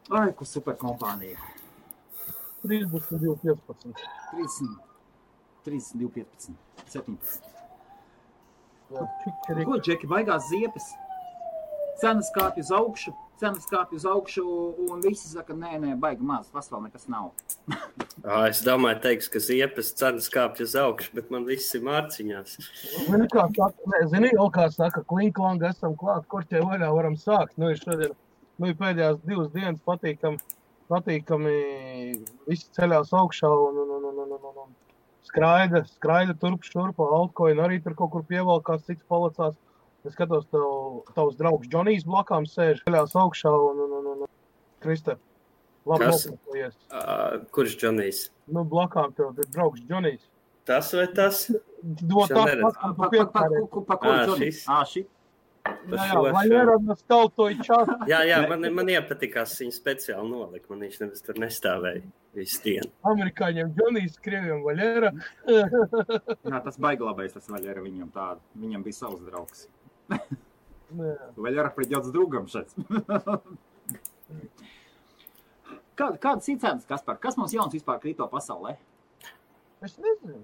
Ai, ko super kompānija. 32,15. 32,15. 17. Jā, Ko, Džeki, baigās ziepes? Cenas kāpj uz augšu, un visi saka, nē, baigi maz, tas vēl nekas nav. Es domāju, teiks, ka ziepes cenas kāpj uz augšu, bet man viss ir mārciņās. Zini, kā saka, klinklanga esam klāt, korķē vaļā varam sākt. Ir šodien, ir pēdējās 2 dienas patīkami visi ceļās augšā un skraida turp šurpa, altcoin arī tur kaut kur pievalkās, cits palicās. Es skatos, tavs draugs Džonijs blakām sēž, ceļās augšā un Kristē, labi nopirkojies. Kurš Džonijs? Blakām tev ir draugs Džonijs. Tas vai tas? Pa kur Džonijs? Šī? Vai neradās tautoju čātu? Jā, man iepatikās viņa speciāli nolika, man viņš nevis tur nestāvēja visu dienu. Amerikāņiem Džonijs, krieviem Vaļera. Jā, tas baigi labais, tas Vaļera viņam tādu. Viņam bija savs draugs. Vaļera придёт с другом šeit. Kādas ir cenas, Kaspar? Kas mums jauns vispār kripto pasaulē? Es nezinu.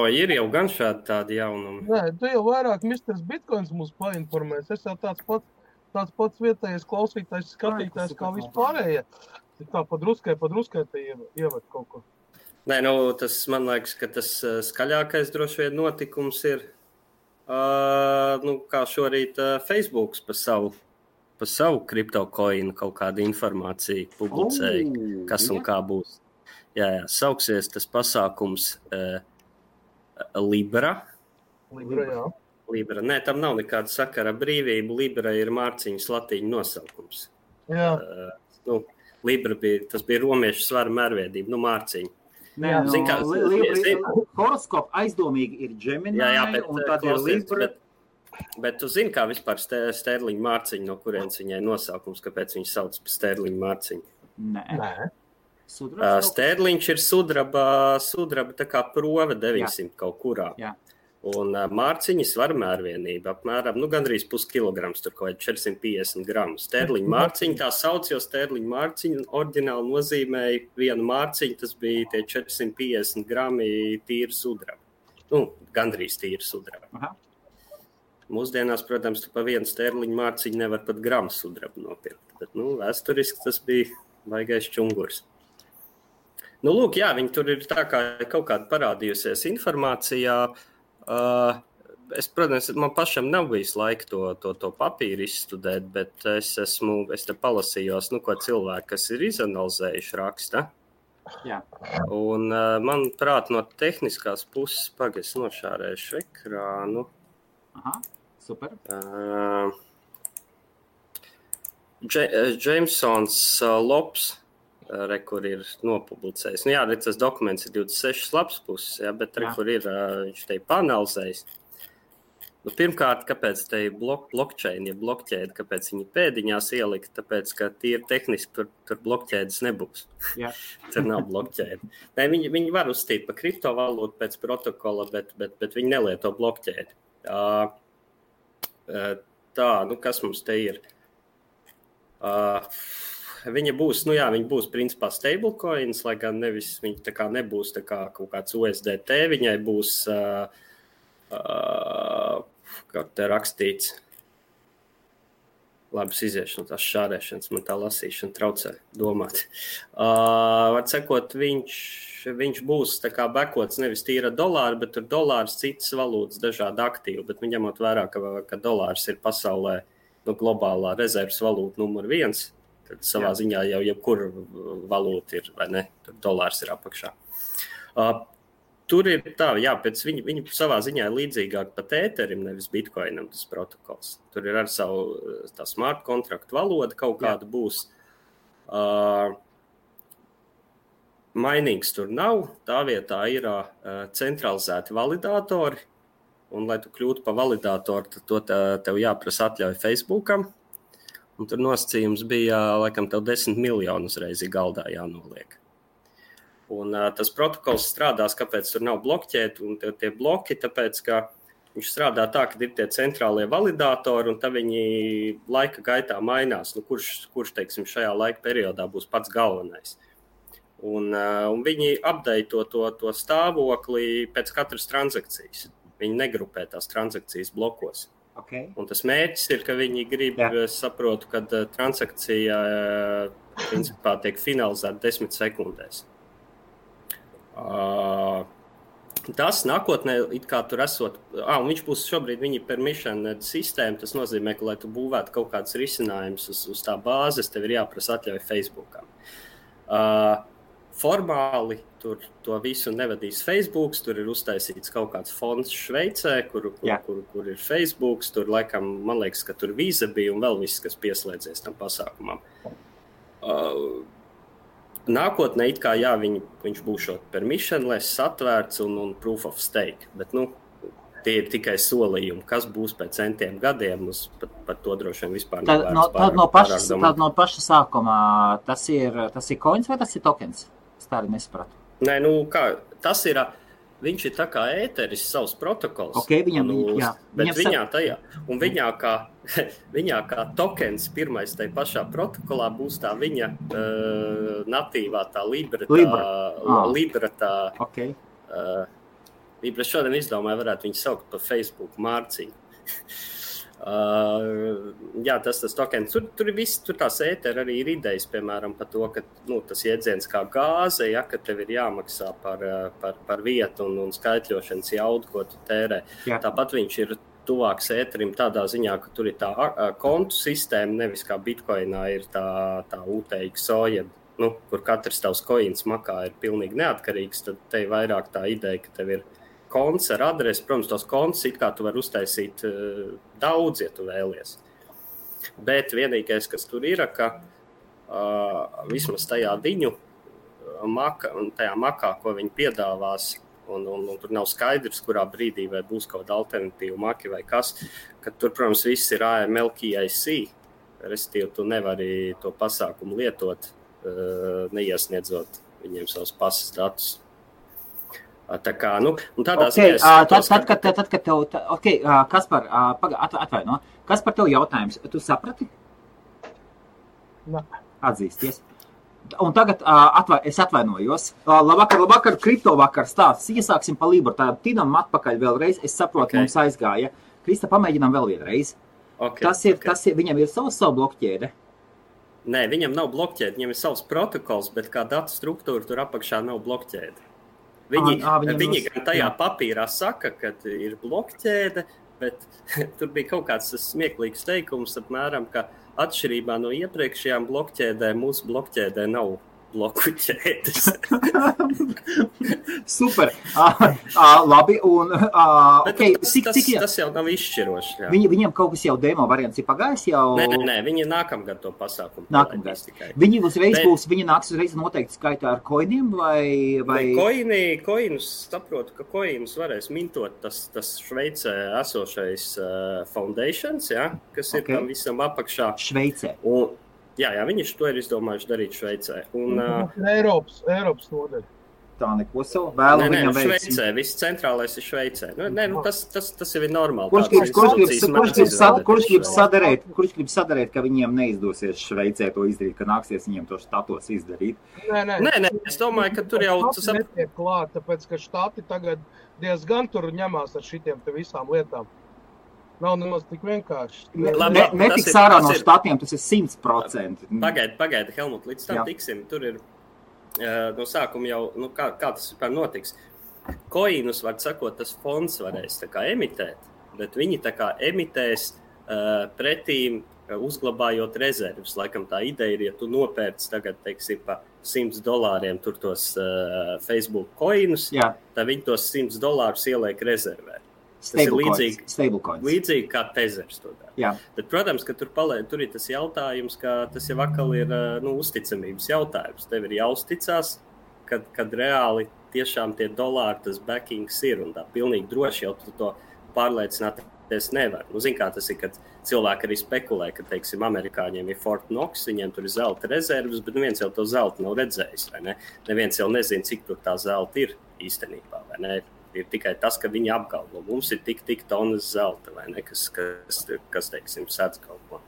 Ir jau gan šādi tādi jaunumi. Nē, tu jau vairāk Mr. Bitcoins mums painformēs. Es jau tāds pats vietējais klausītājs, skatītājs kā vispārējie. Tā padruskai te ievad kaut ko. Nē, tas man liekas, ka tas skaļākais droši vien notikums ir, kā šorīt Facebooks pa savu kriptokoinu kaut kādu informāciju publicēja, kas un kā būs. Jā, sauksies tas pasākums Libra. Jā. Libra. Nē, tam nav nekāda sakara brīvība. Libra ir mārciņas latīņu nosaukums. Jā. Libra bija romiešu svara mērviedība, mārciņa. Horoskopa aizdomīgi ir Gemini, un tad ir Libra. Bet tu zini, kā vispār sterliņa mārciņa, no kurienes viņai nosaukums, kāpēc viņi sauc par sterliņa mārciņu? Nē. Sterliņš ir sudraba tā kā prove 900 kaut kurā. Jā. Un mārciņa svara mērvienība apmēram, gandrīz puskilograms, tur kaut 450 gramu. Sterliņa mārciņa tā sauc, jo sterliņa mārciņa oriģināli nozīmēja vienu mārciņu, tas bija tie 450 grami tīra sudraba. Gandrīz tīra sudraba. Aha. Mūsdienās, protams, tu pa vienu sterliņa mārciņu nevar pat gramu sudrabu nopirkt. Bet, vēsturiski tas bija baigais čungurs. Lūk, jā, viņi tur ir tā kā kaut kāda parādījusies informācijā. Es, protams, man pašam nav bijis laika to papīru izstudēt, bet es te palasījos, ko cilvēki, kas ir izanalizējuši raksta. Jā. Un, manuprāt, no tehniskās puses, es nošārēšu ekrānu. Aha, super. Jamesons Lops, kur ir nopublicējis. Tas dokuments ir 26 lapas puses, bet kur ir, viņš te panalizējis. Pirmkārt, kāpēc te ir blockchain, ja blockķēde, kāpēc viņi pēdiņās ielika, tāpēc, ka tīri tehniski tur blockķēdes nebūs. Jā. Tur nav blockķēde. Nē, viņi var uzstīt pa kriptovalūtu pēc protokola, bet viņi nelieto blockķēdi. Kas mums te ir? Viņa būs, viņa būs principā stablecoins, lai gan nevis viņa tā kā nebūs tā kā kaut kāds USDT, viņai būs, kā te rakstīts, labas iziešu no tās šārēšanas, man tā lasīšana traucē domāt. Var sakot, viņš būs tā kā bekots nevis tīra dolāri, bet tur dolārs, citas valūtas, dažādi aktīvi, bet ņemot vērā, ka dolārs ir pasaulē globālā rezerves valūta numur 1, tad savā ziņā jau jebkura valūta ir, vai ne? Tur dolārs ir apakšā. Tur ir tā, pēc viņa savā ziņā ir līdzīgāk pat ēterim, nevis bitcoinam tas protokols. Tur ir ar savu tā smart kontraktu valoda kaut kāda būs. Mainings tur nav, tā vietā ir centralizēti validātori, un lai tu kļūtu par validātoru, tad to tev jāprasa atļauj Facebookam. Un tur nosacījums bija, laikam, tev 10 miljonu uzreiz galdā jānoliek. Un tas protokols strādās, kāpēc tur nav bloķēti, un tie bloki, tāpēc, ka viņš strādā tā, ka ir tie centrālie validātori, un tad viņi laika gaitā mainās, kurš teiksim, šajā laika periodā būs pats galvenais. Un viņi updateto to stāvokli pēc katras transakcijas. Viņi negrupē tās transakcijas blokos. Okay. Un tas mērķis ir, ka viņi grib, es saprotu, ka transakcija principā tiek finalizēta 10 sekundēs. Tas nākotnē, it kā tur esot, un viņš būs šobrīd viņa permission sistēma, tas nozīmē, ka, lai tu būvētu kaut kāds risinājums uz tā bāzes, tev ir jāprasa atļauj Facebookam. Formāli tur to visu nevadīs Facebooks, tur ir uztaisīts kaut kāds fonds Šveicē, kur ir Facebooks, tur laikam, man liekas, ka tur Visa bija un vēl viss, kas pieslēdzies tam pasākumam. Nākotnē, it kā viņš būšot permissionless, atvērts un proof of stake, bet, tie ir tikai solījumi, kas būs pēc centiem gadiem, par to droši vien vispār nevērts. Tad no paša sākumā tas ir coins vai tas ir tokens? Es tā arī nesapratu. Nē, tas ir, viņš ir tā kā ēteris savs protokols. Okay, viņā kā tokens pirmais tai pašā protokolā būs tā viņa natīvā tā Libra tā. Okay. Libra šodien izdomāja, varētu viņu saukt par Facebook mārciņu. Tas tokens, tur ir viss, tur tās ēteri arī ir idejas, piemēram, par to, ka tas jēdziens kā gāze, ka tev ir jāmaksā par vietu un skaitļošanas jaudu, ko tu tērē. Jā. Tāpat viņš ir tuvāks ēterim tādā ziņā, ka tur ir tā kontu sistēma, nevis kā Bitcoinā ir tā UTXO, kur katrs tavs coins makā ir pilnīgi neatkarīgs, tad te ir vairāk tā ideja, ka tev ir konts ar adresi, protams, tos konts it kā tu vari uztaisīt daudz, ja tu vēlies. Bet vienīgais, kas tur ir, ka vismaz tajā viņu tajā makā, ko viņi piedāvās, un tur nav skaidrs, kurā brīdī vai būs kaut kāda alternatīva maki vai kas, ka tur, protams, viss ir AML KYC, respektīvi tu nevari to pasākumu lietot, neiesniedzot viņiem savus pasas datus. Tā kā, tādā ziņā... Tad, kad tev... Kaspar, atvaino. Kaspar, tev jautājums. Tu saprati? Atzīsties. Un tagad es atvainojos. Labvakar, kripto vakar stāsts. Iesāksim pa Libru. Tā tinam atpakaļ vēlreiz. Es saprotu, mums aizgāja. Krista, pamēģinām vēl vienreiz. Tas ir, viņam ir savu blokķēde. Nē, viņam nav blokķēde. Viņam ir savs protokols, bet kā datu struktūra tur apakšā nav blokķēde. Viņi gan tajā papīrā saka, ka ir blokķēde, bet tur bija kaut kāds smieklīgs teikums, apmēram, ka atšķirībā no iepriekšējām blokķēdēm, mūsu blokķēdē nav bloku ķēdes. Super. Labi. Un, tas jau nav izšķiroši. Jā. Viņam kaut kas jau demo variants ir pagājis jau? Nē, viņi nākamgad to pasākumu. Viņi uzreiz būs, viņi nāks uzreiz noteikti skaitā ar koiniem vai? Koinus, saprotu, ka koinus varēs mintot tas Šveicē esošais foundations, kas ir tam visam apakšā. Šveicē. Jā, viņi to ir izdomājuši darīt Šveicē. Eiropas nodaļa. Tā neko savu vēlu viņam veids. Šveicē, viss centrālais ir Šveicē. Tas jau ir normāli. Kurš grib sadarēt, ka viņiem neizdosies Šveicē to izdarīt, ka nāksies viņiem to štatos izdarīt? Nē, es domāju, ka tur jau... Tas netiek klāt, tāpēc, ka štati tagad diezgan tur ņemās ar šitiem te visām lietām. Nav nemaz tik vienkārši. Netiks ārā no štatiem, tas ir 100%. Pagaidi, Helmut, līdz tam tiksim. Tur ir no sākuma jau, kā tas vispār notiks. Koinus, var sakot, tas fonds varēs tā kā emitēt, bet viņi tā kā emitēs pretīm uzglabājot rezervus. Laikam tā ideja ir, ja tu nopērci tagad, teiksim, pa $100 tur tos Facebook koinus, tad viņi tos $100 ieliek rezervē. Tas ir līdzīgi kā Tezers to dara. Bet, protams, ka tur ir tas jautājums, ka tas jau atkal ir uzticamības jautājums. Tev ir jāuzticās, kad reāli tiešām tie dolāri, tas backings ir, un tā pilnīgi droši jau tu to pārliecināties nevar. Zin kā tas ir, kad cilvēki arī spekulē, ka, teiksim, amerikāņiem ir Fort Knox, viņiem tur ir zelta rezervas, bet neviens jau to zelta nav redzējis, vai ne? Neviens jau nezina, cik tur tā zelta ir īstenībā, vai ne? Ir tikai tas, ka viņi apgalvo. Mums ir tik tonas zelta, vai ne, kas teiksim, sēdz kaut ko.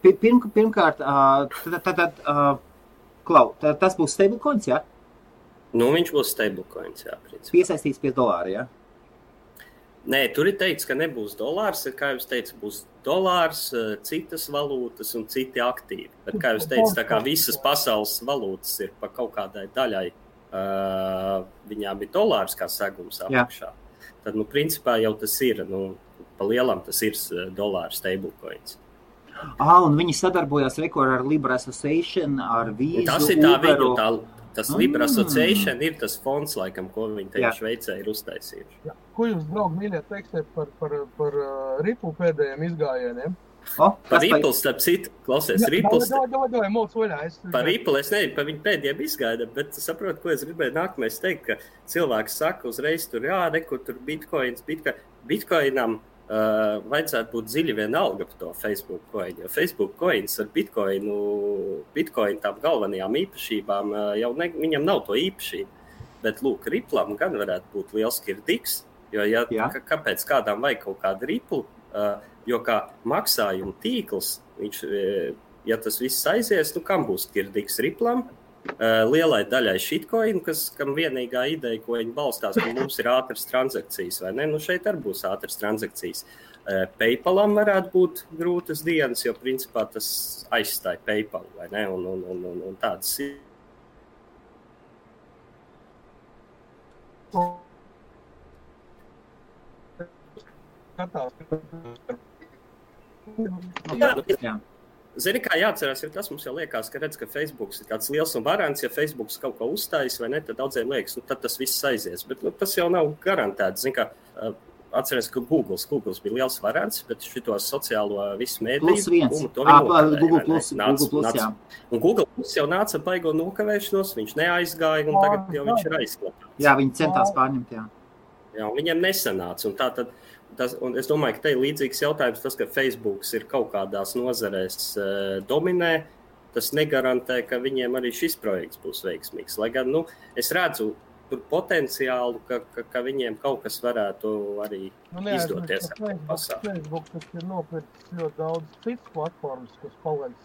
Pirmkārt, Klau, tas būs stablecoins, jā? Nu, viņš būs stablecoins, jā, principā. Piesaistīts pie dolāra, jā? Nē, tur ir teikts, ka nebūs dolārs, kā jūs teicu, būs dolārs, citas valūtas un citi aktīvi. Bet, kā jūs teicu, tā kā visas pasaules valūtas ir pa kaut kādai daļai, viņām ir dolārs kā segums apakšā. Tad, nu, principā jau tas ir, nu, pa lielam tas ir dolārs stablecoins. Un viņi sadarbojās ar Libra Association, ar Vīzu, tas ir tā viņu, tas Libra Association ir tas fonds, laikam, ko viņi te Šveicē ir uztaisījuši. Jā. Ko jūs, draugi, mīļie, teiksiet par Ripple pēdējiem izgājieniem? Par Ripple, starp citu, klausies, Ripple. Par Ripple es nezinu, par viņu pēdējiem izgaidam, bet saprotu, ko es gribēju nākamais teikt, ka cilvēks saka uzreiz tur, nekur tur Bitcoinam vajadzētu būt dziļi vienalga par to Facebook coin, jo Facebook coins ar Bitcoin tām galvenajām īpašībām jau viņam nav to īpašību, bet lūk, Ripplam gan varētu būt liels kirdiks, jo kāpēc kādām vajag kaut kādu Ripple, jo kā maksājuma tīkls, viņš, ja tas viss aizies, nu kam būs kirdiks Ripplam? Lielai daļai shitcoin, kam vienīgā ideja, ko viņi balstās, ka mums ir ātras transakcijas, vai ne? Nu šeit arī būs ātras transakcijas. PayPalam varētu būt grūtas dienas, jo principā tas aizstāja PayPal, vai ne? Un tādas ir. Jā. Zini, kā jāatcerās, ir tas, mums jau liekas, ka redz, ka Facebooks ir tāds liels un varants, ja Facebooks kaut ko uzstājas vai ne, tad daudziem liekas, nu tad tas viss aizies, bet nu, tas jau nav garantēts. Zini, kā atcerās, ka Google bija liels varants, bet šito sociālo visu mēdīju, Google+, jā. Un Google+ jau nāca baigo nokavēšanos, viņš neaizgāja un tagad jau viņš ir aizklāpāts. Jā, viņi centās pārņemt, jā. Jā, un viņiem nesanāca, un tā tad un es domāju, ka te ir līdzīgs jautājums tas, ka Facebooks ir kaut kādās nozarēs dominē, tas negarantē, ka viņiem arī šis projekts būs veiksmīgs. Lai gan, nu, es redzu tur potenciālu, ka viņiem kaut kas varētu arī izdoties. Facebook, tas ir nopircis ļoti daudz citas platformas, kas paliek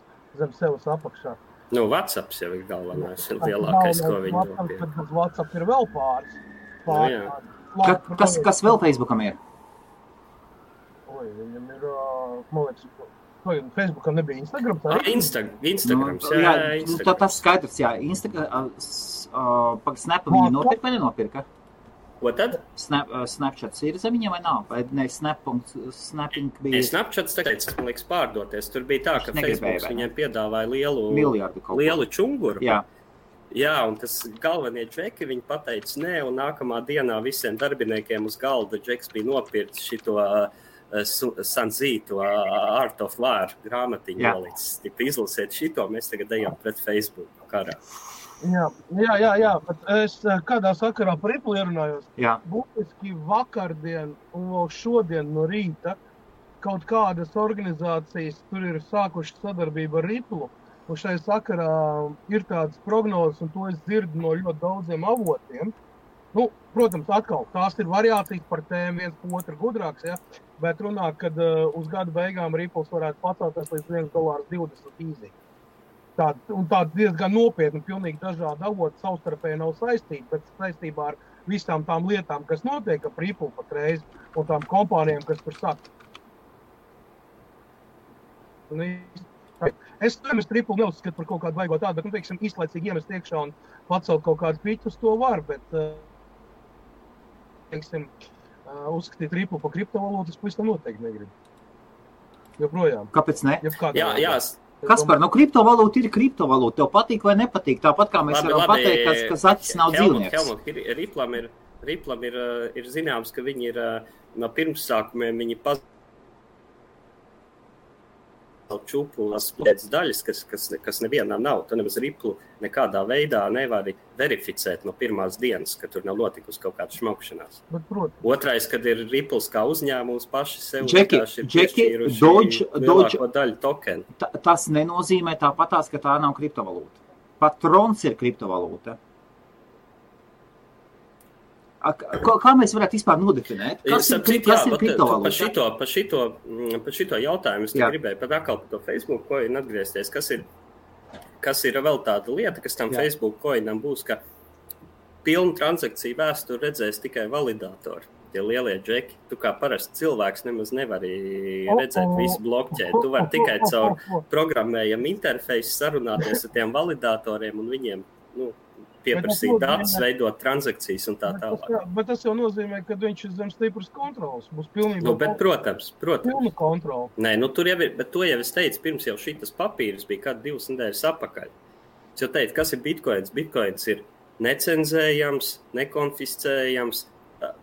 zem sevis apakšā. Nu, WhatsApps jau ir galvenais, ir lielākais, ko viņi nopirkt. Bet WhatsApp ir vēl pāris. Kas vēl Facebookam ir? Viņam ir, man liekas, Facebookam nebija Instagram? Instagrams, jā. Nu, tas skaidrs, jā. Snapu viņi nopirka vai nenopirka? Ko tad? Snapchats ir zem viņam vai nav? Vai ne, Snapping bija? Snapchats, man liekas, pārdoties. Tur bija tā, ka Facebooks viņiem piedāvāja lielu čunguru. Jā. Jā, un tas galvenie džeki, viņi pateica nē, un nākamā dienā visiem darbiniekiem uz galda džeks bija nopirts šito Sanzītu Art of War grāmatiņu nolicis. Izlasiet šito, mēs tagad ejam pret Facebook karā. Jā, bet es kādā sakarā par Ripple ierunājos. Jā. Būtiski vakardien un vēl šodien no rīta kaut kādas organizācijas tur ir sākuši sadarbību ar Ripple. Un šai sakarā ir tādas prognozes, un to es dzirdu no ļoti daudziem avotiem. Nu, protams, atkal, tās ir variācijas par tēmu, viens pa otru gudrāks, ja? Bet runā, kad uz gada beigām Ripples varētu pacelties līdz $1.20 īzī. Tāda diezgan nopietni, pilnīgi dažādi avoti savstarpēji nav saistīti, bet saistībā ar visām tām lietām, kas notiek ap Ripple patreiz, un tām kompānijām, kas tur saka. Es Ripple neuzskatu par kaut kādu vaigot tādu, bet, teiksim, īslaicīgi iemest iekšā un pacelt kaut kādu piķus, to var, bet, teiksim, uzskatīt Ripple par kriptovalūtu, es pavisam noteikti negribu. Joprojām. Kāpēc ne? Jā. Kaspar, nu kriptovalūta ir kriptovalūta. Tev patīk vai nepatīk? Tāpat kā mēs varam pateikt, ka zaķis nav dzīvnieks. Riplam ir zināms, ka viņi ir no pirmsākumiem, viņi čuplas pēc daļas, kas nevienam nav. Tu nemaz Ripple nekādā veidā nevari verificēt no pirmās dienas, ka tur nav notikusi kaut kāda šmaukšanās. Otrais, kad ir Ripples kā uzņēmums paši sev piešķīruši lielāko daļu tokenu. Tas nenozīmē tāpatās, ka tā nav kriptovalūta. Pat Trons ir kriptovalūta. kā mēs varētu vispār nodefinēt? Kas ir kriptovalūta? Par šito jautājumu es gribēju pat atkal par to Facebook coin atgriezties. Kas ir vēl tāda lieta, kas tam Facebook coinam būs, ka pilnu transakciju vēsturi redzēs tikai validātori. Tie lielie džeki, tu kā parasts cilvēks nemaz nevari redzēt visu blockchain. Tu vari tikai caur programmējumu interfeisu sarunāties ar tiem validātoriem un viņiem pieprasīt datus, veidot transakcijas un tā tālāk. Bet tas jau nozīmē, ka viņš ir zem stipras kontrolas. Būs pilnībā protams. Pilna kontrola. Nē, tur jau ir, bet to jau es teicu, pirms jau šitas papīras bija kādi 2 nedēļas apakaļ. Es jau teicu, kas ir bitcoins? Bitcoins ir necenzējams, nekonfiscējams.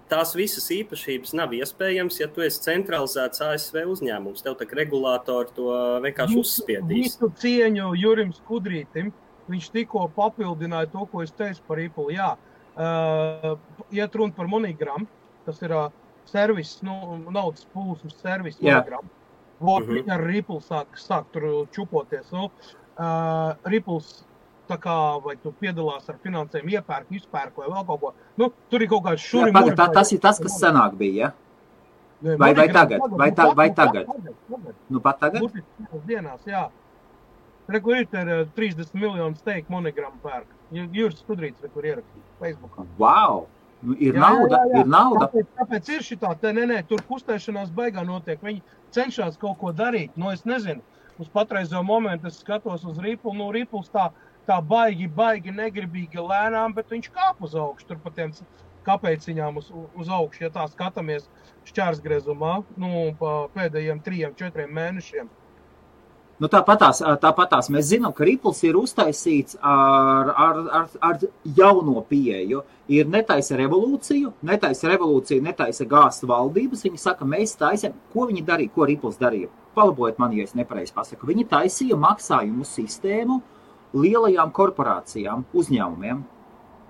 Tās visas īpašības nav iespējams, ja tu esi centralizēts ASV uzņēmums. Tev tak regulātori to vienkārši uzspiedīs. Visu cieņu Jurim Skudrītim. Viņš tikko papildināja to, ko es teicu par Ripple. Jā, iet runa par MoneyGram, tas ir servis, naudas plūsmas servis MoneyGram. Ar Ripple sāk tur čupoties. Ripples, tā kā, vai tu piedalās ar finansēm, iepērk, izpērk vai vēl kaut ko. Tur ir kaut kāds šuri. Tas ir tas, kas senāk bija, ja? Vai tagad? Vai tagad? Pat tagad? Dienās, jā. Rekur ir 30 miljonu steik MoneyGram pērk. Juris Skudrīts, kur ierakstīt Facebookā. Wow! Ir nauda, ir nauda. Tāpēc ir šitā, tur kustēšanās baigā notiek. Viņi cenšas kaut ko darīt. Es nezinu, uz patreizo momentu es skatos uz Ripple. Ripples tā baigi negribīgi lēnām, bet viņš kāp uz augšu. Tur pa tiem kāpēciņām uz augšu, ja tā skatāmies šķērsgriezumā, pa pēdējiem 3-4 mēnešiem. Tāpatās mēs zinām, ka Ripples ir uztaisīts ar jauno pieeju. Ir netaisa revolūciju, netaisa gāzt valdības. Viņi saka, mēs taisam, ko viņi darīja, ko Ripples darīja. Palabojiet man, ja es nepareizi pasaku. Viņi taisīja maksājumu sistēmu lielajām korporācijām, uzņēmumiem,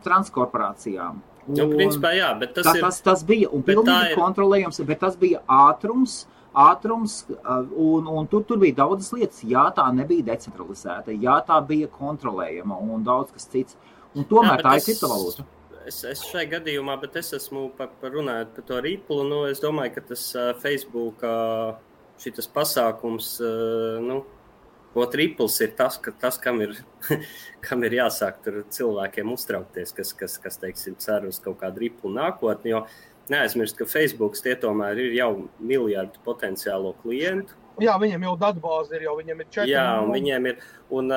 transkorporācijām. Principā jā, bet tas bija un pilnīgi kontrolējams, bet tas bija ātrums, un tur bija daudzas lietas. Jā, tā nebija decentralizēta, jā, tā bija kontrolējama un daudz kas cits. Un tomēr tā ir kriptovalūta. Es šai gadījumā, bet es esmu runājot par to Ripple, es domāju, ka tas Facebook šitas pasākums, Ripples ir tas, kam ir jāsāk tur cilvēkiem uztraukties, kas teiksim, cer uz kaut kādu Ripple nākotni, jo neaizmirst, ka Facebooks tie tomēr ir jau miljardu potenciālo klientu. Jā, viņiem jau datbāze ir, viņiem ir 4. Jā, un viņiem ir, un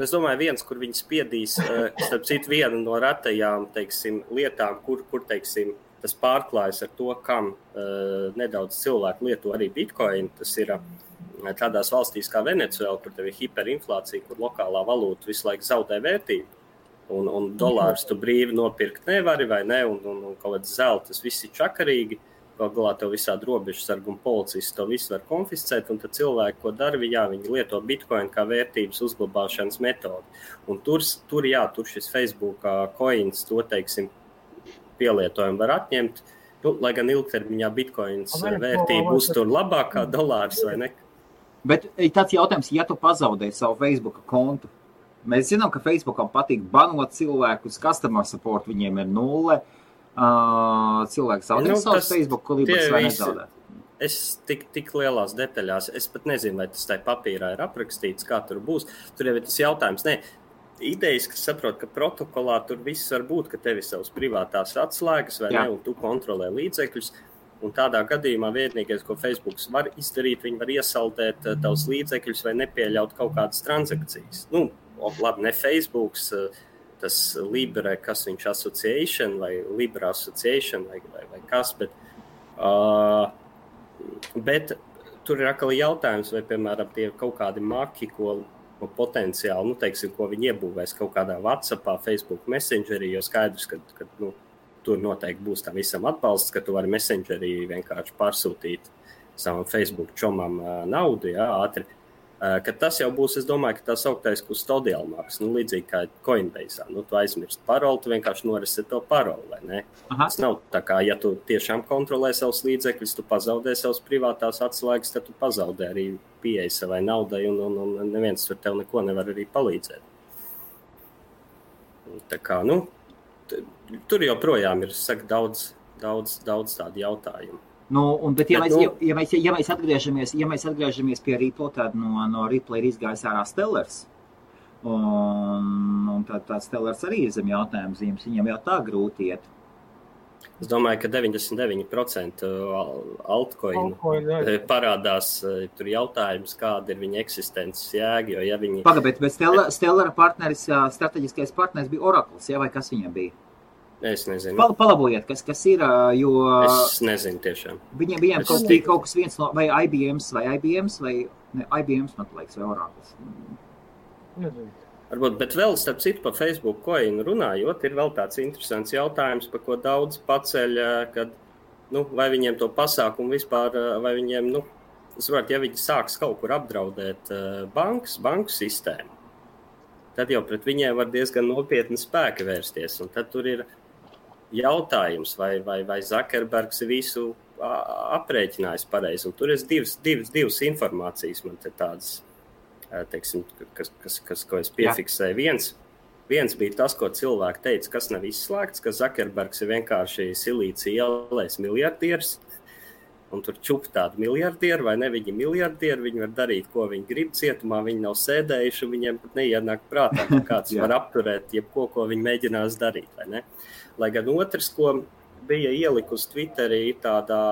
es domāju, viens, kur viņi spiedīs, starp citu, viena no retajām, teiksim, lietām, kur teiksim, tas pārklājas ar to, kam nedaudz cilvēku lieto arī Bitcoin, tas ir tādās valstīs kā Venecuēla, kur tev ir hiperinflācija, kur lokālā valūta visu laiku zaudē vērtību. Un dolārus tu brīvi nopirkt nevari vai ne, un kaut kāds zelta, tas viss ir čakarīgi, galā tev visādi robežsargi un policisti to visu var konfiscēt, un tad cilvēki, ko dara, viņi lieto Bitcoin kā vērtības uzglabāšanas metodi. Un tur šis Facebook coins, to, teiksim, pielietojumu var atņemt, lai gan ilgtermiņā Bitcoins vērtība uztur labākā dolārs vai ne. Bet tāds jautājums, ja tu pazaudē savu Facebook kontu, mēs zinām, ka Facebookam patīk banot cilvēkus, customer support viņiem ir 0. Cilvēki zaudē savus Facebook klibus vai nezaudē? Es tik lielās detaļās, es pat nezinu, vai tas tai papīrā ir aprakstīts, kā tur būs. Tur jau ir tas jautājums. Idejas, kas saprot, ka protokolā tur viss var būt, ka tev ir savas privātās atslēgas vai ne, un tu kontrolē līdzekļus. Un tādā gadījumā vienīgais, ko Facebooks var izdarīt, viņi var iesaldēt tavus līdzekļus vai nepieļaut kaut kādas transakcijas. Labi, ne Facebooks, tas Libre, kas viņš association vai Libra association vai kas, bet tur ir atkal jautājums, vai, piemēram, tie kaut kādi maki, ko potenciāli, teiksim, ko viņi iebūvēs kaut kādā WhatsAppā, Facebook Messengerī, jo skaidrs, ka tur noteikti būs tam visam atbalsts, ka tu vari Messengerī vienkārši pārsūtīt savam Facebook čomam naudu, ātri. Kad tas jau būs, es domāju, ka tā sauktais custodial marks, līdzīgi kā Coinbase. Tu aizmirst paroli, tu vienkārši noreset to paroli, vai ne? Tas nav tā kā, ja tu tiešām kontrolē savus līdzekļus, tu pazaudē savus privātās atslēgas, tad tu pazaudē arī pieeja savai naudai, un neviens tur tev neko nevar arī palīdzēt. Tā kā, tur joprojām ir, saka, daudz tādu jautājumu. Bet ja mēs atgriežamies pie Ripple, tad no Ripple ir izgājis ārā Stellars. Un tad Stellars arī ir zem jautājuma zīmes. Viņam jau tā grūti iet. Es domāju, ka 99% altcoinu parādās tur jautājums, kāda ir viņa eksistences jēga, jo ja viņi... Bet Stellara partneris, strateģiskais partneris bija Oracles, vai kas viņam bija? Es nezinu. Palabojiet, kas ir, jo... Es nezinu tiešām. Viņiem kaut kas viens no, vai IBMs, man liekas, vai Oracles. Nezinu. Varbūt, bet vēl starp citu par Facebook coinu runājot, ir vēl tāds interesants jautājums, par ko daudz paceļ, kad, vai viņiem to pasākumu vispār, vai viņiem, ja viņi sāks kaut kur apdraudēt banku sistēmu, tad jau pret viņiem var diezgan nopietni spēki vērsties, un tad tur ir jautājums, vai Zuckerbergs visu aprēķinājis pareizi, un tur ir divas informācijas man te tādas, teiksim, ko es piefiksēju. Viens bija tas, ko cilvēki teica, kas nav izslēgts, ka Zuckerbergs ir vienkārši silīcija ielais miljardieris, un tur čup tādu miljardieru, vai ne, viņi miljardieru, viņi var darīt, ko viņi grib cietumā, viņi nav sēdējuši, un viņiem pat neienāk prātā, ka kāds var apturēt jebko, ko viņi mēģinās darīt, vai ne? Lai gan otrs, ko bija ielikus Twitterī, tādā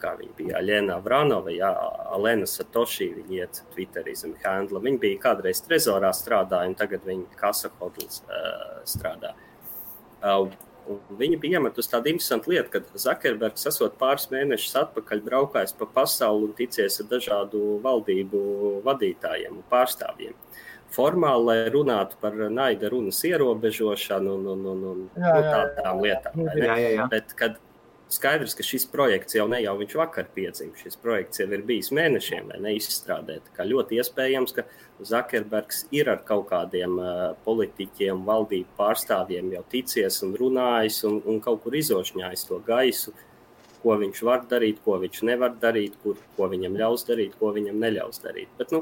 kā viņa bija Aļena Avranova, Alena Satoshi, viņa iet Twitterī zem handla. Viņa bija kādreiz Trezorā strādāja, un tagad viņa Casa Hodls strādā. Viņa bija iemetus tādu interesantu lietu, kad Zuckerbergs esot pāris mēnešus atpakaļ braukājis pa pasauli un ticies ar dažādu valdību vadītājiem un pārstāvjiem. Formāli, lai runātu par naida runas ierobežošanu un tādām lietām. Jā. Bet, kad skaidrs, ka šis projekts jau viņš vakar piedzima. Šis projekts jau ir bijis mēnešiem, vai neizstrādēt. Kā ļoti iespējams, ka Zuckerbergs ir ar kaut kādiem politiķiem, valdību pārstāvjiem jau ticies un runājis un kaut kur izošņājis to gaisu, ko viņš var darīt, ko viņš nevar darīt, ko viņam ļaus darīt, ko viņam neļaus darīt. Bet,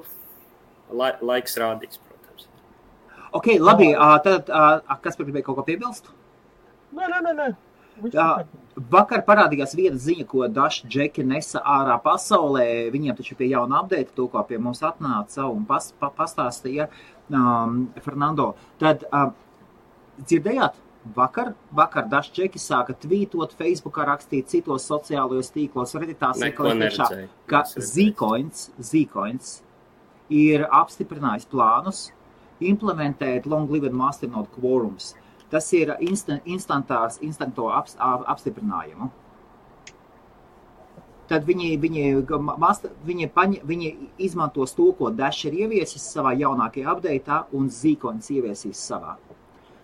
laiks rādīs, protams. Ok, labi. Tad, kas gribēja kaut ko piebilst? Nē. Vakar parādījās viena ziņa, ko daži džeki nesa ārā pasaulē. Viņiem taču pie jauna update, to, ko pie mums atnāca un pastāstīja Fernando. Tad dzirdējāt, vakar daži džeki sāka tvītot, Facebookā rakstīt, citos sociālajos tīklos, Redditā ka Zcoins ir apstiprinājis plānus implementēt long-lived masternode quorums. Tas ir instanto apstiprinājumu. Tad viņi izmantos to, ko Dash ir ieviesis savā jaunākajā update'ā un Zcoins ieviesīs savā.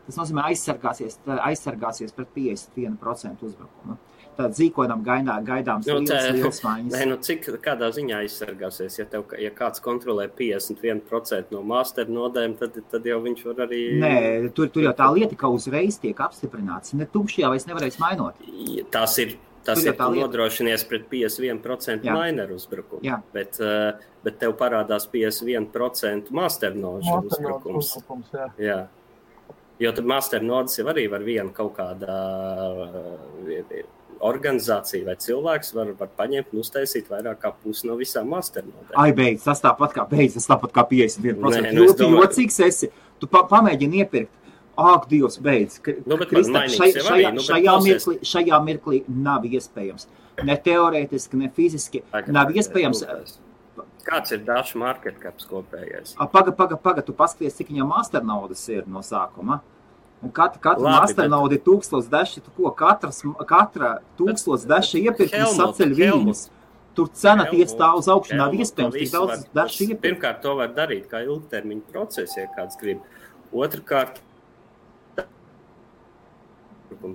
Tas nozīmē aizsargāsies pret 51% uzbrukumu. Tad Zcoinam gaidāms liels maiņas. Kādā ziņā aizsargāsies? Ja kāds kontrolē 51% no masternodēm, tad jau viņš var arī... Nē, tur jau tā lieta, ka uzreiz tiek apstiprināts. Ne tukšajā vairs nevarēs mainot. Tas ir nodrošinies pret 51% mineru uzbrukumu. Jā. Bet tev parādās 51% masternožu uzbrukums. Jā. Jo tad masternodes jau arī var viena kaut kādā organizācija vai cilvēks var paņemt un uztaisīt vairāk kā pusi no visām masternodēm. Beidz, tas tāpat kā 51%. Ļoti jocīgs esi. Tu pamēģini iepirkt. Ak, Dievs, beidz. Šajā mirklī nav iespējams. Ne teorētiski, ne fiziski. Nav iespējams. Kāds ir Dash market caps kopējais? Paga, tu paskaties, cik viņam masternodes ir no sākuma. Un katra masternode ir 1000 daši, katra 1000 daši iepirkums saceļ viņas. Tur cena tiec tā uz augšu, nav iespējams tik daudz daši iepirkt. Pirmkārt, to var darīt kā ilgtermiņa procesu, ja kāds grib. Otrkārt,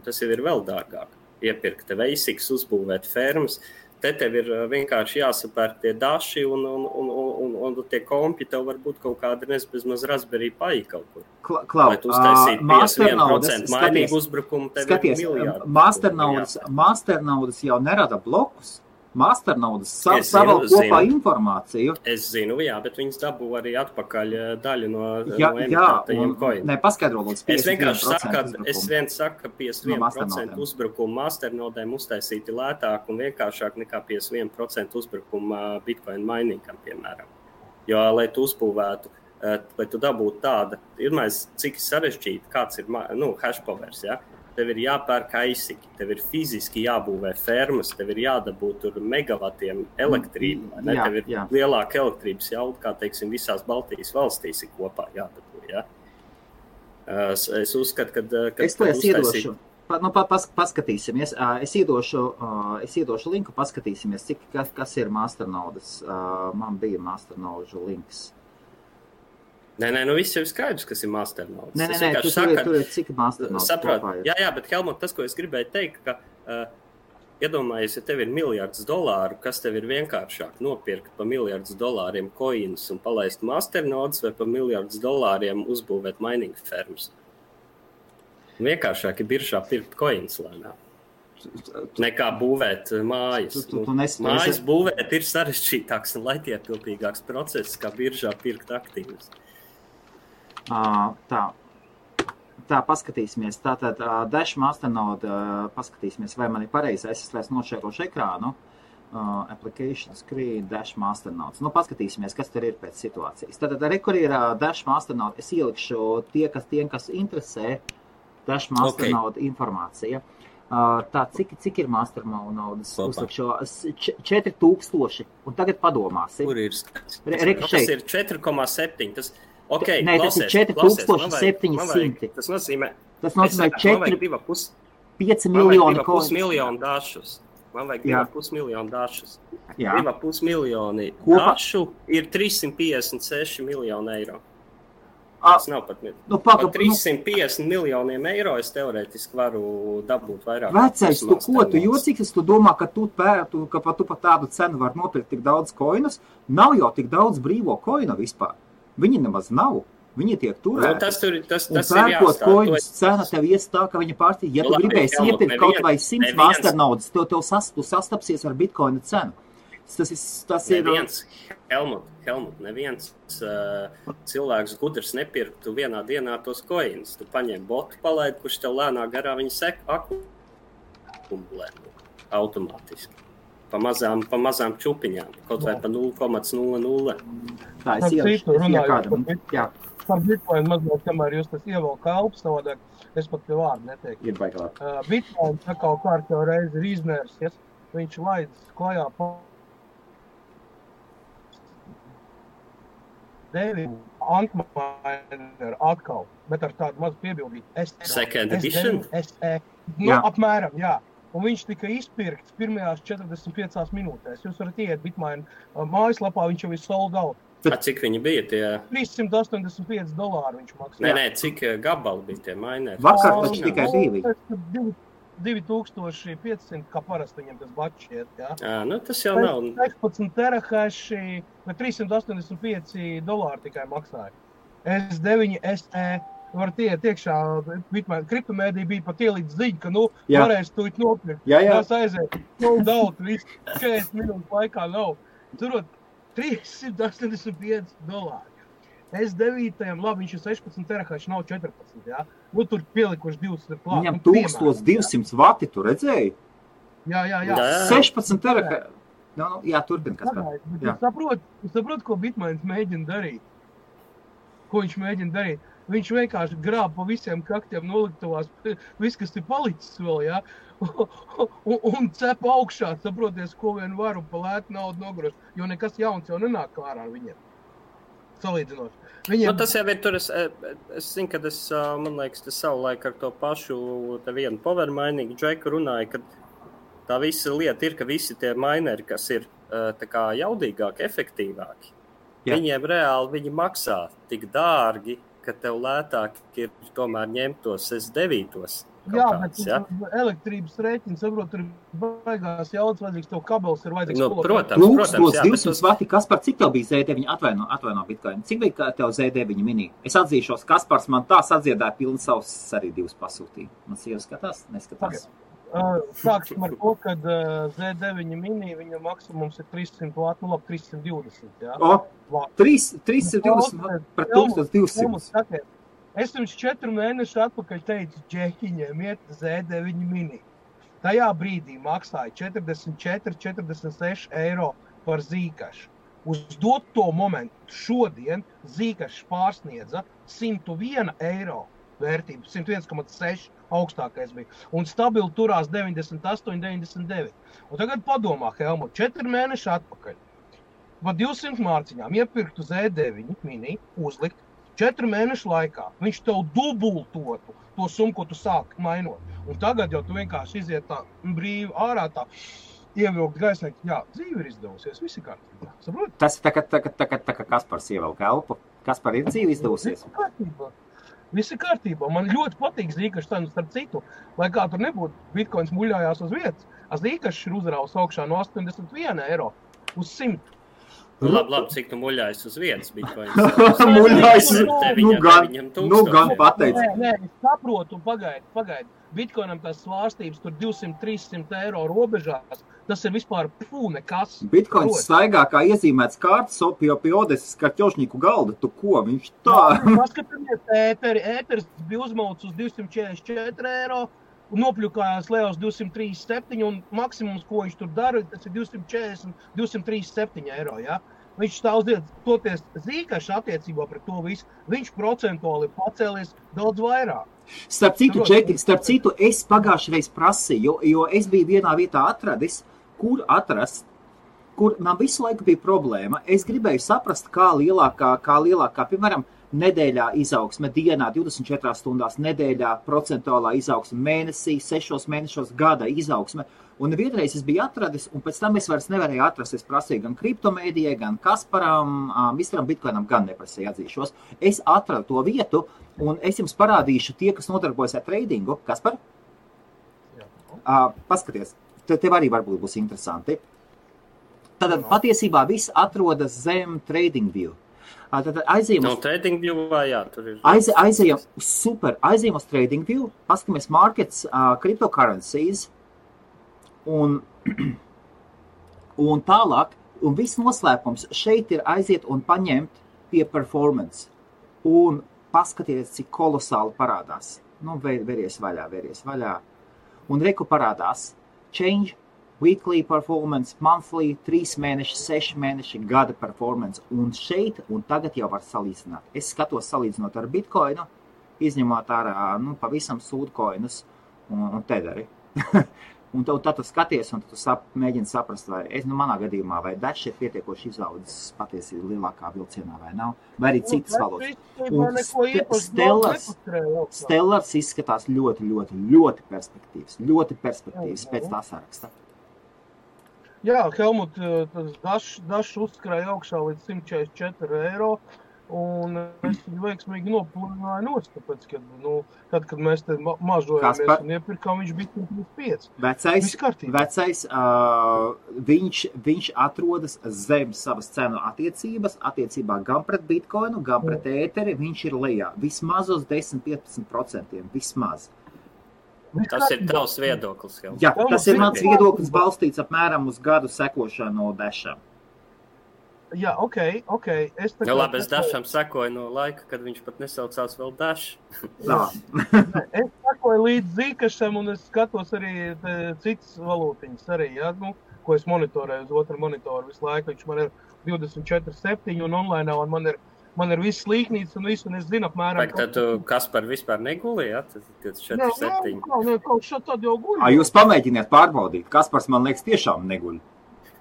tas jau ir vēl dārgāk. Iepirkt veisiks, uzbūvēt fermas. Te tev ir vienkārši jāsapērk tie daši un tie kompi tev var būt kaut kāda bezmaz Raspberry Pi kaut kur. Lai tu uztaisītu 51% mainīgu uzbrukumu, tev ir miljārdi. Masternodes jau nerada blokus. Masternaudas savēl kopā informāciju. Es zinu, jā, bet viņas dabū arī atpakaļ daļu no emitētajiem coiniem. Ne, paskaidro, lūdzu, 51%. Es viens saku, ka 51% uzbrukumu Masternodēm uztaisīti lētāk un vienkāršāk nekā 51% uzbrukuma Bitcoin miningam, piemēram. Jo, lai tu uzbūvētu, lai tu dabūtu tāda, cik sarežģīti, kāds ir, hash powers, ja? Tev ir jāpērk aizsiki, tev ir fiziski jābūvē fermas, tev ir jādabū tur megavatiem elektrību, ne? Tev ir lielāka elektrības jauda, kā, teiksim, visās Baltijas valstīs ir kopā jādabū, ja? Es uzskatu, ka es to iedošu. Paskatīsimies. Es iedošu linku, paskatīsimies, kas ir Masternaudas. Man bija Masternaužu links. Nē, viss jau ir skaidrs, kas ir Masternaudas. Nē, tur ir cik Masternaudas kopā ir. Jā, bet Helmut, tas, ko es gribēju teikt, ka iedomājies, ja tev ir $1 miljardi, kas tev ir vienkāršāk nopirkt pa $1 miljardu coins un palaist Masternaudas vai pa $1 miljardu uzbūvēt mining fermas. Vienkāršāk ir biržā pirkt coins lēnā. Nekā būvēt mājas. Mājas būvēt ir sarežģītāks un laikietilpīgāks process, kā biržā pirkt aktīvus. Tā, paskatīsimies. Tātad Dash Masternode, paskatīsimies, vai man ir pareizi. Es vairs nošērošu ekrānu. Application screen, Dash Masternode. Paskatīsimies, kas tur ir pēc situācijas. Tātad, kur ir Dash Masternode, es ielikšu tiem, kas interesē Dash Masternode informācija. Tā, cik ir Masternaudas? Uzlikšu 4000. Un tagad padomāsi. Kur ir skats? Tas ir 4,7. Tas... Okay, nē, tas ir 4700. Tas nozīmē 5 miljoni dašus. Man vajag 2,5 miljonu dašus. 2,5 miljoni dašu ir 356 miljoni eiro. Tas nav pat par 350 miljoniem eiro es teorētiski varu dabūt vairāk. Vecais, tu jocīgs, tu domā, ka tu pa tādu cenu var nopirkt tik daudz koinus? Nav jau tik daudz brīvo koinu vispār. Viņi nemaz nav. Viņi tiek turēti. Tas ir pērkot koinus cena tev ies tā, ka viņa pārstīk. Ja tu gribēsi iepirkt kaut vai 100 Masternaudas, tu sastapsies ar Bitcoina cenu. Tas ir... Helmut, neviens cilvēks gudrs nepirktu vienā dienā tos coins. Tu paņem botu palaid, kurš tev lēnā garā viņa akumulē automātiski. Pa mazām čupiņām, kaut vai pa 0,00. Tā, es ielikšu kādam. Par Bitcoin mazliet, kamēr jūs tas ievēl kalps, savādāk, es pat pie vārdu neteiktu. Ir baigāk. Bitcoin sakau kārtjau reizi ir iznērs, viņš laidz klajā Antminer atkal, bet ar tādu mazu piebildību. Second edition? Apmēram, jā. Un viņš tika izpirkts pirmajās 45 minūtēs. Jūs varat iet Bitmain mājaslapā, viņš jau ir sold out. Cik viņi bija tie? $385 viņš maksā. Nē, cik gabali bija tie mineri? Vakar taču tikai 2. 2500, kā parasti viņam tas batch iet, jā. Tas jau nav. 16 terahaši, $385 tikai maksāja. S9 SE. Varat iet iekšā, kriptomēdija bija pat ielīdz ziņa, ka, varēs tūjīt nopirkt. Tās aiziet, daudz, viss 40 minūtes laikā nav. Turot $385. S9, labi, viņš ir 16 terahaši, nav 14, jā. Tur pielikuši 200 klāt. Viņam 1200 vati, tu redzēji? Jā. 16 terahaši. Jā, turpin, kas kā. Es saprotu, ko Bitmains mēģina darīt. Ko viņš mēģina darīt? Viņš vienkārši grāb pa visiem kaktiem noliktavās, viss, kas ir palicis vēl, jā, un cep augšā, saproties, ko vien var un pa lētu naudu nogrost, jo nekas jauns jau nenāk klārā ar viņiem. Salīdzinoši. Tas jau ir tur, es zinu, kad man liekas, tas savulaik ar to pašu te vienu power mining džeku runāja, ka tā visa lieta ir, ka visi tie mineri, kas ir tā kā jaudīgāki, efektīvāki, viņiem reāli viņi maksā tik dārgi, ka tev lētāk ir tomēr ņemt tos S9-tos. Jā, bet elektrības rēķini, saprot, tur baigās jaudas vajadzīgs, tev kabels ir vajadzīgs. Protams, 200 vati, Kaspar, cik tev bija Z9? Atvaino Bitcoin. Cik bija tev Z9 mini? Es atzīšos, Kaspars man tā sadziedāja pilnu savus arī divus pasūtījumu. Man sieva skatās? Neskatās. Sāksim ar to, ka Z9 mini, viņa maksimums ir 300 vāt, 320, jā. 320 pret 1200. Es jums 4 mēnešu atpakaļ teicu, džehiņiem iet Z9 mini. Tajā brīdī maksāja 44-46 eiro par zīkašu. Uz doto momentu šodien zīkašs pārsniedza 101 eiro vērtību, 101,6 augstākais bija. Un stabili turās 98-99. Un tagad padomā, Helmut, 4 mēneši atpakaļ. Pa 200 mārciņām iepirktu Z9 mini, uzlikt 4 mēnešu laikā. Viņš tev dubultotu to summu, ko tu sāki mainot. Un tagad jau tu vienkārši iziet tā brīvi ārā tā. Ievilkt gaisnē, jā, dzīve ir izdevusies, visi kārtībā. Saprot? Tas ir tā kā Kaspars ievelk elpu. Kaspar ir dzīve izdevusies? Visi kārtībā. Man ļoti patīk zīkašs cenas, starp citu. Lai kā tur nebūtu, bitkoins muļājās uz vietas. Zīkašs ir uzrāvs augšā no 81 eiro uz 100. Labi, cik tu muļājas uz vietas bitkoins? Muļājas, gan pateic. Nē, es saprotu, pagaidi. Bitcoinam tās svārstības tur 200-300 eiro robežās, tas ir vispār nekas. Bitcoins staigā kā iezīmēts kārtas pie Odeses karķošņīku galda, tu ko, viņš tā? Paskatāmies ēteris bija uzmauts uz 244 eiro, un nopļukājās lejā uz 237, un maksimums, ko viņš tur dara, tas ir 240-237 eiro, jā. Viņš stāvdiet, toties zīkaši attiecībā pret to visu, viņš procentuāli pacēlies daudz vairāk. Starp citu, es pagājušajā reiz prasīju, jo es biju vienā vietā atradis, kur man visu laiku bija problēma. Es gribēju saprast, kā lielākā, piemēram, nedēļā izaugsme, dienā, 24 stundās, nedēļā, procentuālā izaugsme, mēnesī, 6 mēnešos, gada izaugsme. Un vienreiz es biju atradis, un pēc tam es vairs nevarēju atrast. Es prasīju gan kriptomēdijai, gan Kasparam, Misteram Bitcoinam, gan neprasīju atzīšos. Es atradu to vietu, un es jums parādīšu tie, kas nodarbojas ar tradingu. Kaspar? Paskaties, tev arī varbūt būs interesanti. Tātad patiesībā viss atrodas zem TradingView. Tad aizējam uz TradingView, jā, tur ir. Aizējam uz TradingView, paskatāmies markets, cryptocurrencies, un tālāk, un viss noslēpums šeit ir aiziet un paņemt pie performance, un paskaties, cik kolosāli parādās. Veries vaļā. Un reku parādās change, weekly performance, monthly, 3 mēneši, 6 mēneši, gada performance. Un šeit, un tagad jau var salīdzināt. Es skatos salīdzinot ar Bitcoinu, izņemot ārā, pavisam sūdkoinus un tederi. Un tad tu skaties, un tu mēģini saprast, vai manā gadījumā, vai Dash ir pietiekoši izaudzis patiesībā lielākā vilcienā, vai nav, vai arī citas valodas. Un Stellars izskatās ļoti perspektīvs, pēc tā saraksta. Jā, Helmut, Dash uzskrēja augšā līdz 144 eiro, un es viņu veiksmīgi nopulināju nost, tāpēc, kad mēs te mažojamies un iepirkām, viņš bija 135. Vecais, viņš atrodas zem savas cenu attiecībā gan pret Bitcoinu, gan pret ēteri, viņš ir lejā. Vismaz uz 10-15%, vismaz. Tas ir tavs viedoklis, Helmut. Jā, tas ir mans viedoklis balstīts apmēram uz gadu sekošanu Dasham. Jā, ok. Es Dasham sekoju no laika, kad viņš pat nesaucās vēl Dash. Es sekoju līdz zīkašam, un es skatos arī citas valūtiņas arī, jā, ko es monitorēju uz otru monitoru visu laiku. Viņš man ir 24/7 un online, un man ir viss līknīts un viss, un es zinu apmēram. Tad tu Kaspar vispār negulī, jā? Tas 24/7. Nē, kaut šā tad jau guļ. Jūs pamēģiniet pārbaudīt. Kaspars, man liekas, tiešām neguļ.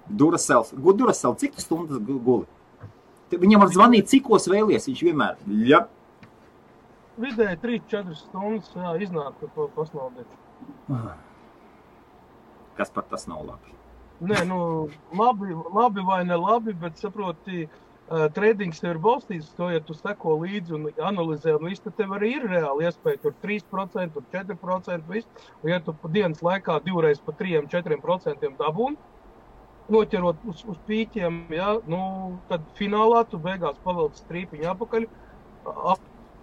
Duracell, cik tu stundas guli? Viņam var zvanīt, cikos vēlies, viņš vienmēr, jā. Vidēji 3-4 stundas, jā, iznāk to pasnaudēt. Kas par tas nav labi? Nē, labi vai ne labi, bet saproti, tradings tev ir balstīts, to, ja tu seko līdzi un analizē, un viss, tad tev arī ir reāli iespēja, tur 3%, tur 4%, viss, un ja tu pa dienas laikā 2 reizes pa 3-4% dabūni, noķerot uz pīķiem, jā, tad finālā tu beigās pavelc strīpiņu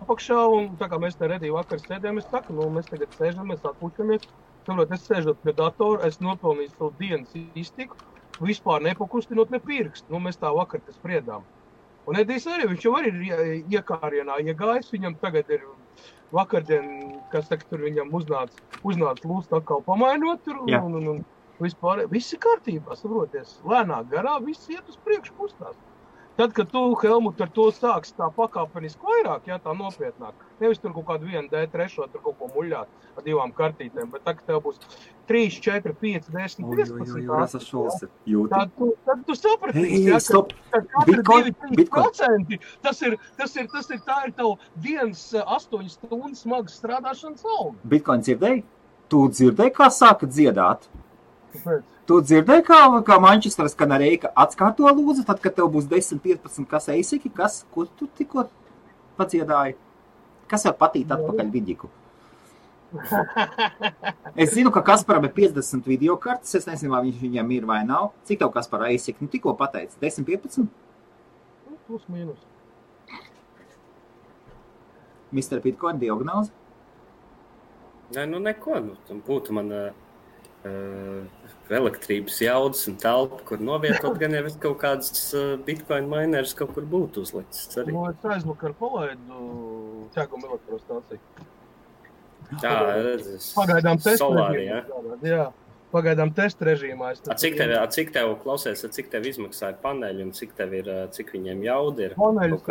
apakšā, un tā kā mēs te redī vakar sēdējām, es saku, mēs tagad sēžam, mēs atpušamies, Saprot, es sēžot pie datora, es nopelnīju savu dienas iztiku, vispār nepakustinot ne pirkstu. Nu, mēs tā vakar tas spriedām. Un Edijs arī, viņš jau arī ir iekārienā iegājis, viņam tagad ir vakardien, kas tagad tur viņam uznāc lūst atkal pamainot tur, un vispār, viss ir kārtībā, saproties, lēnāk garā, viss iet uz priekšu kustās. Tad, kad tu, Helmut, ar to sāks tā pakāpeniski vairāk, tā nopietnāk, nevis tur kaut kādu 1 D3, tur kaut ko muļāt ar 2 kartītēm, bet tagad tev būs 3, 4, 5, 10, 15. Tad tu sapratīsi, ka katra 2-3%, tā ir tavu dienas 8 stundas smagas strādāšanas alga. Bitcoin dzirdēji? Tu dzirdēji, kā sāka dziedāt? Kāpēc? Tu dzirdēji, kā Manchesteras Kanarejka atskārto lūdzu, tad, kad tev būs 10-15 kas eisiki, ko tu tikko padziedāji? Kas var patīt atpakaļ vidiku? Es zinu, ka Kasparam ir 50 videokartes, es nezinu, vai viņam ir vai nav. Cik tev Kaspara eisiki? Nu, tikko pateici, 10-15? Plus mīnus. Mr. Bitcoin diagnoze? Nē, nu neko, tam būtu man... elektrības jaudas un telpa, kur novietot, gan jau kaut kādas Bitcoin mineris kaut kur būtu uzlicis. Nu, es aizvakar palaidu ķēgumu elektrostāciju. Pagaidām testa režīmā. Jā, pagaidām testa režīmā. Cik tev klausies, cik tev izmaksāja paneļi un cik viņiem jauda ir? Paneļus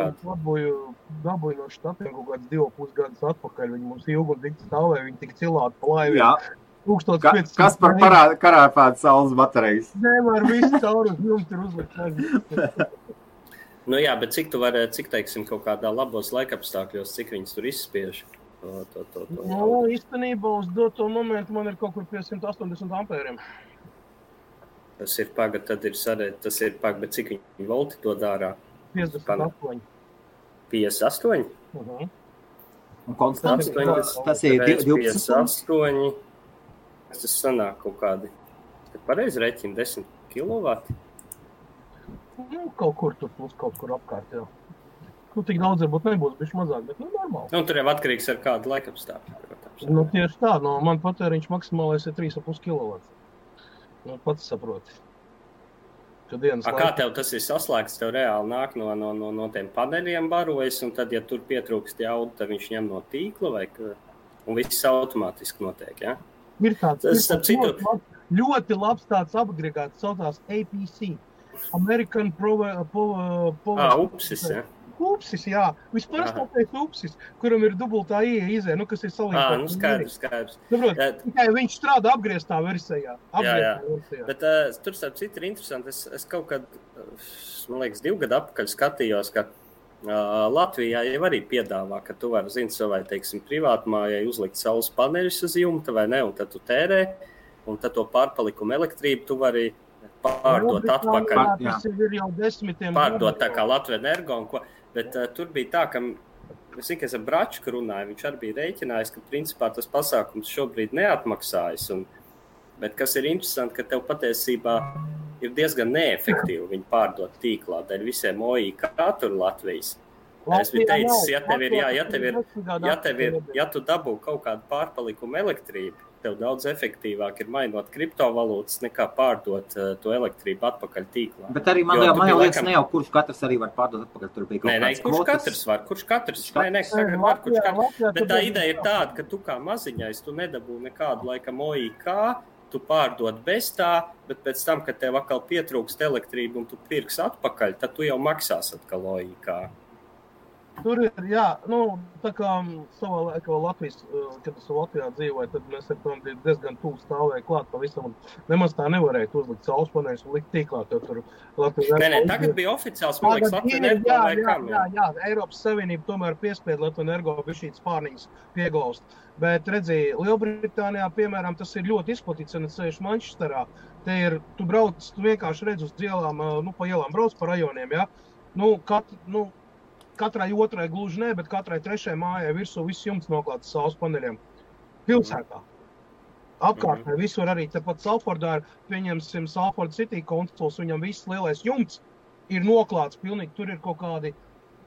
dabūju no štatiem kaut kāds 2,5 gadus atpakaļ. Viņi mums ilgi un tik stāvēja, viņi tik cilāti pa laivi. Jā. Kas par karāpētu saules baterijas? Nemēr visu cauri uz jums ir uzlikt. Nu jā, bet cik teiksim, kaut kādā labos laikapstākļos, cik viņas tur izspiež? Nu, īstenībā uz doto momentu man ir kaut kur pie 180 ampēriem. Tas ir bet cik viņi volti to dārā? 58. 58? Un konstants, tas ir 12. 58. Tas sanāk kaut kādi, kad pareizi reķina 10 kilovati? Nu, kaut kur tur plus kaut kur apkārt, jā. Nu, tik daudz varbūt nebūs, bišķi mazāk, bet normāli. Nu, tur jau atkarīgs ar kādu laikapstākļu, protams. Nu, tieši tā, man patēriņš maksimālais ir 3,5 kilovati. Nu, pats saproti. Kā tev tas ir saslēgts, tev reāli nāk no tiem paneļiem barojas, un tad, ja tur pietrūkst jaudu, tad viņš ņem no tīkla, un viss automātiski notiek, jā? Ir tāds ļoti labs tāds agregāts, saucās APC. American Upsis, jā. Upsis, jā. Visparastākais upsis, kuram ir dubultā izē, kas ir salīdzinājums. Nu skaidrs. Tikai viņš strādā apgrieztā versijā. Jā. Bet tur starp citu ir interesanti. Es kaut kad, man liekas, 2 gadu atpakaļ skatījos, ka Latvijā jau arī piedāvā, ka tu vari, savai, teiksim, privātmājai uzlikt saules paneļus uz jumta vai ne, un tad tu tērē, un tad to pārpalikumu elektrību tu vari pārdot atpakaļ. Tas ir jau 10. Pārdot tā kā Latvija Energo un ko. Bet tur bija tā, ka es zinu, ka es ar Bračku runāju, viņš arī bija rēķinājis, ka principā tas pasākums šobrīd neatmaksājas. Bet kas ir interesanti, ka tev patiesībā ir diezgan neefektīvi viņu pārdot tīklā dēļ visiem OIK tur Latvijas. Es biju teicis, ja tu dabū kaut kādu pārpalikumu elektrību, tev daudz efektīvāk ir mainot kriptovalūtas nekā pārdot to elektrību atpakaļ tīklā. Bet arī man liekas, ne jau kurš katrs arī var pārdot atpakaļ, tur bija kaut kāds kvotas. Kurš katrs var. Bet tā ideja ir tāda, ka tu kā maziņais, tu nedabū nekādu laikam OIK, tu pārdod bez tā, bet pēc tam, kad tev atkal pietrūkst elektrību un tu pirks atpakaļ, tad tu jau maksās atkal OIK. Tur ir, jā, tā kā savā laikā Latvijas, kad es Latvijā dzīvoju, tad mēs ar tom diezgan tuvu stāvēja klāt pavisam, un nemaz tā nevarēja uzlikt saules paneļus un likt tīklā, tur Latvijas... Nē, tagad bija oficiāls, man liekas, Latvijas Energo vai kam. Jā, Eiropas Savienība tomēr piespied Latvijas Energo bišķīt spārniņas pieglaust. Bet redzi, Lielbritānijā, piemēram, tas ir ļoti izplatīts, un es sēžu Manchesterā. Te ir, tu vienkārši redz uz ielām, pa ielām brauc pa rajoniem, jā. Katrai otrai gluži ne, bet katrai trešai mājai virsū viss jumts noklāts saules paneļiem. Pilsētā. Apkārtnē visur arī tepat Salfordā ir, pieņemsim Salford City konsols, viņam viss lielais jumts ir noklāts pilnīgi. Tur ir kaut kādi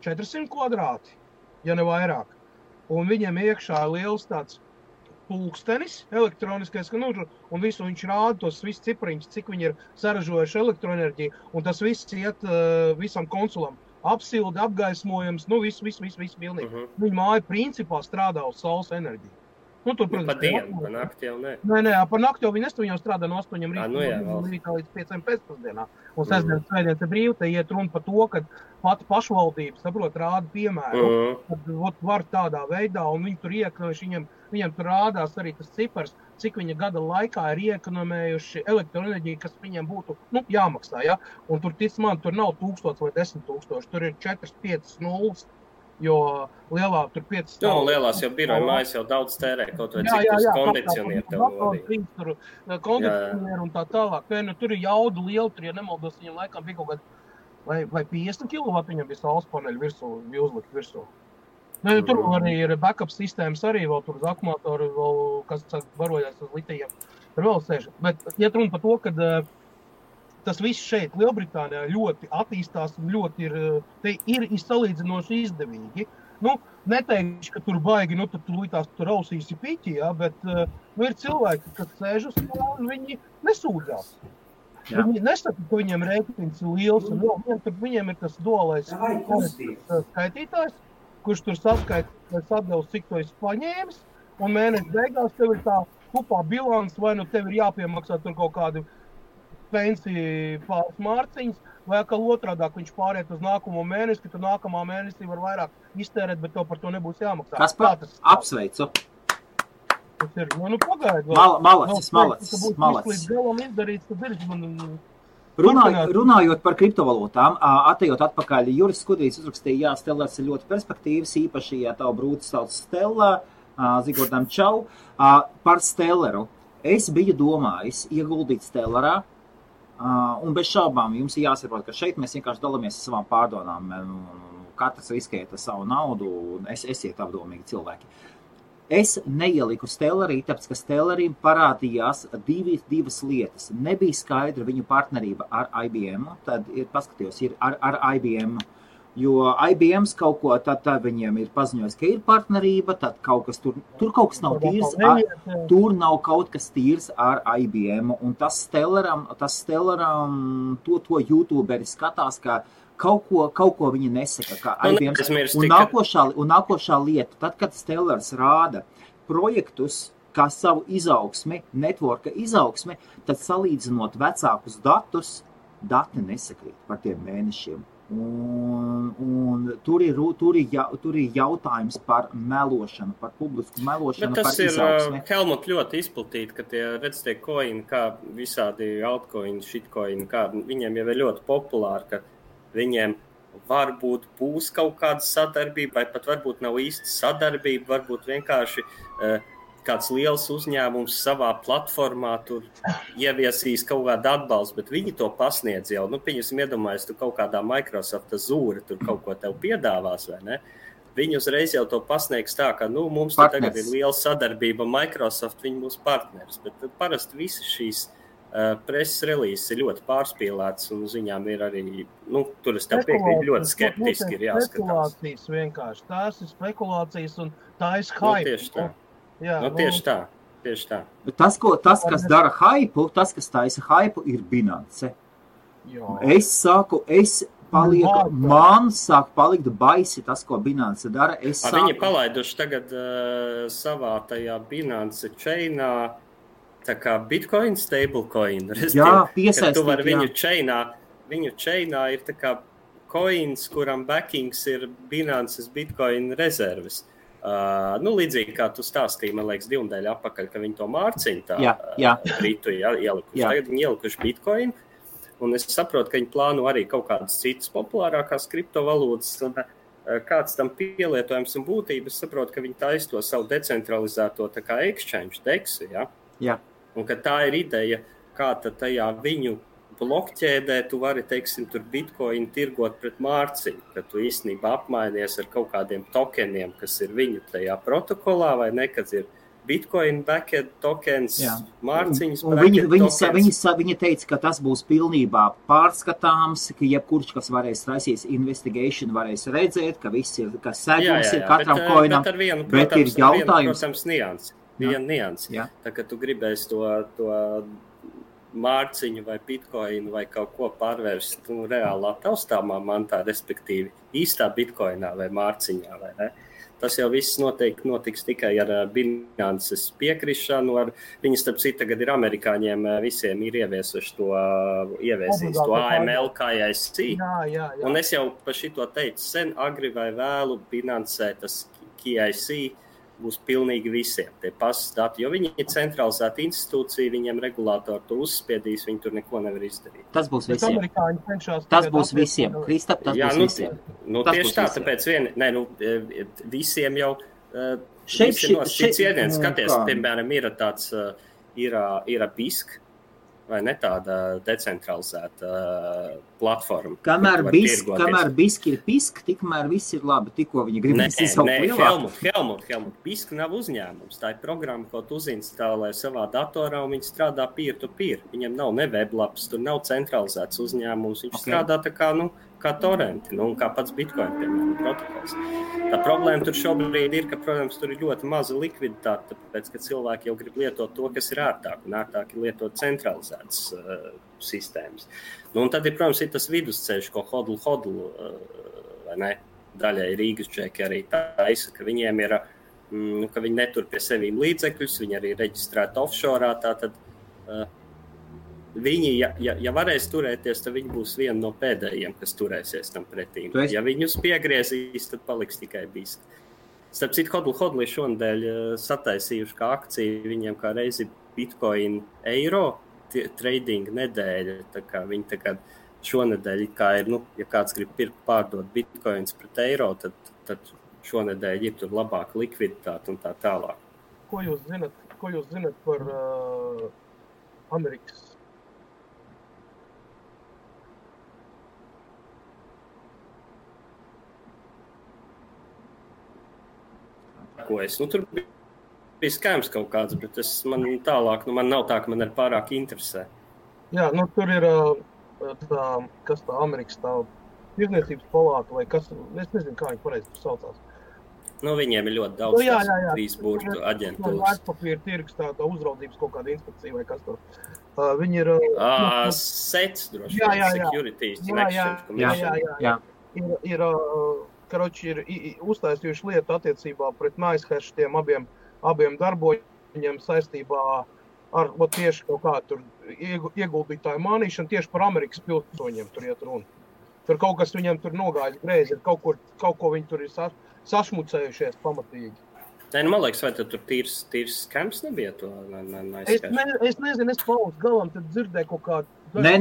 400 kvadrāti, ja ne vairāk. Un viņiem iekšā ir liels tāds pulkstenis elektroniskais, un visu viņš rāda tos visus cipariņus, cik viņi ir saražojuši elektroenerģiju, un tas viss iet visam konsulam. Apsildi, apgaismojums, viss pilnīgi. Viņa māja principā strādā uz saules enerģiju. Tur, protams, pa dienu, pa nakti jau ne. Nē, pa nakti jau viņi jau strādā no 8 rītā līdz 5 pēcpusdienā. Un sestdienas, svētdienas ir brīvi, te iet runa par to, ka pati pašvaldība, saprot, rāda piemēru, kad var tādā veidā, un viņi tur iekonojuši, viņam tur rādās arī tas cipars, cik viņa gada laikā ir iekonomējuši elektroenerģiju, kas viņiem būtu, jāmaksā, ja? Un tur, tic man, tur nav 1000 vai 10 000, tur ir 4-5 nulles. Jo lielā tur 5 stāv. Lielās jau biroja mājas jau daudz tērē, kaut vai cik tas kondicionieru tev nodīja. Tur kondicionieru un tā tālāk. Tur ir jaudu liela, tur, ja nemaldos, viņam laikam bija kaut kāda, vai 50 kW viņam bija saules paneļu virsū, bija uzlikt virsū. Tur arī ir backup sistēmas arī, vēl tur uz akumulātoru, vēl, kas barojās uz litijiem. Tur vēl sēž. Bet iet runa par to, kad tas viss šeit Lielbritānijā ļoti attīstās un ļoti ir salīdzinoši izdevīgi. Neteikšu, ka tur baigi, tad tu līdz tur ausīsi piķi, ja, bet ir cilvēki, kas sēž uz to un viņi nesūdzās. Jā. Viņi nesaka, ka viņiem rēķins ir liels un viņiem ir tas dualais skaitītājs, kurš tur saskaita atdevs, cik to esi paņēmis, un mēneša beigās tev ir tā kupā bilans, vai tev ir jāpiemaksā tur kaut kādi pensiju pāris mārciņas, vai atkal otrādāk viņš pāriet uz nākamo mēnesi, ka tu nākamā mēnesī var vairāk iztērēt, bet tev par to nebūs jāmaksā. Kas par? Apsveicu. Tas ir, pagaid. Malacis. Līdz galam izdarīts, tad ir Runājot par kriptovalūtām, atejot atpakaļ, Juris Skudrīs uzrakstīja, Stellars ir ļoti perspektīvas, īpaši, ja tavu brūci sauc Stella, Zigordam Čau, par Stellaru. Es biju domājis ieguldīt Stellarā, un bez šaubām jums ir jāsaprot, ka šeit mēs vienkārši dalāmies ar savām pārdomām. Katrs riskēt ar savu naudu, un esiet apdomīgi cilvēki. Es neieliku Stellarī, tāpēc, ka Stellarim parādījās divas lietas. Nebija skaidra viņu partnerība ar IBM, tad paskatījos, ir ar IBM, jo IBMs kaut ko, tad viņiem ir paziņojis, ka ir partnerība, tad kaut kas tur kaut kas nav tīrs, tur nav kaut kas tīrs ar IBM, un tas Stellaram, to YouTuberi skatās, ka kaut ko viņi nesaka, kā IBM. Un nākošā lieta, tad, kad Stellars rāda projektus, kā savu izaugsmi, networka izaugsmi, tad salīdzinot vecākus datus, dati nesakrīt par tiem mēnešiem. Un tur ir jautājums par melošanu, par publisku melošanu, par izaugsmi. Bet tas ir, Helmut, ļoti izplatīti, ka tie coini, kā visādi altcoini, shitcoini, kā viņiem jau ir ļoti populāri, ka viņiem varbūt būs kaut kāda sadarbība, vai pat varbūt nav īsti sadarbība, varbūt vienkārši kāds liels uzņēmums savā platformā tur ieviesīs kaut kādu atbalstu, bet viņi to pasniedz jau. Pieņemsim, iedomājies, tu kaut kādā Microsoft Azure tur kaut ko tev piedāvās, vai ne? Viņi uzreiz jau to pasniegs tā, ka mums tagad ir liela sadarbība Microsoft, viņi mūsu partneris, bet parasti visi šīs preses relīzes ir ļoti pārspīlētas un ziņām ir arī, tur es tev piekrītu, ļoti skeptiski ir jāskatās. Spekulācijas vienkārši, tās ir spekulācijas un tā ir hype. Tieši tā. Jā, tieši tā. Bet tas, kas dara hypu, tas, kas taisa hypu, ir Binance. Man sāk palikt baisi tas, ko Binance dara. Viņi palaiduši tagad savā tajā Binance chainā tā kā Bitcoin stablecoin. Jā, piesaistīt, tu vari viņu chainā ir tā kā coins, kuram backings ir Binances Bitcoin rezerves. Līdzīgi kā tu stāstīji, man liekas, 2 nedēļu atpakaļ, ka viņi to mārciņu Britu ielikuši. Tagad viņi ielikuši Bitcoin, un es saprotu, ka viņi plāno arī kaut kādas citas populārākās kriptovalūtas, un kāds tam pielietojums un būtība, es saprotu, ka viņi taisa to savu decentralizēto tā kā exchange DEX, Jā. Un ka tā ir ideja, kā tad tajā viņu blokķēdē tu vari, teiksim, tur Bitcoin tirgot pret mārciņu, ka tu īstenībā apmainies ar kaut kādiem tokeniem, kas ir viņu tajā protokolā, vai ne, kad ir Bitcoin backend tokens, mārciņas tokens. Viņa teica, ka tas būs pilnībā pārskatāms, ka jebkurš, kas varēs raisīs investigation, varēs redzēt, ka viss ir, ka segums ir katram coinam, bet ir jautājums. Protams, niansi. viena nianse. Jā. Tā kā tu gribēsi to mārciņu vai bitkoinu vai kaut ko pārvērst reālā taustāmā mantā, respektīvi īstā bitkoinā vai mārciņā, vai ne? Tas jau viss noteikti notiks tikai ar Binances piekrišanu. Viņi, starp citu, tagad ir amerikāņiem visiem ir ieviesuši to AML KYC. Jā. Un es jau par šito teicu sen, agri vai vēlu Binancē tas KYC būs pilnīgi visiem tie pasas dati, jo viņi ir centralizēta institūcija, viņiem regulātori to uzspiedīs, viņi tur neko nevar izdarīt. Tas būs visiem. Tas būs visiem. Kristap, tas būs visiem. Tieši tā, tāpēc visiem jau šeit iediens, skaties, piemēram, ir tāds, ir BISK, vai ne tāda decentralizēta platforma. Kamēr BISK ir PISK, tikmēr viss ir labi, tikko viņi grib izsaukt lielāku. Helmut, BISK nav uzņēmums, tā ir programma, ko tu uzinstalē savā datorā, un viņi strādā peer-to-peer. Viņam nav ne weblaps, tur nav centralizēts uzņēmums, viņš strādā tā kā torrenti, un kā pats Bitcoin, piemēram, protokols. Tā problēma tur šobrīd ir, ka, protams, tur ir ļoti maza likviditāte, tāpēc, ka cilvēki jau grib lietot to, kas ir ērtāk, un ērtāk ir lietot centralizētas sistēmas. Un tad, protams, ir tas vidusceļš, ko hodl, vai ne, daļai Rīgas džeki arī taisa, ka viņiem ir, ka viņi netur pie sevīm līdzekļus, viņi arī reģistrēti offshore, tātad viņi, ja varēs turēties, tad viņi būs viena no pēdējiem, kas turēsies tam pretī. Ja viņus piegriezīs, tad paliks tikai BISK. Starp citu, hodl šonadēļ sataisījuši kā akciju, viņiem kā reizi Bitcoin eiro trading nedēļa, tā kā viņi tagad šonadēļ, kā ir, ja kāds grib pirkt pārdot Bitcoins pret eiro, tad šonadēļ ir tur labāka likviditāte un tā tālāk. Ko jūs zinat par Amerikas? Tur bija skams kaut kāds, bet man tālāk, man nav tā, ka man ir pārāk interesē. Jā, tur ir kas tā Amerikas tā tirdzniecības palāta vai kas, es nezinu, kā viņi pareizi saucās. Viņiem ir ļoti daudz trīs burtu aģentūras. Vērtspapīra tirgus, tā uzraudzības kaut kāda inspekcija vai kas tur. Viņi ir... SEC droši vien, Securities and Exchange Commission. Ir uztaisījuši lietu attiecībā pret NiceHash tiem abiem darboņiem saistībā ar tieši kaut kā tur ieguldītāju mānīšanu tieši par Amerikas pilsoņiem tur iet runa. Tur kaut kas viņam tur nogājis greizi, kaut ko viņi tur ir sašmucējušies pamatīgi. Man liekas, vai tur tīrs skams nebija to NiceHash? Es nezinu, es palūdzu galam, tad dzirdēju kaut kādu. Nē.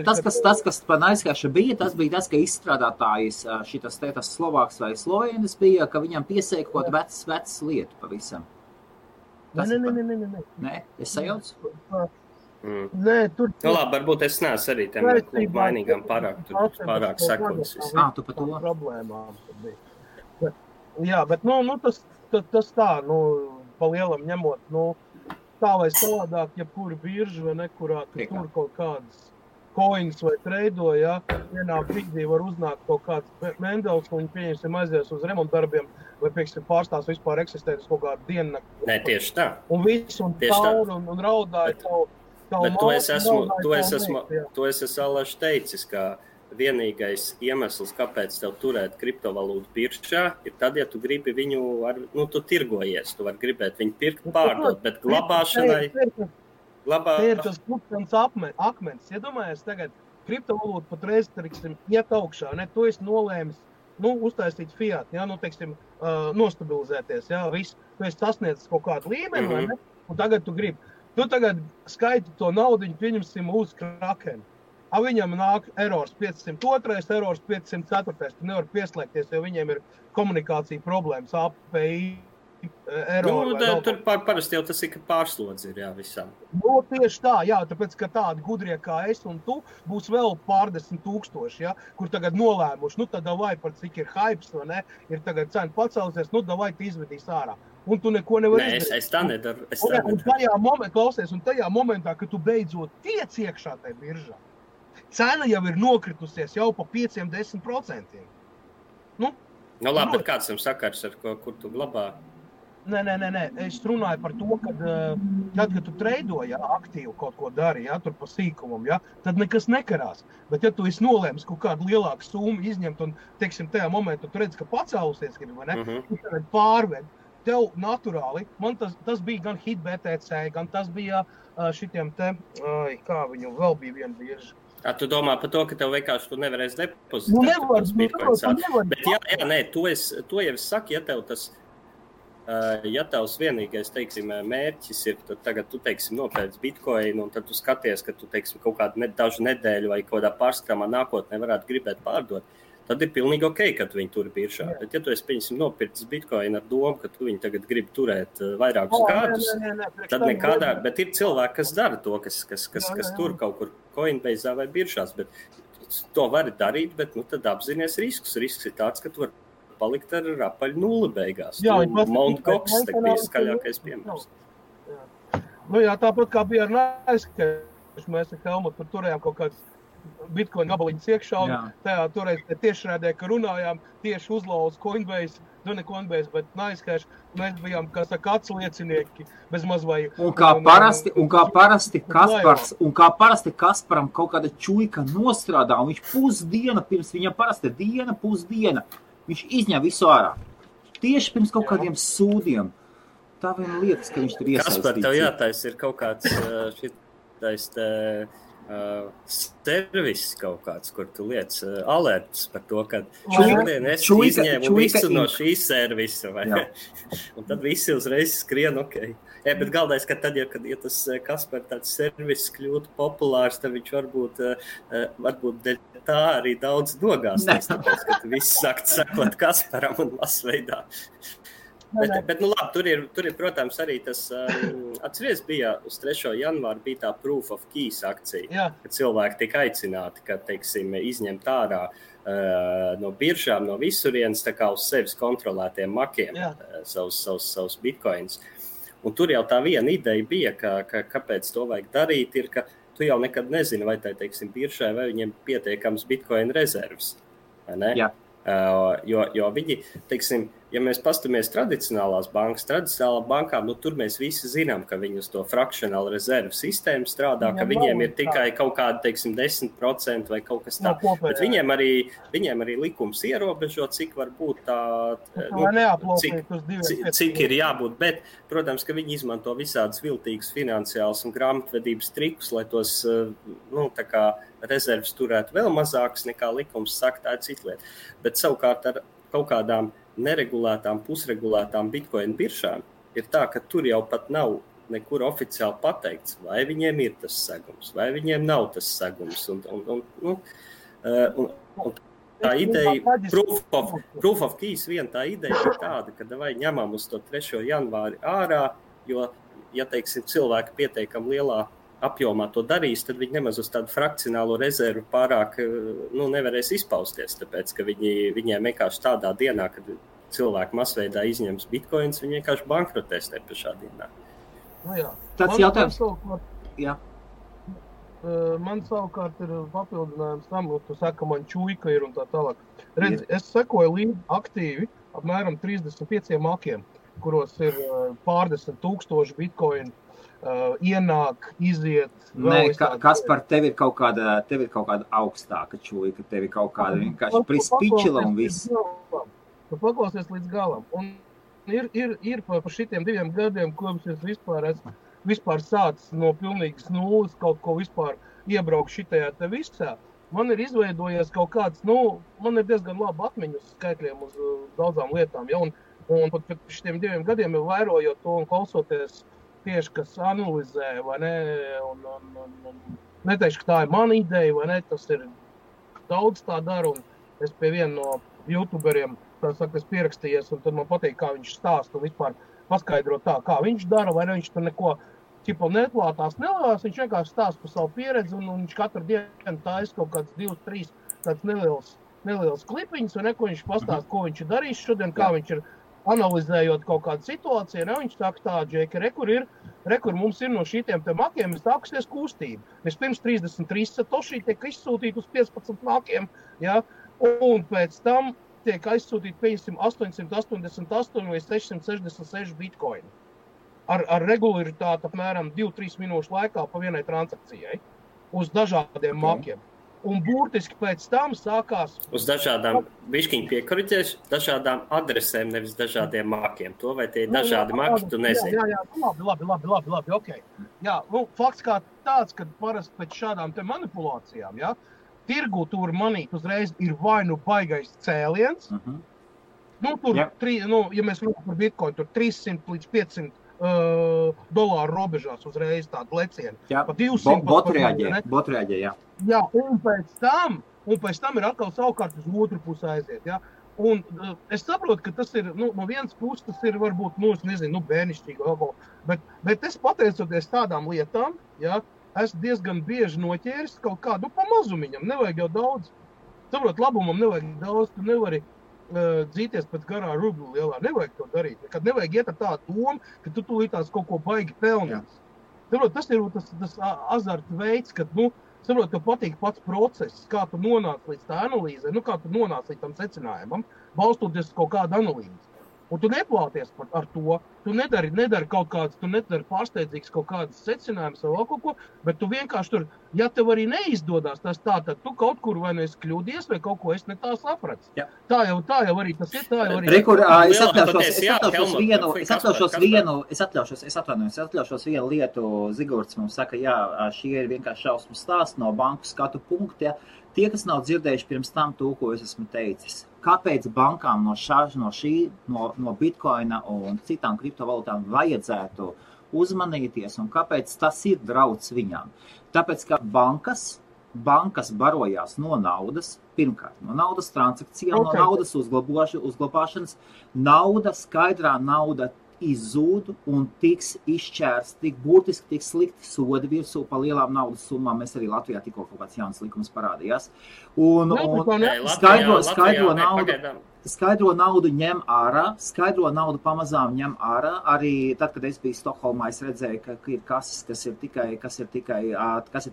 Tas, kas par NiceHash bija, tas bija tas, ka izstrādātājs šitas Slovāks vai Slovēnis bija, ka viņam piesēja kaut vecs lietu pavisam. Nē, es sajaucu? Nē, tur... labi, varbūt es neesmu arī tiem klubu mainīgām pārāk sekojas. Tu par to? Problēmām bija. Jā, bet tas tā, pa lielam ņemot, tā vai savādāk, jebkura birža vai nekurā tur kaut kādas coins vai treido, vienā brīdī var uznākt kaut kāds Mendels, un viņi pieņemsim aizies uz remontdarbiem, vai pieksim pārstās vispār eksistēt uz kaut kādu diennakti. Nē, tieši tā. Un viss, un tauru, un raudāja tavu bet to es esmu alaši teicis, ka vienīgais iemesls, kāpēc tev turēt kriptovalūtu biržā, ir tad, ja tu gribi viņu, tu tirgojies, tu vari gribēt viņu pirkt, pārdot, bet glabāšanai... Te ir tas kluptens akmens. Iedomājies tagad, kriptovalūta patreiz, iet augšā, tu esi nolēmis, uztaisīt fiat, nostabilizēties, viss. Tu esi sasniedzis kaut kādu līmeni, vai ne? Un tagad tu gribi. Tu tagad skaiti to naudiņu, pieņemsim uz Krakenu. Viņam nāk errors 502, errors 504. Tu nevar pieslēgties, jo viņiem ir komunikācija problēmas, API, errori. Tur parasti jau tas ir, ka pārslodzi ir, visām. Tieši tā, tāpēc, ka tādi gudrie kā es un tu būs vēl pārdesmit tūkstoši, kur tagad nolēmuši, tad davai par cik ir hypes, vai ne, ir tagad cena pacēlusies, davai tu izvedīs ārā. Un tu neko nevar izdarīt. Es tā nedaru. Un tajā momentā, kad tu beidzot tiec iekšā tajā biržā, cena jau ir nokritusies jau pa 5-10%. Labi, bet kāds tam sakars, ar kur tu glabā? Nē. Es runāju par to, kad tu treido, ja, aktīvi kaut ko dari, ja, tur pa sīkumam, ja, tad nekas nekarās. Bet, ja tu esi nolēmis kaut kādu lielāku summu izņemt un, teiksim, tajā momentā tu redzi, ka pacēlusies, vai ne, tu tagad pārved. Tev naturāli, man tas bija gan hit BTC, gan tas bija šitiem te, kā viņu vēl bija viena birža. Tu domā par to, ka tev vienkārši tu nevarēsi depozitēt tos bitcoins. Bet nē, to jau es saku, ja tev tas, ja tavs vienīgais, teiksim, mērķis ir, tad tagad tu, teiksim, nopērc bitcoinu, un tad tu skaties, ka tu, teiksim, kaut kādu dažu nedēļu vai kaut kādā pārskatāmā nākotnē varētu gribēt pārdot. Tad ir pilnīgi ok, ka tu viņu turi biržā. Bet, ja tu esi, pieņemsim, nopircis bitcoinu ar domu, ka tu viņu tagad gribi turēt vairākus gadus, tad nekādā, bet ir cilvēki, kas dara to, kas tur kaut kur Coinbase vai biržās, bet to var darīt, bet tad apzinies riskus. Risks ir tāds, ka tu vari palikt ar apaļu nulli beigās. Mount Gox bija skaļākais piemērs. Jā, tāpat kā bija ar Naiskaļu, mēs ar Helmutu turējām kaut kāds Bitcoin gabaliņas iekšā, un tajā toreiz tiešrādē, ka runājām, tieši uzlauz Coinbase, ne Coinbase, bet Naiskaļš, mēs bijām, kā saka, atsliecinieki, bez maz vai... Un kā parasti Kasparam kaut kāda čuika nostrādā, un viņš pusdiena, pirms viņam parasti pusdiena, viņš izņem visu ārā. Tieši pirms kaut kādiem sūdiem. Tā vien lietas, ka viņš tur iesaistīts. Kaspar, tev jātais ir kaut kāds šitais servis kaut kāds, kur tu liec alerts par to, ka šodien es izņēmu visu no šīs servisa, vai? Un tad visi uzreiz skrien, ok. Bet galvenais, ka tad, ja tas Kaspar tāds servis kļūtu populārs, tad viņš varbūt dēļ tā arī daudz nogāsties, tāpēc, ka visi sākt sakot Kasparam un masveidā. Bet nu labi, tur ir, protams, arī tas, atceries bija uz 3. janvāru bija tā Proof of Keys akcija, kad cilvēki tika aicināti, ka, teiksim, izņemt ārā no biržām, no visurienes, tā kā uz sevis kontrolētiem makiem savus bitcoins. Un tur jau tā viena ideja bija, kāpēc to vajag darīt, ir, ka tu jau nekad nezini, vai tā, teiksim, biržai, vai viņiem pietiekams bitcoin rezervs, vai ne? Jā. Jo viņi, teiksim, ja mēs pastamies tradicionālā bankām, nu tur mēs visi zinām, ka viņi uz to fractional reserve sistēmu strādā, ka viņiem ir tikai kaut kādi, teiksim, 10% vai kaut kas tā. Bet viņiem arī likums ierobežo, cik var būt cik ir jābūt, bet, protams, ka viņi izmanto visādas viltīgas finansiālas un grāmatvedības trikus, lai tos, tā kā rezerves turētu vēl mazākas nekā likums saka, tā ir cita lieta. Bet savukārt ar kaut kādām neregulētām, pusregulētām bitcoin biržām ir tā, ka tur jau pat nav nekur oficiāli pateikts, vai viņiem ir tas segums, vai viņiem nav tas segums. Un tā ideja, Proof of Keys, tā ideja ir tāda, ka vai ņemam uz to 3. janvāri ārā, jo, ja teiksim, cilvēki pietiekam lielā apjomā to darīs, tad viņi nemaz uz tādu frakcionālo rezervu pārāk nevarēs izpausties, tāpēc, ka viņiem vienkārši tādā dienā, kad cilvēki masveidā izņems bitcoins, viņi vienkārši bankrotēs te pašā dienā. Tāds jautājums. Man savukārt ir papildinājums tam, tu saka, man čuika ir un tā tālāk. Redz, es sekoju līdzi aktīvi apmēram 35 makiem, kuros ir pārdesmit tūkstoši bitcoin ienāk, iziet. Nē, Kaspar, tev ir kaut kāda augstāka čuika, tev ir kaut kāda vienkārši prispičila un viss. Tu paklausies līdz galam. Un ir par šitiem 2 gadiem, kopš es vispār sācis no pilnīgas nulles kaut ko vispār iebraukt šitajā te visā. Man ir izveidojies kaut kāds, man ir diezgan labi atmiņas skaitļiem uz daudzām lietām, ja, un pat šitiem 2 gadiem jau vērojot to un klausoties tieši, kas analizē, vai ne, un neteikšu, ka tā ir mana ideja, vai ne, tas ir daudz tā dara, un es pie viena no youtuberiem, tā saka, es pierakstījies, un tad man patīk, kā viņš stāsta, un vispār paskaidro tā, kā viņš dara, vai ne, viņš tur neko neklātās nelās, viņš vienkārši stāsta par savu pieredzi, un viņš katru dienu taisa kaut kāds 2-3 tāds neliels klipiņas, un neko viņš pastāsta, ko viņš ir darījis šodien, kā viņš ir analizējot kaut kādu situāciju, ne, viņš saka tā, Džeki, rekur mums ir no šitiem te makiem, ir sākusies kustība. Vispirms 33 satoši tiek izsūtīti uz 15 makiem, ja, un pēc tam tiek aizsūtīt, pieņemsim, 888 vai 666 bitcoini. Ar regularitāti apmēram 2-3 minūšu laikā pa vienai transakcijai uz dažādiem makiem. Un burtiski pēc tam sākās... Uz dažādām, bišķiņ piekoriģēšu, dažādām adresēm, nevis dažādiem mākiem. To vai tie ir dažādi maki, tu nezini. Jā, labi, ok. Jā, fakts kā tāds, kad parasti pēc šādām te manipulācijām, jā, tirgu tur manīt uzreiz ir vai nu baigais cēliens, tur, ja mēs runājam par bitcoin, tur 300 līdz 500 dolāru robežās uzreiz tādu lecienu. Jā, pa 200 bot reaģē, jā. Jā, un pēc tam ir atkal savukārt uz otru pusi aiziet, jā. Un es saprotu, ka tas ir, no vienas puses tas ir varbūt, bērnišķīgi, bet es pateicoties tādām lietām, jā, esmu diezgan bieži noķēris kaut kādu pa mazumiņam, nevajag jau daudz. Saprot, labumam nevajag daudz, tu nevari dzīties pēc garā rublu lielā, nevajag to darīt. Kad nevajag iet ar tādu domu, ka tu tūlītās kaut ko baigi pelnīt. Saprot, tas ir tas azarta veids, kad, saprot, tev patīk pats process, kā tu nonāc līdz tā analīzē, kā tu nonāc līdz tam secinājumam, balstoties kaut kādu analīzi. Un tu neplāties ar to, tu nedari kaut kādas, tu nedari pārsteidzīgs kaut kādas secinājumus vai vēl kaut ko, bet tu vienkārši tur, ja tev arī neizdodas tas tā, tad tu kaut kur vai nu esi kļūdies vai kaut ko es ne tā saprats. Jā. Tā jau arī tas ir, tā jau arī. Rekur, es atļaušos vienu lietu, Zigorts mums saka, jā, šie ir vienkārši šausmu stāsti no banku skatu punkti, ja. Tie, kas nav dzirdējuši pirms tam to, ko es esmu teicis. Kāpēc bankām no bitcoina un citām kriptovalūtām vajadzētu uzmanīties un kāpēc tas ir drauds viņām? Tāpēc, ka bankas barojās no naudas, pirmkārt, no naudas transakcijām, no naudas uzglabāšanas, skaidrā nauda izzūd un tiks izšķērts, burtiski tiks slikti sodi virsū pa lielām naudas summām. Mēs arī Latvijā tikko kaut kāds jauns likums parādījās. Un skaidro naudu ņem ārā, skaidro naudu pamazām ņem ārā. Arī tad, kad es biju Stokholmā, es redzēju, ka ir kases, kas ir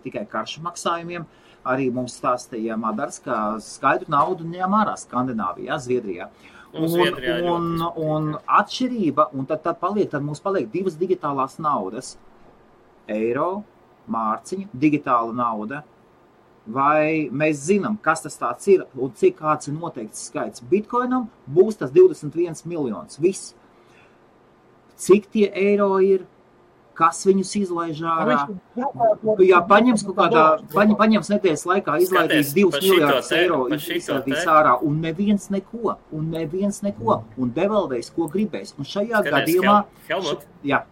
tikai karšu maksājumiem. Arī mums stāstīja Madars, ka skaidru naudu ņem ārā Skandināvijā, Zviedrijā. Un atšķirība, un tad mums paliek divas digitālās naudas. Eiro, mārciņa, digitāla nauda. Vai mēs zinām, kas tas tāds ir un cik kāds ir noteikts skaits? Bitcoinam būs tas 21 miljonus. Viss. Cik tie eiro ir? Kas viņus izlaiž ārā? Jā, paņems nedēļas laikā, izlaidīs 2 miljārdus eiro, izlaidīs ārā, un neviens neko, un devalvēs, ko gribēs. Un šajā gadījumā... Helmut, jā.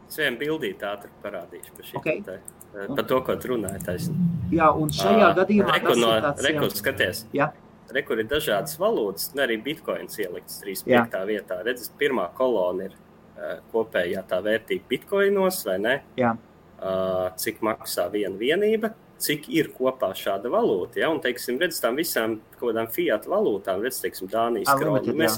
Es vienu bildīt ātri parādīšu par šī. Okay. Par to, ko tu runāji taisni. Jā, un šajā gadījumā... Rekur, skaties. Jā. Rekur ir dažādas valūtas, arī bitcoins ielikts 35. vietā. Redz, pirmā kolona ir kopējā tā vērtība bitcoinos, vai ne? Jā. Cik maksā viena vienība, cik ir kopā šāda valūta, ja? Un, teiksim, redz tām visām kodām fiat valūtām, redz, teiksim, Dānijas kroni.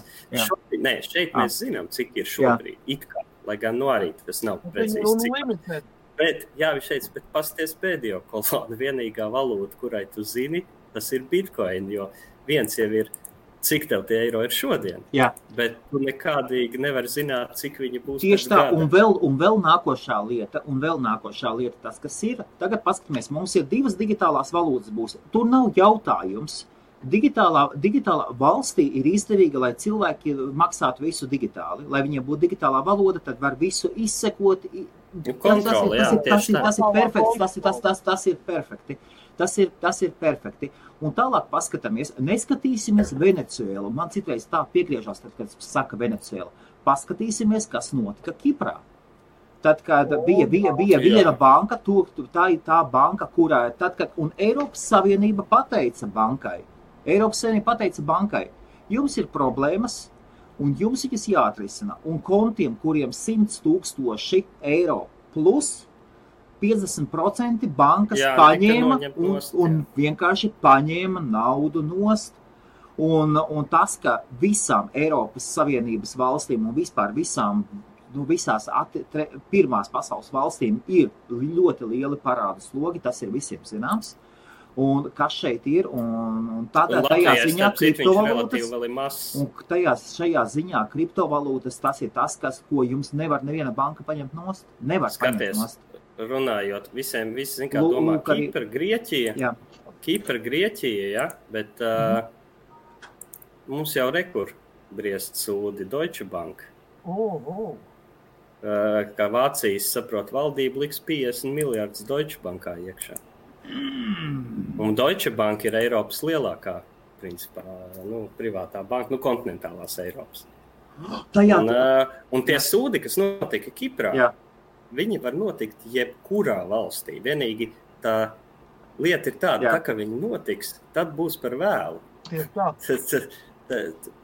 Šeit mēs zinām, cik ir šobrīd, it kā, lai gan arī tas nav precīzi cik. Bet pasties pēdējo kolonu, vienīgā valūta, kurai tu zini, tas ir bitcoin, jo viens jau ir cik tev tie eiro ir šodien. Jā. Bet tu nekādīgi nevar zināt, cik viņi būs. Tieši tā, un vēl nākošā lieta tas, kas ir. Tagad paskatāmies, mums ir divas digitālās valūtas būs. Tur nav jautājums. Digitālā valstī ir izdevīga, lai cilvēki maksātu visu digitāli. Lai viņiem būtu digitālā valoda, tad var visu izsekot. Tas ir perfekti. Tas ir perfekti. Un tālāk paskatāmies, neskatīsimies Venecuēlu. Man citreiz tā piegriežās, tad, kad saka Venecuēla. Paskatīsimies, kas notika Kiprā. Tad, kad bija viena banka, tā ir tā banka, kurā un Eiropas Savienība pateica bankai, jums ir problēmas, un jums viņas jāatrisina. Un kontiem, kuriem 100 000 eiro plus 50% bankas paņēma un vienkārši paņēma naudu nost. Un tas, ka visām Eiropas Savienības valstīm un vispār visās pirmās pasaules valstīm ir ļoti lieli parādu slogi, tas ir visiem zināms. Un kas šeit ir, un tādā tajā ziņā kriptovalūtas, un šajā ziņā kriptovalūtas, tas ir tas, ko jums nevar neviena banka paņemt nost. Nevar paņemt nost. Runājot, visi kā domā, Kipra, Grieķija, ja, bet mums jau rekur briest sūdi Deutsche Bank. Kā Vācijas, saprot, valdība liks 50 miljardus Deutsche Bankā iekšā. Un Deutsche Bank ir Eiropas lielākā, principā, privātā banka, kontinentālās Eiropas. Un tie sūdi, kas notika Kiprā, viņi var notikt jebkurā valstī. Vienīgi tā lieta ir tāda, ka viņi notiks, tad būs par vēlu.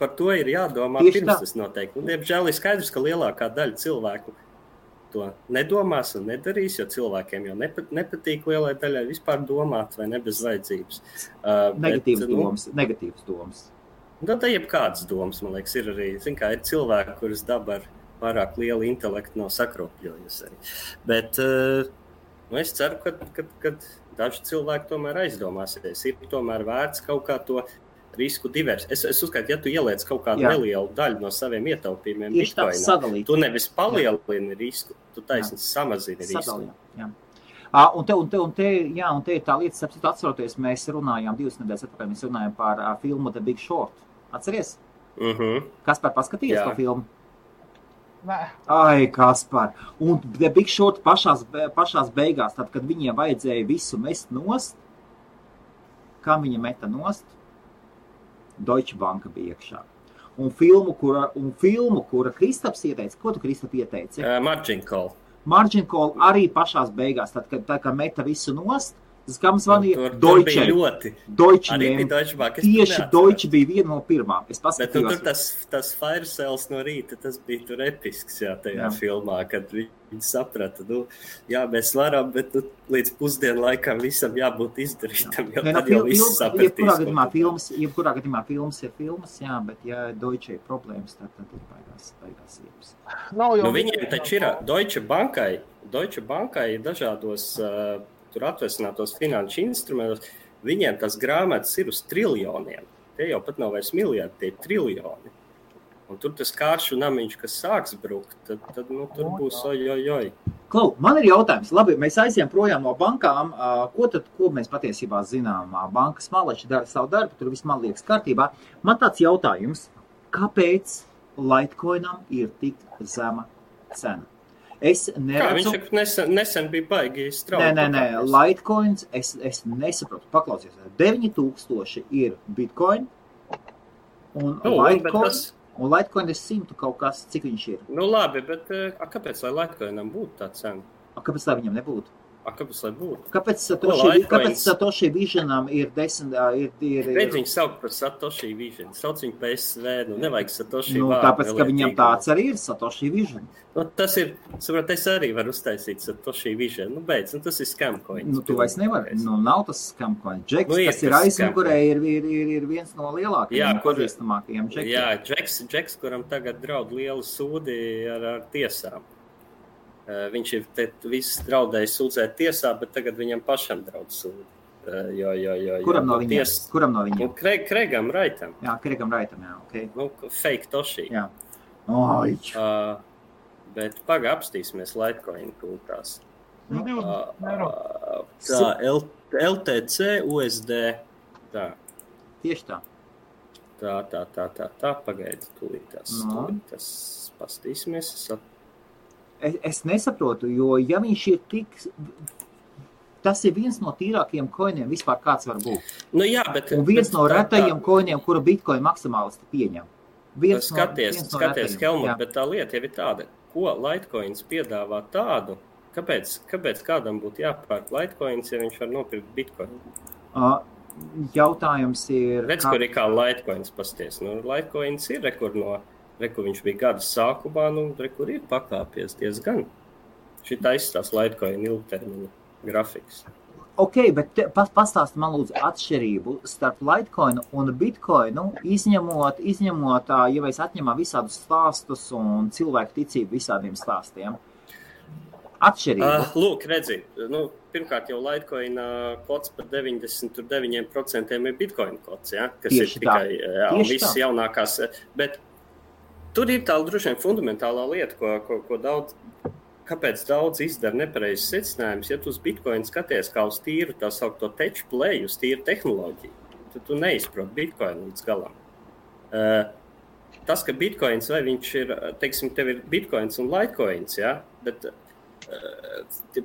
Par to ir jādomā pirms tas notiek. Un, diemžēl, ir skaidrs, ka lielākā daļa cilvēku to nedomās un nedarīs, jo cilvēkiem jau nepatīk lielai daļai vispār domāt vai ne bez vajadzības. Negatīvas domas. Tā jebkādas domas, man liekas, ir arī, ir cilvēki, kuras daba ar pārāk lielu intelektu nav sakropļojusi arī. Bet es ceru, ka daži cilvēki tomēr aizdomāsies. Ir tomēr vērts kaut kā to risku divers. Es uzskatu, ja tu ieliec kaut kādu nelielu daļu no saviem ietaupījumiem Bitcoinā, tu nevis palielini risku, tu taisni samazini risku. Un te ir tā lieta, atceroties, mēs runājām 2 nedēļas atpakaļ, mēs runājām par filmu The Big Short. Atceries? Kaspar, paskatījies to filmu? Ai, Kaspar. Un The Big Short pašās beigās, tad, kad viņiem vajadzēja visu mest nost, kā viņa meta nost? Deutsche Banka bija iekšā. Un filmu, kura Kristaps ieteica, ko tu, Kristap, ieteici? Margin Call. Margin Call arī pašās beigās, tad, kad meta visu nost, tas, kā mums vanīja, Deutsche. Tieši Deutsche bija viena no pirmām. Es paskatījos. Bet tur tas fire sales no rīta, tas bija tur episks, tajā filmā, kad viņi saprata, mēs varam, bet līdz pusdienu laikam visam jābūt izdarītam, jo tad jau viss sapratīs. Jebkurā gadījumā filmas ir filmas, bet ja Deutsche ir problēmas, tad ir baigās iepas. Viņiem taču ir Deutsche Bankai ir dažādos tur atvesinātos finanšu instrumentos, viņiem tas grāmatas ir uz triljoniem. Tie jau pat nav vairs miljardi, tie ir triljoni. Un tur tas kāršu namiņš, kas sāks brukt, tad tur būs ojojoj. Klau, man ir jautājums. Labi, mēs aizjām projām no bankām. Ko mēs patiesībā zinām? Bankas maleči dara savu darbu, tur viss man liekas kārtībā. Man tāds jautājums, kāpēc Litecoinam ir tik zema cena? Es neredzu... Viņš nesen bija baigi strauji. Nē, Litecoins, es nesaprotu. Paklausies, 9000 ir Bitcoin, un Litecoin ir 100 kaut kas, cik viņš ir. Labi, bet kāpēc, lai Litecoinam būtu tā cena? Kāpēc lai viņam nebūtu? Kāpēc lai būtu? Kāpēc Satoshi Visionam ir 10... Redz viņu saukt par Satoshi Vision. Sauc viņu PSV, nevajag Satoshi vārdu. Tāpēc, ka viņam tāds arī ir Satoshi Vision. Tas ir, saprot, es arī varu uztaisīt Satoshi Vision. Beidz, tas ir scamcoins. Tu vairs nevari. Nav tas scamcoins. Jacks, kas ir aizmugurē, ir viens no lielākajiem, pazīstamākajiem Jackiem. Jā, Jacks, kuram tagad draud lielu sūdi ar tiesām. Viņš ir viss draudējis sūdzēt tiesā, bet tagad viņam pašam draud sūdi. Kuram no viņiem? Craigam Wrightam. Jā, Craigam Wrightam, jā, ok. Fake Toshi. Jā. Bet apstīsimies Litecoin kultās. LTC, USD. Tā. Tieši tā. Tā, pagaidi, tūlītās. Pastīsimies, Es nesaprotu, jo ja viņš ir tik... Tas ir viens no tīrākajiem koiniem vispār kāds var būt. Un viens no retajiem koiniem, kura Bitcoin maksimālisti pieņem. Skaties, Helmut, bet tā lieta jau ir tāda, ko Litecoins piedāvā tādu, kāpēc kādam būtu jāpērk Litecoins, ja viņš var nopirkt Bitcoin? Jautājums ir... Redz, kur ir kā Litecoins pasties. Litecoins ir Reku viņš bija gada sākumā, kur ir pakāpies diezgan. Šitā izstās Litecoin ilgtermiņa grafiks. Ok, bet pastāsti man lūdzu atšķirību starp Litecoinu un Bitcoinu, izņemot, ja mēs atņemam visādus stāstus un cilvēku ticību visādiem stāstiem. atšķirību? Lūk, redzi, pirmkārt jau Litecoin kods par 99% ir Bitcoin kods, ja, kas Tieši ir tikai visas jaunākās. Bet tur ir tā droši vien fundamentālā lieta, ko kāpēc daudz izdara nepareizes secinājumus. Ja tu uz Bitcoin skaties kā uz tīru tā saukto tech play, uz tīru tehnoloģiju, tad tu neizproti Bitcoin līdz galam. Tas, ka Bitcoins vai viņš ir, teiksim, tev ir Bitcoins un Litecoins, ja, bet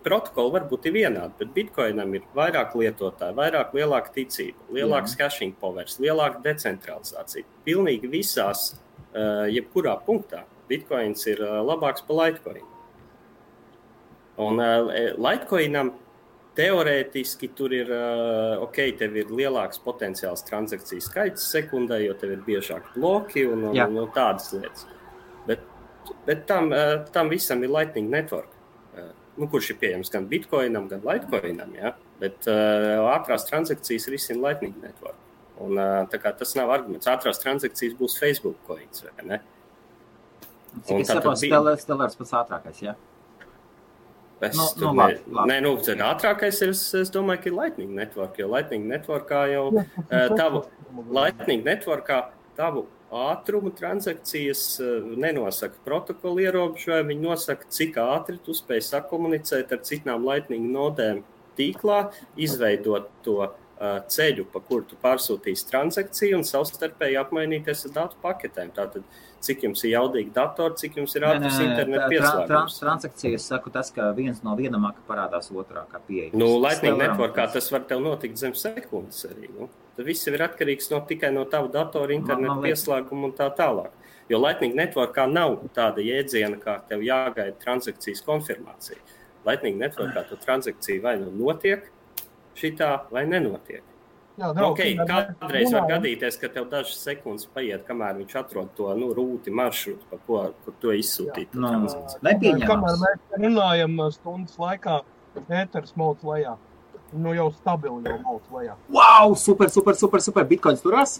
protokoli varbūt ir vienādi, bet Bitcoinam ir vairāk lietotāji, vairāk lielāka ticība, lielāks hashing powers, lielāka decentralizācija. Pilnīgi visās, jebkurā punktā, Bitcoins ir labāks par Litecoin. Un Litecoinam teorētiski tur ir, tev ir lielāks potenciāls transakciju skaits sekundē, jo tev ir biežāk bloki un tādas lietas. Bet tam visam ir Lightning Network. Kurš ir pieejams gan Bitcoinam, gan Litecoinam, ja? Bet ātrās transakcijas risina Lightning Network. Un tā kā tas nav arguments. Ātrās transakcijas būs Facebook coins, vai ne? Cik es saprotu, Stellars pats ātrākais, ja? Labi. Ātrākais ir, es domāju, ka ir Lightning Network, jo Lightning Networkā jau tavu ātrumu transakcijas nenosaka protokolu ierobežojumu, viņi nosaka, cik ātri tu spēj sakomunicēt ar citām Lightning nodēm tīklā, izveidot to ceļu, pa kuru tu pārsūtīsi transakciju un savstarpēji apmainīties ar datu paketēm. Tātad, cik jums ir jaudīgi datori, cik jums ir ātrs internet pieslēgums. Transakcijas saku tas, ka viens no vienamā parādās otrā, kā pieejams. Lightning Networkā tas var tev notikt zem sekundes arī. Tad viss ir atkarīgs tikai no tavu datoru internetu pieslēgumu un tā tālāk. Jo Lightning Networkā nav tāda jēdziena, kā tev jāgaida transakcijas konfirmācija. Lightning Networkā tu transakcija vai notiek šitā vai nenotiek. Kādreiz var gadīties, ka tev dažas sekundes paiet, kamēr viņš atrod to rūti maršrutu, pa kur to izsūtīt. Kamēr mēs runājam stundas laikā, ēters mauc lejā. Jau stabili jau mauc lejā. Wow, super. Bitcoins turās?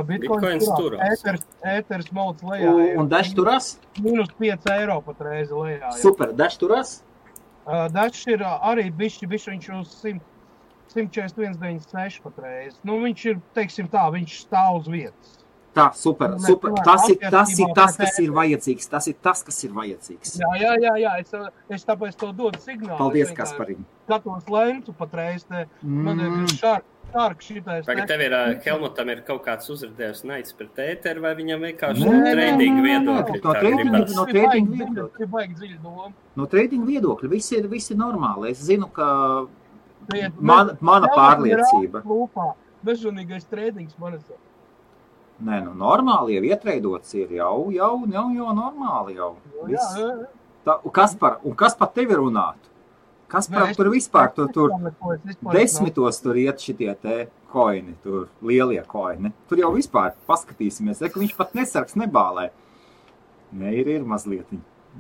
Bitcoins turās. Ēters mauc lejā. Un Dash turās? Minus 5 eiro pat reizi lejā. Super, Dash turās? Dash ir arī bišķi viņš uz 141,96 pat reizi. Viņš ir, teiksim tā, viņš stāv uz vietas. Tā, super. Tas ir tas, kas ir vajadzīgs. Tas ir tas, kas ir vajadzīgs. Jā. Es tāpēc to dodu signālu. Paldies, Kasparim. Skatos lentu pat reizi. Man ir šārk šitais. Tagad tev ir, Helmutam ir kaut kāds uzrādījums naids pret ēteru, vai viņam vienkārši trading viedokļi? No trading viedokļa. Baigi dziļi doma. No trading viedokļa. Viss ir normāli. Es zinu, ka mana pārliecība. Bezžunīgais tradings man ir. Nē, normāli jau ietreidots ir jau normāli jau. Kas par tevi runātu? Kas par tur vispār? Tur 10 tur iet šitie te koini, tur lielie koini. Tur jau vispār paskatīsimies, ka viņš pat nesargs nebālē. Nē, ir mazliet.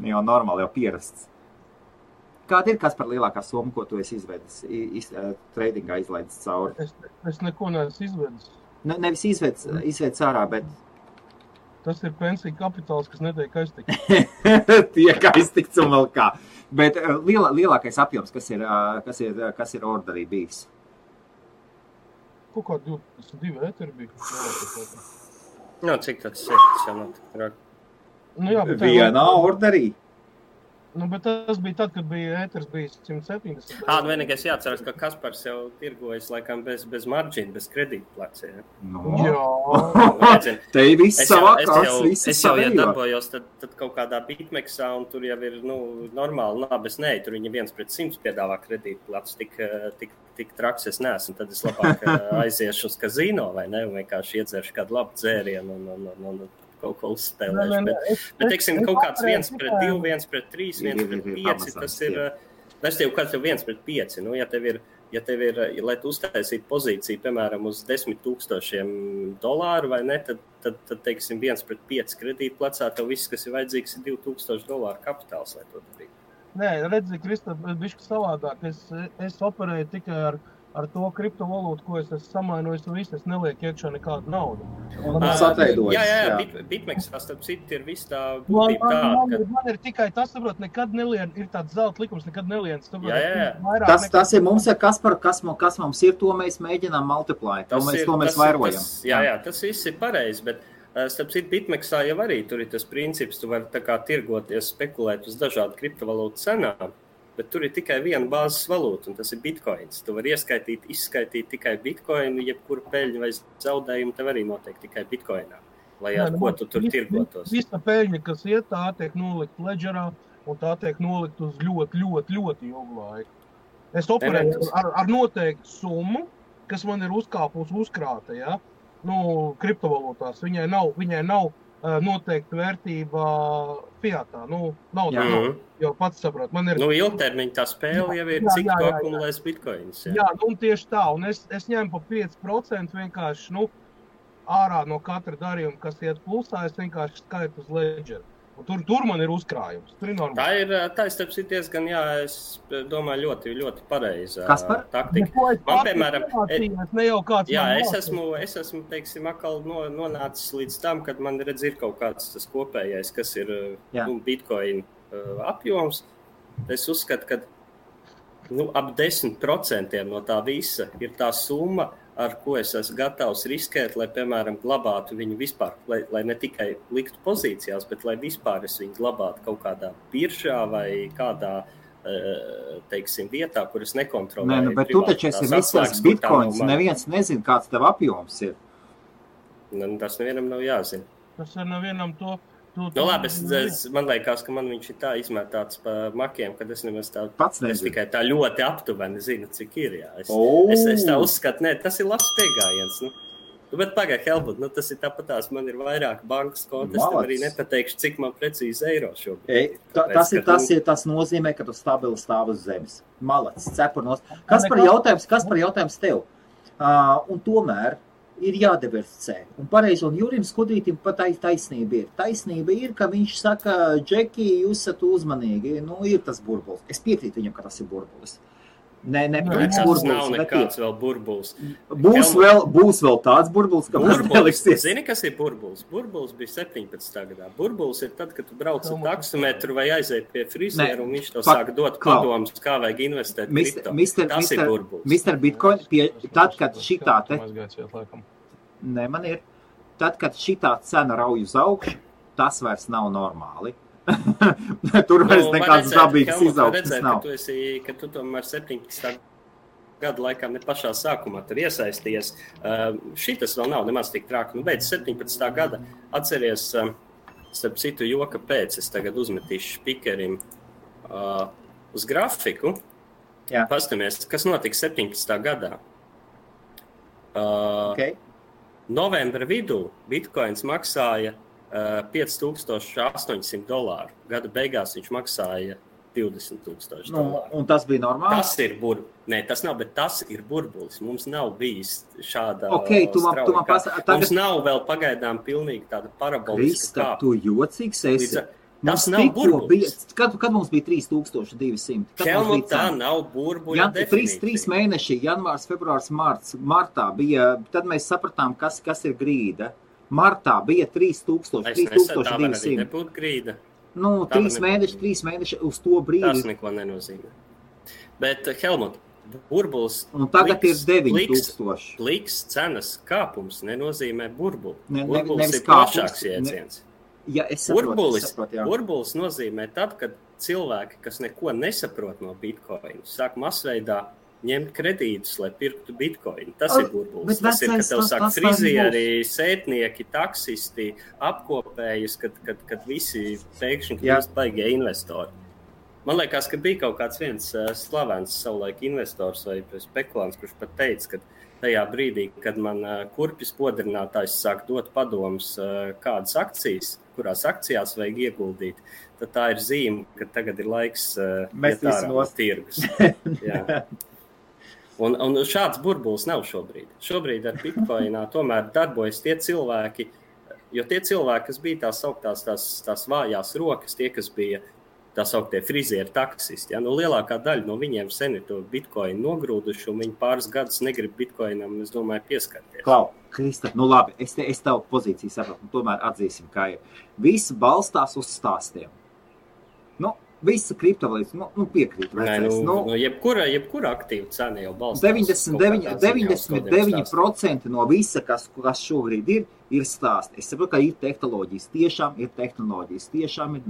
Jau normāli, jau pierasts. Kāda ir kas par lielākā summa, ko tu esi izvedis, tradingā izlaidis cauri? Es neko neesmu izvedis. Nevis izvedis ārā, bet... Tas ir pensija kapitāls, kas netiek aiztikts. Tiek aiztikts un vēl kā. Bet lielākais apjoms, kas ir orderī bijis? Kaut kā 22 ēteri bija. Cik tas ir? Vienā orderī. Bet tas bija tad, kad ēters bija 170. Vienīgais jāatceras, ka Kaspars jau tirgojas laikam bez marģina, bez kredītplats. Ja? Jā. Te ir viss savākās, es jau darbojos tad kaut kādā bitmeksā, un tur jau ir normāli labes tur viņi 1/100 piedāvā kredītplats, tik traks es neesmu, tad es labāk aiziešu uz kazino, vai ne, un vienkārši iedzeršu kādu labu dzērienu un kaut ko uzspēlēšu. Bet teiksim, kaut kāds 1/2, 1/3, 1/5, tas ir, es tev kāds jau 1/5, ja tev ir, lai tu uztaisītu pozīciju, piemēram, uz $10,000 vai ne, tad teiksim, 1/5 kredītplacā, tev viss, kas ir vajadzīgs, ir $2,000 kapitāls, lai to darītu. Nē, redzi, Kristap, bišķi savādāk. Es operēju tikai ar ar to kriptovalūtu, ko es esmu samainojis, un viss, es nelieku iekšā nekādu naudu. Un tas atveidojas. Jā. Bitmexā, starp citu, ir viss tā būtība tā. Man ir tikai tas, saprot, nekad nelien, ir tāds zelta likums, nekad nelien. Saprot, Jā. Tas ir mums, kas mums ir, to mēs mēģinām multiply. To mēs vairojam. Jā, tas viss ir pareizi, bet starp citu, Bitmexā jau arī tur ir tas princips, tu vari tā kā tirgoties, spekulēt uz dažādu kriptovalūtu cenām, bet tur ir tikai viena bāzes valūta, un tas ir bitcoins. Tu vari izskaitīt tikai bitcoinu, jebkuru peļņu vai zaudējumu tev arī notiek tikai bitcoinā, lai ar ko tu tur tirgotos. Visa peļņa, kas iet, tā tiek nolikt ledgerā, un tā tiek nolikt uz ļoti ilgu laiku. Es operēju ar noteiktu summu, kas man ir uzkrāta, ja? Kriptovalūtās. Viņai nav noteikta vērtība fiatā. Nav, jau pats saprot. Man ir... ilgtermiņa tā spēle jau ir, cik tu akumulēs bitcoins. Jā, tieši tā. Un es ņēmu pa 5% vienkārši, ārā no katra darījuma, kas iet plusā, es vienkārši skaitu uz ledgeru. Tur man ir uzkrājums. Tur ir normāli. Tā ir starp citu diezgan, es domāju, ļoti pareiza taktika. Man, piemēram, es esmu, teiksim, atkal nonācis līdz tam, kad man ir kaut kāds tas kopējais, kas ir bitcoin apjoms. Es uzskatu, ka ap 10% no tā visa ir tā summa, ar ko es esmu gatavs riskēt, lai, piemēram, glabātu viņu vispār, lai ne tikai liktu pozīcijās, bet lai vispār es viņu glabātu kaut kādā biržā vai kādā, teiksim, vietā, kur es nekontrolēju. Bet tu taču esi visās bitcoins, neviens nezin, kāds tev apjoms ir. Tas nevienam nav jāzina. Tas ir nevienam to... labi, man liekas, ka man viņš ir tā izmētāts pa makiem, kad es nemaz tā, es tikai tā ļoti aptuveni zinu, cik ir, jā. Es tā uzskatu, tas ir labs piegājiens, bet pagaid, Helmut, tas ir tāpatās, man ir vairāk bankas konti, es tev arī nepateikšu, cik man precīzi eiro šobrīd. Tas nozīmē, ka tu stabili stāv uz zemes. Malacis, cepurnos. Kas par jautājums tev? Un tomēr ir jādiversificē. Un pareizi, un Jurim Skudrītim pat taisnība ir. Taisnība ir, ka viņš saka, Džeki, jūs esat uzmanīgi. Ir tas burbulis. Es piekrītu viņam, ka tas ir burbulis. Tas nav nekāds vēl burbulis. Būs vēl tāds burbulis, ka mums neliksies. Zini, kas ir burbulis? Burbulis bija 17. gadā. Burbulis ir tad, kad tu brauc ar taksometru vai aiziet pie frizieru, un viņš tev sāk dot padomus, kā vajag investēt kripto. Tas ir burbulis. Mr. Bitcoin, tad, kad šitā te... Tad, kad šitā cena rauj uz augšu, tas vairs nav normāli. Tur vairs nekāds dabīgs izaugsmes nav. Ka tu tomēr 17. gada laikā ne pašā sākumā tur iesaisties. Šitas vēl nav nemaz tik trāki. Beidz 17. gada atceries, starp citu joka pēc, es tagad uzmetīšu spikerim uz grafiku. Pastamies, kas notiks 17. gadā. Novembra vidū Bitcoins maksāja $5,800. Gada beigās viņš maksāja $20,000. Un tas bija normāli? Tas ir tas nav, bet tas ir burbulis. Mums nav bijis šāda strauja. Mums nav vēl pagaidām pilnīgi tāda paraboliska kāpa. Krista, tu jocīgs esi. Tas nav burbulis. Kad mums bija 3,200? Helmut, tā nav burbuļa definīcija. 3 mēneši, janvārs, februārs, martā bija, tad mēs sapratām, kas ir grīda. Martā bija 3,200. Tā arī nebūtu grīda. 3 mēneši uz to brīdi. Tas neko nenozīmē. Bet, Helmut, burbulis... Un tagad ir 9,000. Pliks cenas kāpums nenozīmē burbuli. Burbulis ir plašāks jēdziens. Burbulis nozīmē tad, kad cilvēki, kas neko nesaprot no Bitcoin, sāk masveidā ņemt kredītus, lai pirktu Bitcoin. Tas ir burbulis. Tas ir, kad tev sāk frizieri, sētnieki, taksisti, apkopējas, kad visi pēkšņi kļūst baigie investori. Man liekas, ka bija kaut kāds viens slavens savulaik investors vai spekulants, kurš pat teica, ka tajā brīdī, kad man kurpis podrinātājs sāk dot padomus, kādas akcijas, kurās akcijās vajag ieguldīt, tad tā ir zīme, ka tagad ir laiks iet ārā no tirgus. Jā. Un šāds burbulis nav šobrīd. Šobrīd ar Bitcoinā tomēr darbojas tie cilvēki, jo tie cilvēki, kas bija tās sauktās tās vājās rokas, tie, kas bija tā sauktie frizieri taksisti. Ja? Lielākā daļa no viņiem sen ir to bitcoinu nogrūduši, un viņi pāris gadus negrib bitcoinam, es domāju, pieskarties. Klau, Krista, labi, es tavu pozīciju sapratu, tomēr atzīsim, ka viss balstās uz stāstiem. Visa kriptovalūta, piekrīt. Jebkura aktīva cena jau balstās. 99% no visa, kas šobrīd ir stāsti. Es saprotu, ka ir tehnoloģijas, tiešām ir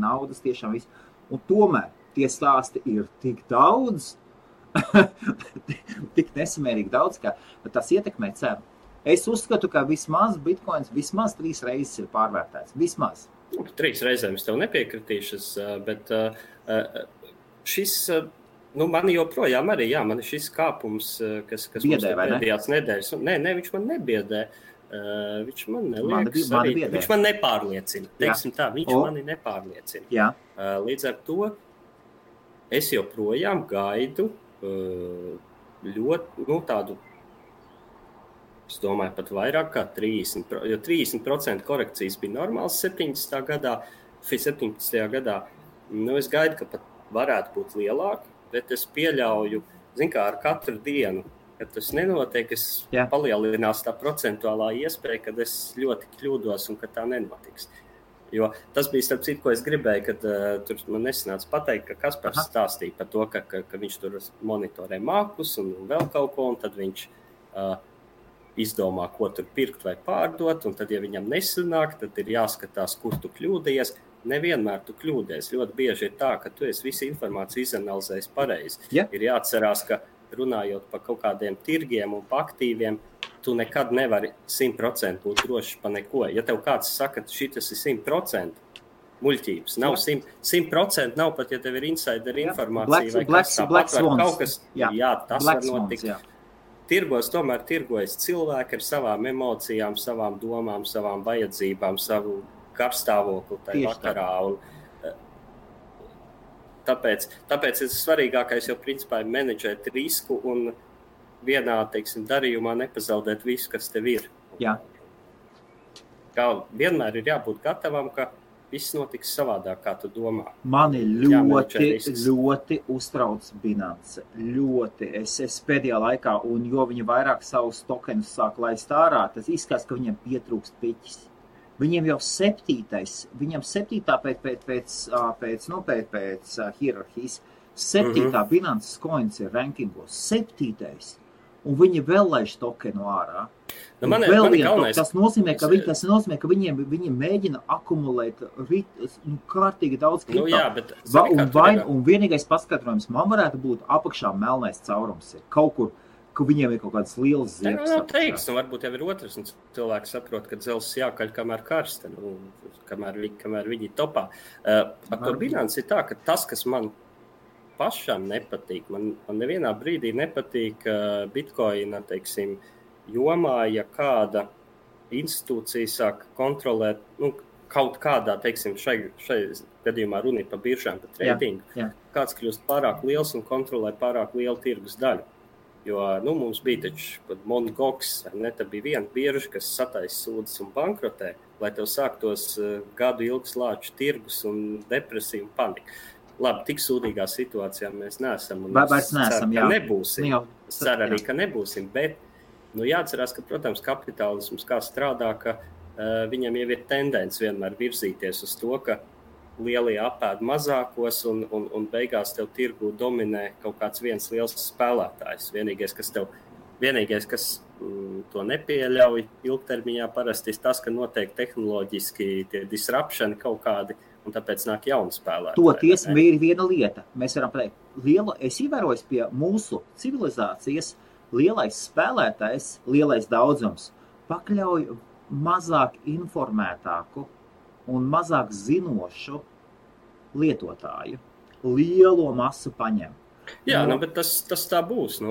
naudas, tiešām viss. Un tomēr tie stāsti ir tik daudz, tik nesamērīgi daudz, ka tas ietekmē cenu. Es uzskatu, ka vismaz bitcoins 3 reizes ir pārvērtēts. Vismaz. 3 reizēm es tev nepiekritīšu, bet šis, man joprojām arī, man ir šis kāpums, kas biedē, mums pēdējās nedēļas. Nē, viņš man nebiedē. Viņš man neliekas arī, viņš man nepārliecina. Teiksim tā, viņš mani nepārliecina. Jā. Līdz ar to es joprojām gaidu ļoti, tādu, es domāju, pat vairāk kā 30%, jo 30% korekcijas bija normāls 17. gadā. Es gaidu, ka pat varētu būt lielāki, bet es pieļauju, ar katru dienu, kad tas nenotiek, palielinās tā procentuālā iespēja, kad es ļoti kļūdos un ka tā nenotiks. Jo tas bija starp citu, ko es gribēju, kad tur man nesanāca pateikt, ka Kaspars stāstīja par to, ka viņš tur monitorē mākus un vēl kaut ko, un tad viņš izdomā, ko tur pirkt vai pārdot, un tad, ja viņam nesanāk, tad ir jāskatās, kur tu kļūdījies. Nevienmēr tu kļūdies. Ļoti bieži ir tā, ka tu esi visu informāciju izanalizējis pareizi. Yeah. Ir jāatcerās, ka runājot par kaut kādiem tirgiem un par aktīviem, tu nekad nevari 100% būt drošs pa neko. Ja tev kāds saka, ka šitas ir 100%, muļķības. Nav 100% nav pat, ja tev ir insider informācija vai kas tāpat var kaut kas. Jā, tas var notikt. Tirgos tomēr tirgojas cilvēki ar savām emocijām, savām domām, savām vajadzībām, savu karstāvokli tajā vakarā. Un, tāpēc ir svarīgākais jau principā ir menedžēt risku un vienā, darījumā nepazaudēt visu, kas tev ir. Jā. Kā vienmēr ir jābūt gatavam, ka viss notiks savādāk, kā tu domā. Mani ļoti uztrauc Binance. Ļoti. Es pēdējā laikā, un jo viņi vairāk savus tokenus sāk laist ārā, tas izskatās, ka viņiem pietrūkst piķis. Viņiem jau 7. pēc hierarhijas, 7. Binance coins ir rankingos, 7. Un viņi vēl laiž tokenu ārā. Tas nozīmē, ka viņi mēģina akumulēt kārtīgi daudz kripto. Un vienīgais paskatrojums man varētu būt apakšā melnais caurums ir kaut kur, ka viņiem ir kaut kādas lielas ziepes. Teiks, varbūt jau ir otrs, un cilvēki saprot, ka dzelzs jākaļ kamēr karsta, kamēr viņi topā. Ar to Binance ir tā, ka tas, kas man pašam nepatīk, man nevienā brīdī nepatīk Bitcoina, jomā, ja kāda institūcija sāk kontrolēt, kaut kādā, šai gadījumā runa ir par biržām, par tradingu, kāds kļūst pārāk liels un kontrolē pārāk lielu tirgus daļu. Jo, mums bija taču Mt. Gox, tad bija viena birža, kas sataisa sūdzes un bankrotē, lai tev sāktos gadu ilgs lāču tirgus un depresija un panika. Labi, tik sūdīgā situācijā mēs neesam. Vairs neesam, jā. Nebūsim. Es ceru arī, ka nebūsim, bet jāatcerās, ka, protams, kapitālisms kā strādā, ka viņam jau ir tendence vienmēr virzīties uz to, ka lielie apēd mazākos un beigās tev tirgu dominē kaut kāds viens liels spēlētājs. Vienīgais, kas to nepieļauj ilgtermiņā parasti ir tas, ka notiek tehnoloģiski tie disruptioni kaut kādi, un tāpēc nāk jauni spēlētāji. Toties ir viena lieta. Mēs varam pateikt, es ievēroju pie mūsu civilizācijas lielais spēlētājs, lielais daudzums pakļauj mazāk informētāku un mazāk zinošu lietotāju. Lielo masu paņem. Jā, bet tas tā būs.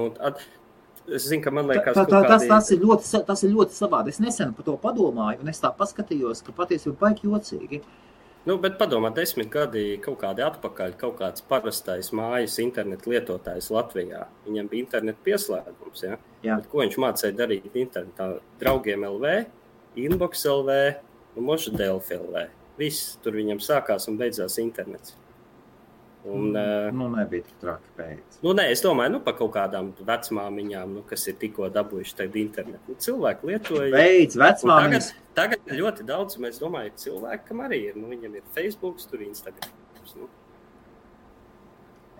Es zinu, ka man liekas, tas ir ļoti savādi. Es nesen par to padomāju, un es tā paskatījos, ka patiesībā baigi jocīgi. Bet padomā, 10 gadi kaut kādi atpakaļ, kaut kāds parastais mājas internetu lietotājs Latvijā. Viņam bija internetu pieslēgums, ja? Bet ko viņš mācīja darīt internetā? Draugiem LV, Inbox LV un Moša Delfi LV. Viss tur viņam sākās un beidzās internets. Un, nebija tik traki pēc. Es domāju, par kaut kādām vecmāmiņām, kas ir tikko dabūjuši tagad internetu. Cilvēki lietoja. Beidz, vecmāmiņas. Tagad ļoti daudz, mēs domāju, cilvēkam arī ir. Viņam ir Facebook, tur Instagrams.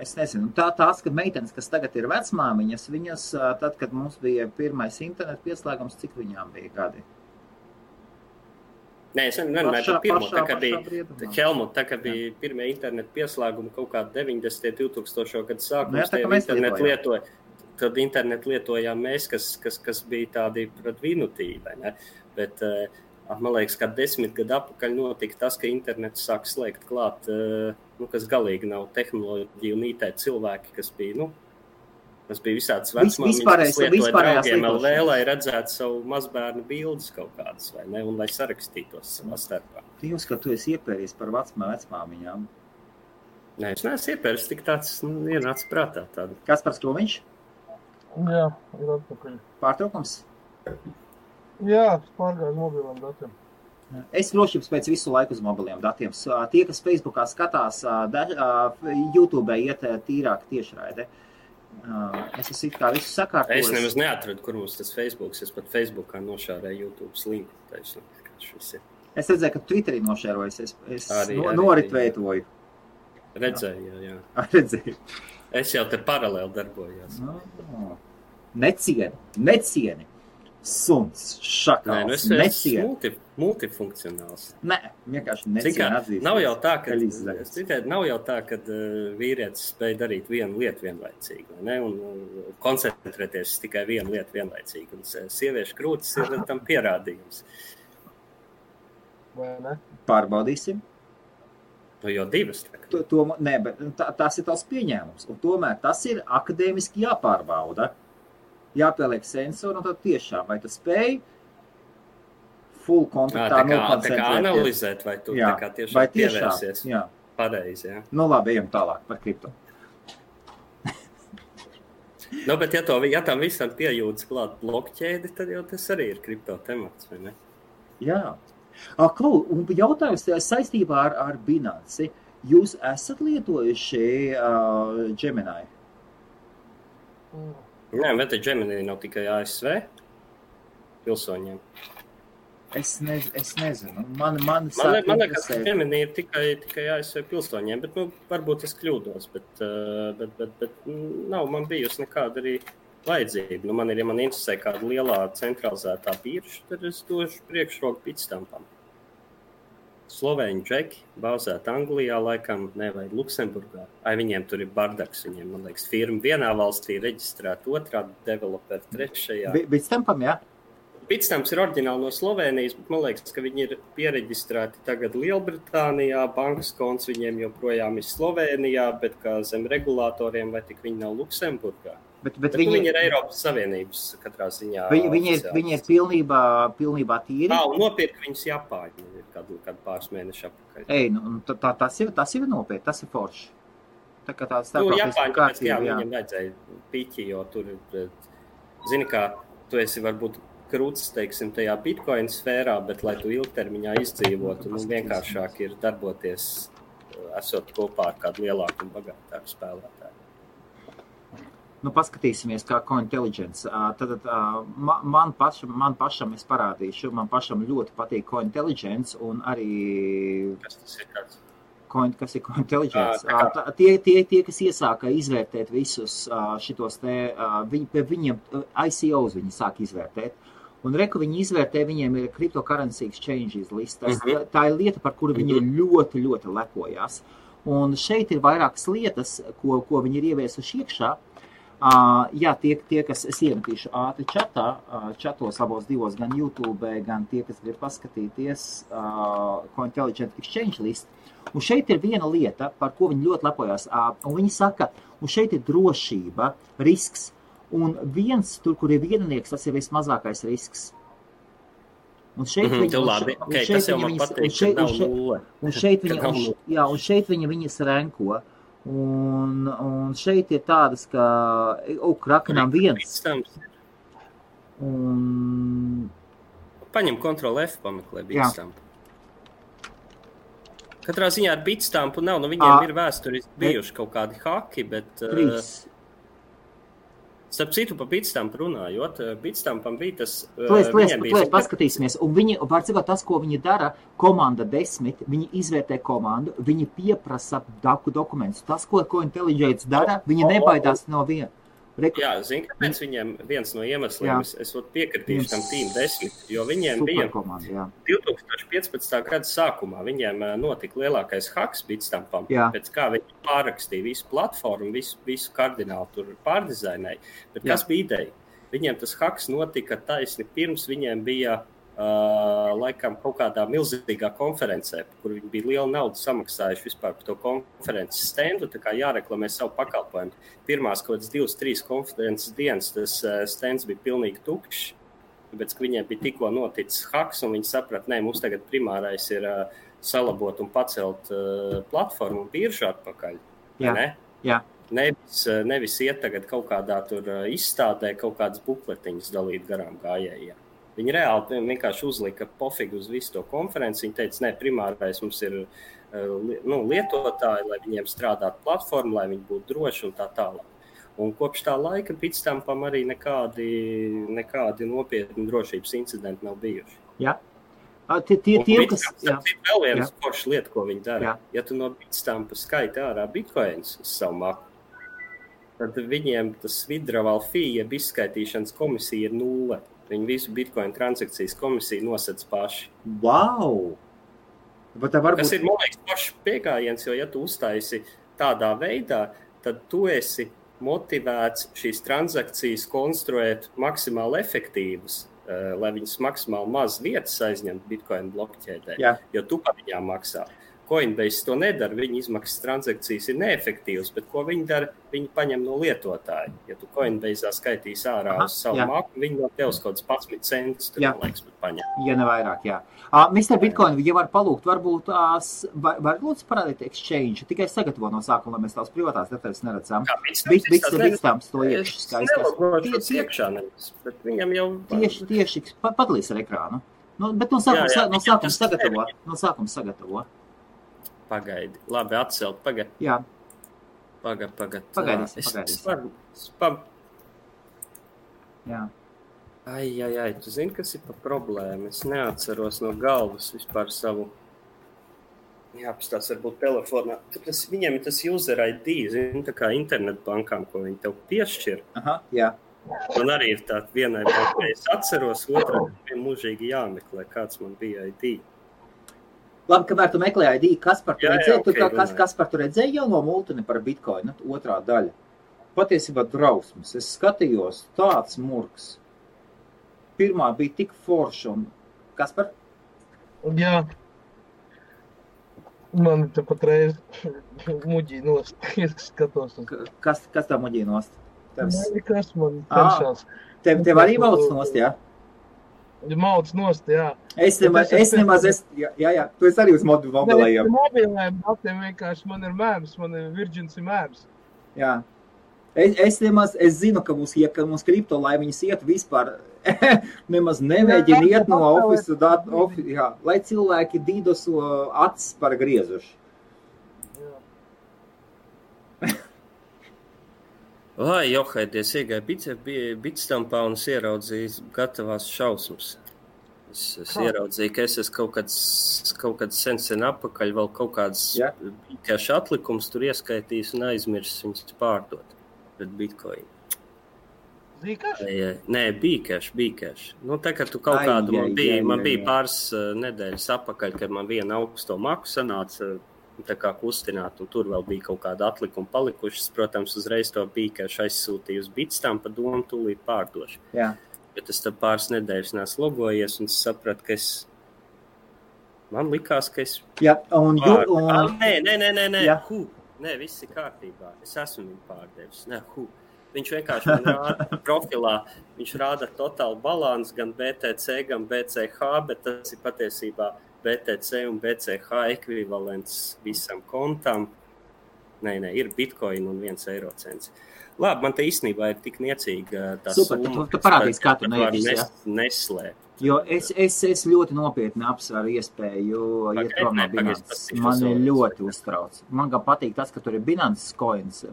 Es nezinu. Tās, kad meitenes, kas tagad ir vecmāmiņas, viņas, tad, kad mums bija pirmais internetu pieslēgums, cik viņām bija gadi? Nē, es nemanāju par pirmo, tā kā bija Helmut, tā kā bija pirmie internetu pieslēgumi kaut kādi 90. 2000. Gadu sākums, tad internetu lietojām mēs, kas bija tādi pret vinutīvi, ne? Bet, man liekas, ka 10 gadu atpakaļ notika tas, ka internetu sāk slēgt klāt, kas galīgi nav tehnoloģija un IT cilvēki, kas bija, tas bija visāds vecmāmiņas, kas lietoja draugiem LV, lai redzētu savu mazbērnu bildes kaut kādas, vai ne, un lai sarakstītos savā starpā. Jūs, ka tu esi iepēries par vecmāmiņām? Nē, es neesmu iepēries, tik tāds ienāca prātā tādu. Kaspars Kroviņš? Jā, ir atpakaļ. Pārtraukums? Jā, pārgāju uz mobiliem datiem. Es drošības pēc visu laiku uz mobiliem datiem. Tie, kas Facebookā skatās, YouTube iet tīrāk tiešraide. Es esmu it kā visu sakārtojis. Es nemaz neatradu, kur mums tas Facebooks. Es pat Facebookā nošārēju YouTube's linku. Es redzēju, ka Twitterī nošērojas. Es noritveitoju. Redzēju, jā. Redzēju. Es jau te paralēli darbojos. Necieni. Suns, šakals, necieni. Multifunkcionāls. Nē, vienkārši necieni atzīst. Nav jau tā, ka vīrietis spēj darīt vienu lietu vienlaicīgi, ne? Un koncentrēties tikai vienu lietu vienlaicīgi. Un sieviešu krūtis ir tam pierādījums. Vai ne? Pārbaudīsim. Jo divas. Nē, bet tas ir tās pieņēmums. Un tomēr tas ir akadēmiski jāpārbauda. Jāpieliek sensori, un tad tiešām, vai tu spēj full kontaktā nokoncentrēties. Tā kā analizēt, vai tu tā kā tiešām pievērsies. Jā. Pareizi, jā. Labi, ejam tālāk par kripto. Bet ja tam visam piejūtas klāt blokķēdi, tad jau tas arī ir kripto temats, vai ne? Jā. Un jautājums saistībā ar Binance. Jūs esat lietojuši Gemini? Nē, bet Gemini nav tikai ASV pilsoņiem. Es nezinu. Man liekas, ka Gemini ir tikai ASV pilsoņiem, bet varbūt es kļūdos, bet nav man bijusi nekāda arī vajadzība. Man interesē kāda lielā centralizētā birža, tad es došu priekšroku Bitstampam. Slovēņu džeki, bāzēt Anglijā, laikam, vai Luksemburgā. Viņiem tur ir bardaks, viņiem, man liekas, firma vienā valstī reģistrēta, otrā developeri trešajā. Bitstampam, jā? Bitstamps ir oriģināli no Slovēnijas, bet man liekas, ka viņi ir piereģistrēti tagad Lielbritānijā, bankas konts viņiem joprojām ir Slovēnijā, bet kā zem regulātoriem, vai tik viņi nav Luksemburgā. Bet viņi ir Eiropas Savienības katrā ziņā. Viņi ir pilnībā tīri. Un nopirka viņus Japāņi kādu pāris mēnešu apakaļ. Tas ir nopietni, tas ir forši. Tā kā tāds starptautiski kārtība. Viņam vajadzēja piķi, jo tur, zini kā, tu esi varbūt krūts, teiksim, tajā Bitcoin sfērā, bet lai tu ilgtermiņā izdzīvotu, vienkāršāk ir darboties, esot kopā ar kādu lielāku un bagātāku spēlētāju. Paskatīsimies, kā Cointelligence. Tad man pašam es parādīšu, man pašam ļoti patīk Cointelligence un arī... Kas tas ir kāds? Kas ir Cointelligence? Tie, kas iesāka izvērtēt visus šitos te, viņiem ICOs viņi sāk izvērtēt. Un reku viņi izvērtē, viņiem ir cryptocurrency exchanges listas. Tā ir lieta, par kuru viņi ļoti, ļoti lepojās. Un šeit ir vairākas lietas, ko viņi ir ieviesuši iekšā. Jā, tie, kas es iemetīšu ātri čatos abos divos, gan YouTube, gan tie, kas grib paskatīties Cointelligence Exchange list. Un šeit ir viena lieta, par ko viņi ļoti lepojās. Un viņi saka, un šeit ir drošība, risks. Un viens, tur, kur ir viennieks, tas ir vismazākais risks. Un šeit viņi viņas renko. Un šeit ir tādas, ka Krakenam viens. Paņem Ctrl F, pameklē Bitstamp. Katrā ziņā ar Bitstampu nav, viņiem ir vēsturiski bijuši kaut kādi haki, bet... Starp citu, pa Bitstampu runājot, Bitstampam bija tas... Paskatīsimies, un viņi, pārcīvot tas, ko viņi dara, komanda 10, viņi izvērtē komandu, viņi pieprasa dokumentus. Tas, ko Intelligence dara, viņi nebaidās no viena. Jā, zini, kāpēc viņiem viens no iemesliem, es piekritīšu tam Team 10, jo viņiem bija 2015. gada sākumā, viņiem notika lielākais haks Bitstampam, pēc kā viņi pārrakstīja visu platformu, visu kardinālu tur pārdizainēja, bet kas bija ideja? Viņiem tas haks notika taisni pirms viņiem bija laikam kaut kādā milzīgā konferencē, kur viņi bija liela nauda samaksājuši vispār par to konferences standu, tā kā jāreklamē savu pakalpojumu. Pirmās kaut kādas 2-3 konferences dienas tas stands bija pilnīgi tukšs, tāpēc, ka viņiem bija tikko noticis haks, un viņi saprat, mums tagad primārais ir salabot un pacelt platformu un biržu atpakaļ. Jā. Nevis iet tagad kaut kādā tur izstādē, kaut kādas bukletiņas dalīt garām gājējiem. Viņi reāli vienkārši uzlika pofigu uz visu to konferenci. Viņi teica, primārais mums ir lietotāji, lai viņiem strādātu platformu, lai viņi būtu droši un tā tālāk. Un kopš tā laika Bitstampam arī nekādi nopietni drošības incidenti nav bijuši. Jā. Vēl viena forša lieta, ko viņi dara. Ja tu no Bitstampa skaiti ārā bitcoins uz savu maku, tad viņiem tas withdrawal fee, jeb izskaitīšanas komisija ir 0. Viņi visu bitcoin transakcijas komisiju nosedz paši. Wow! Tas ir, man liekas, pašs piegājiens, jo ja tu uztaisi tādā veidā, tad tu esi motivēts šīs transakcijas konstruēt maksimāli efektīvas, lai viņas maksimāli maz vietas aizņemt bitcoin blokķēdē, jo tu par viņām maksā. Coinbase to nedara, viņa izmaksas transakcijas ir neefektīvas, bet ko viņi dara? Viņi paņem no lietotāja. Ja tu Coinbase'ā skaitīs ārā uz savu maku, viņi no tevs kaut kāds 11 centus, tur, man liekas, bet paņem. Ja ne vairāk, jā. Mr. Bitcoin, ja var palūgt, varbūt var lūdzu parādīt exchange, tikai sagatavo no sākuma, lai mēs tās privātās detaļas neredzam. Bitstamps to iekšķi skaistās. Es nelogošu iekšā nevis, bet viņam jau... Tieši, padalīs ar ekrānu. Bet no sākuma sagatavo. Pagaidi. Labi, atcelt. Pagaidi. Jā. Pagaidīs. Jā. Ai. Tu zini, kas ir pa problēmu? Es neatceros no galvas vispār savu... Jāpastās varbūt telefonā. Viņiem ir tas user ID, zini, tā kā internetbankām, ko viņi tev piešķir. Aha, jā. Man arī ir tā vienai bankai. Es atceros, otrā mūžīgi jāmeklē, kāds man bija ID. Labi, kamēr tu meklē ID, Kaspar, tu redzēji jau no multini par Bitcoinu, otrā daļa. Patiesībā drausmas. Es skatījos tāds murgs. Pirmā bija tik forša un... Kaspar? Jā. Man te patreiz muģī nost. Es skatos. Kas tā muģī nost? Kas man tenšās. Tev arī valsts nost, jā? Mauds nost, jā. Es nemaz, jā, tu esi arī uz mobilajiem. Mobilajiem datiem vienkārši man ir mēms, man ir Virgins ir mēms. Jā. Es zinu, ka mums kripto, lai viņas iet vispār, nemaz nemēģina iet no ofisu datu, lai cilvēki dīdosu acis par griezuši. Vai, Johaidies, iegāja Bitstampā un es ieraudzīju gatavās šausmas. Es ieraudzīju, ka es esmu kaut kāds sen apakaļ, vēl kaut kāds bīkēšu atlikums tur ieskaitījis un aizmirsis viņus pārdot pret Bitcoin. Zīkēšu? Nē, bīkēšu. Tā kā tu kaut kādu man bija pāris nedēļas apakaļ, kad man viena augsto maku sanāca tā kā kustināt, un tur vēl bija kaut kāda atlikuma palikušas. Protams, uzreiz to bīkēšu aizsūtīju uz Bitstampa domu, tūlīt pārdošu. Jā. Bet es tad pāris nedēļas neesmu logojies, un es sapratu, ka man likās, ka es... Jā, un... Nē. Nē, viss ir kārtībā. Es esmu viņu pārdevis. Viņš vienkārši man rāda profilā, viņš rāda totālu balansu gan BTC, gan BCH, bet tas ir patiesībā BTC un BCH ekvivalents visam kontam. Nē, ir bitcoin un 1 eiro cents. Labi, man te īstenībā ir tik niecīga tā Super, summa. tu parādīsi, kā tu nevis, ja? Neslēpt. Jo es ļoti nopietni apsveru iespēju iet prom no Binance. Mani ļoti uztrauc. Man gan patīk tas, ka tur ir Binance coins.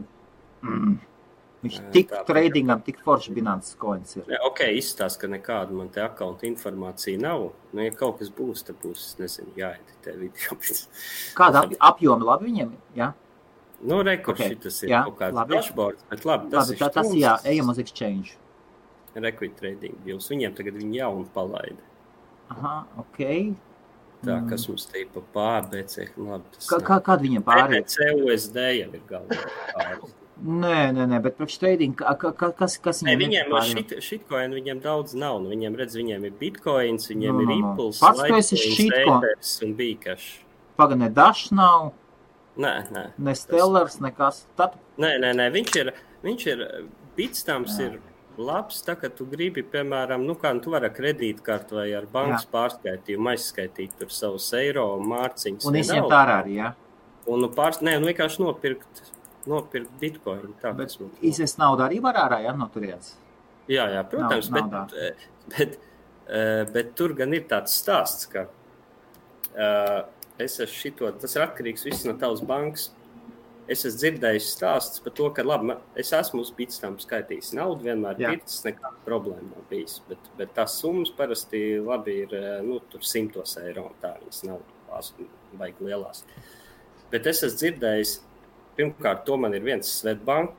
Viņš tik tradingam, tik forši Binance coins ir. Ok, izstāst, ka nekāda man te akaunta informācija nav. Nu, ja kaut kas būs, tad būs, nezinu, jāeditē video. Kāda apjoma labi viņiem, jā? Nu, šitas ir kaut kāds dashboards, bet labi, tas ir tas jā, ejam uz exchange. Equity trading deals. Viņiem tagad viņi jaunu palaida. Aha, ok. Tā, kas mums te ir pa pārbēcē. Kāda viņiem pārēja? CUSD jau ir galvā pārēja. Nē, bet priekš trading, kas viņiem ir? Shitcoin viņiem daudz nav. Viņiem redz, viņiem ir bitcoins, viņiem ir Impulse, Litecoins un Bcash. Paga, ne Dash nav? Nē. Ne Stellars, nekas. Nē, viņš ir Bitstamps ir labs, tā, ka tu gribi, piemēram, tu vari ar kredītkartu vai ar bankas pārskaitījumu aizskaitīt tur savus eiro mārciņus. Un izņemt ārā arī, jā? Un vienkārši nopirkt bitcoin. Tā, bet izvest naudu arī var ārā, jā, no turienes? Jā, protams, bet tur gan ir tāds stāsts, ka tas ir atkarīgs viss no tavas bankas. Es esmu dzirdējis stāsts par to, ka labi, es esmu uz Bitstamp skaitījis naudu, vienmēr pircis, nekāda problēma nav bijis. Bet tās summas parasti labi ir tur 100 eiro, un tā viņas nav vajag lielās. Bet es esmu dzirdējis, pirmkārt, to man ir viens Svetbank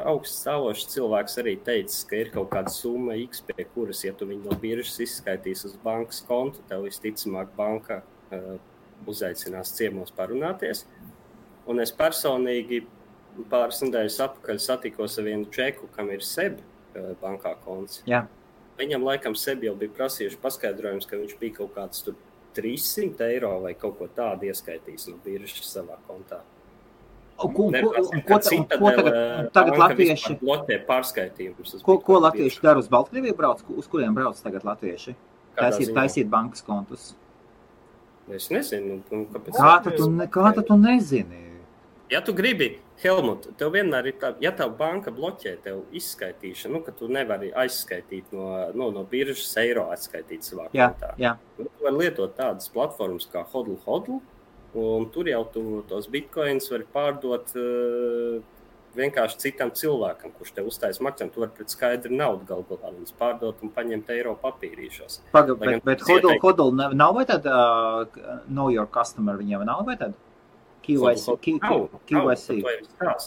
augststāvošs cilvēks arī teicis, ka ir kaut kāda summa X, pie kuras, ja tu viņu no biržas izskaitīs uz bankas kontu, tev visticamāk banka uzaicinās ciemos parunāties. Un es personīgi pāris nedēļas atpakaļ satikos ar vienu džeku, kam ir SEB bankā konts. Jā. Viņam laikam SEB jau bija prasījuši paskaidrojums, ka viņš bija kaut kāds tur 300 eiro vai kaut ko tādu ieskaitījis no biržas savā kontā. Ko tagad latvieši? Bloķē pārskaitījumus. Ko latvieši dara uz Baltkrieviju brauc? Uz kuriem brauc tagad latvieši? Taisīt bankas kontus. Es nezinu. Kā tu nezini? Ja tu gribi, Helmut, tev vienmēr ir tā, ja tev banka bloķē tev izskaitīšanu, ka tu nevari aizskaitīt no biržas eiro atskaitīt savā kontā. Jā. Tu vari lietot tādas platformas kā Hodl, un tur jau tu tos bitcoins vari pārdot vienkārši citam cilvēkam, kurš tev uztais maksājumu. Tu vari pret skaidru naudu galvā viņus pārdot un paņemt eiro papīrīšos. Bet Hodl nav vai tad know your customer viņiem nav vai tad? KYC.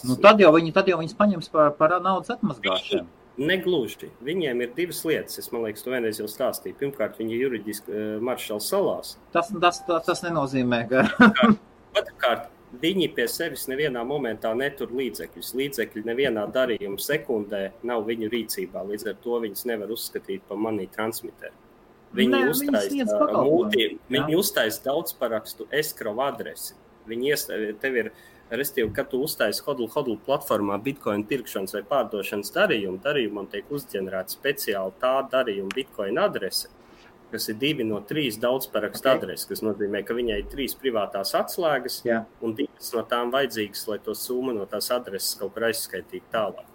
Nu, tad jau viņas paņems par naudas atmazgāšanu. Negluži. Viņiem ir divas lietas. Es, man liekas, to vienreiz jau stāstīju. Pirmkārt, viņi juridiski Maršala salās. Tas nenozīmē, ka... Otrkārt, viņi pie sevis nevienā momentā netur līdzekļus. Līdzekļi nevienā darījuma sekundē nav viņu rīcībā. Līdz ar to viņas nevar uzskatīt par money transmitteru. Viņi uztais daudzparakstu escrow adresi. Tev ir, restīvi, kad tu uztaisi Hodl platformā Bitcoin pirkšanas vai pārdošanas darījumam tiek uzģenerēta speciāli tā darījuma Bitcoin adrese, kas ir 2 no 3 daudzparakstu adreses, kas nozīmē, ka viņai ir 3 privātās atslēgas un 2 no tām vajadzīgas, lai to summu no tās adreses kaut kur aizskaitītu tālāk.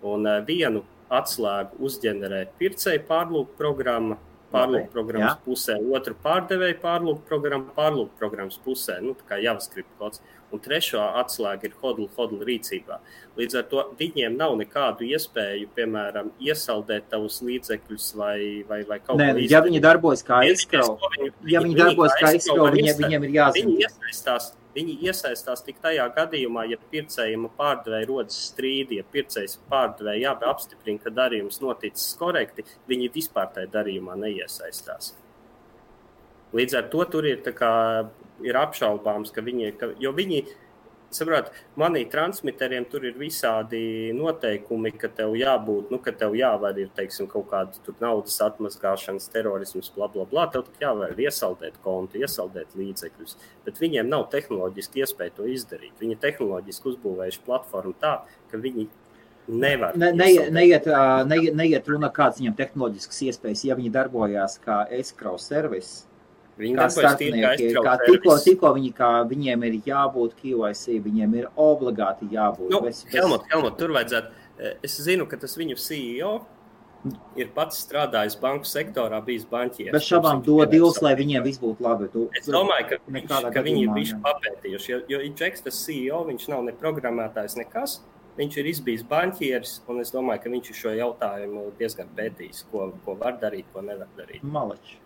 Un vienu atslēgu uzģenerē pircēju pārlūku programma, pārlūkprogrammas pusē, otru pārdevēju pārlūkprogrammas pusē, tā kā JavaScript kods, un trešo atslēga ir Hodl rīcībā. Līdz ar to viņiem nav nekādu iespēju, piemēram, iesaldēt tavus līdzekļus vai kaut ko izdarīt. Ja viņi darbojas kā escrow, viņiem ir jāzina. Viņi iesaistās tik tajā gadījumā, ja pircējiem pārdevēja rodas strīdi, ja pircējs pārdevēja apstiprina, ka darījums noticis korekti, viņi vispār tajā darījumā neiesaistās. Līdz ar to tur ir apšaubāms, jo viņi, saprāt, money transmitteriem tur ir visādi noteikumi, ka tev jābūt, ka tev jāvar ir, teiksim, kaut kāda tur naudas atmazgāšanas, terorisms, blablabla, tev tik jāvar iesaldēt kontu, iesaldēt līdzekļus, bet viņiem nav tehnoloģiski iespēja to izdarīt. Viņi tehnoloģiski uzbūvējuši platformu tā, ka viņi nevar neiet runa kāds viņam tehnoloģiskas iespējas, ja viņi darbojās kā escrow service. Viņi kā darbojas tīri kā starpnieki, aiztraut tikko viņiem ir jābūt KYC, viņiem ir obligāti jābūt. Nu, Helmut, tur vajadzētu. Es zinu, ka tas viņu CEO ir pats strādājis banku sektorā, bijis banķieris. Bet šabām dod divs, lai viņiem viss būtu labi. Es domāju, ka viņi ir bišķi papētījuši, jo Džeks, tas CEO, viņš nav ne programmētājs, nekas. Viņš ir izbijis banķieris, un es domāju, ka viņš ir šo jautājumu diezgan pētījis, ko var darīt, ko nevar darīt. Maleč,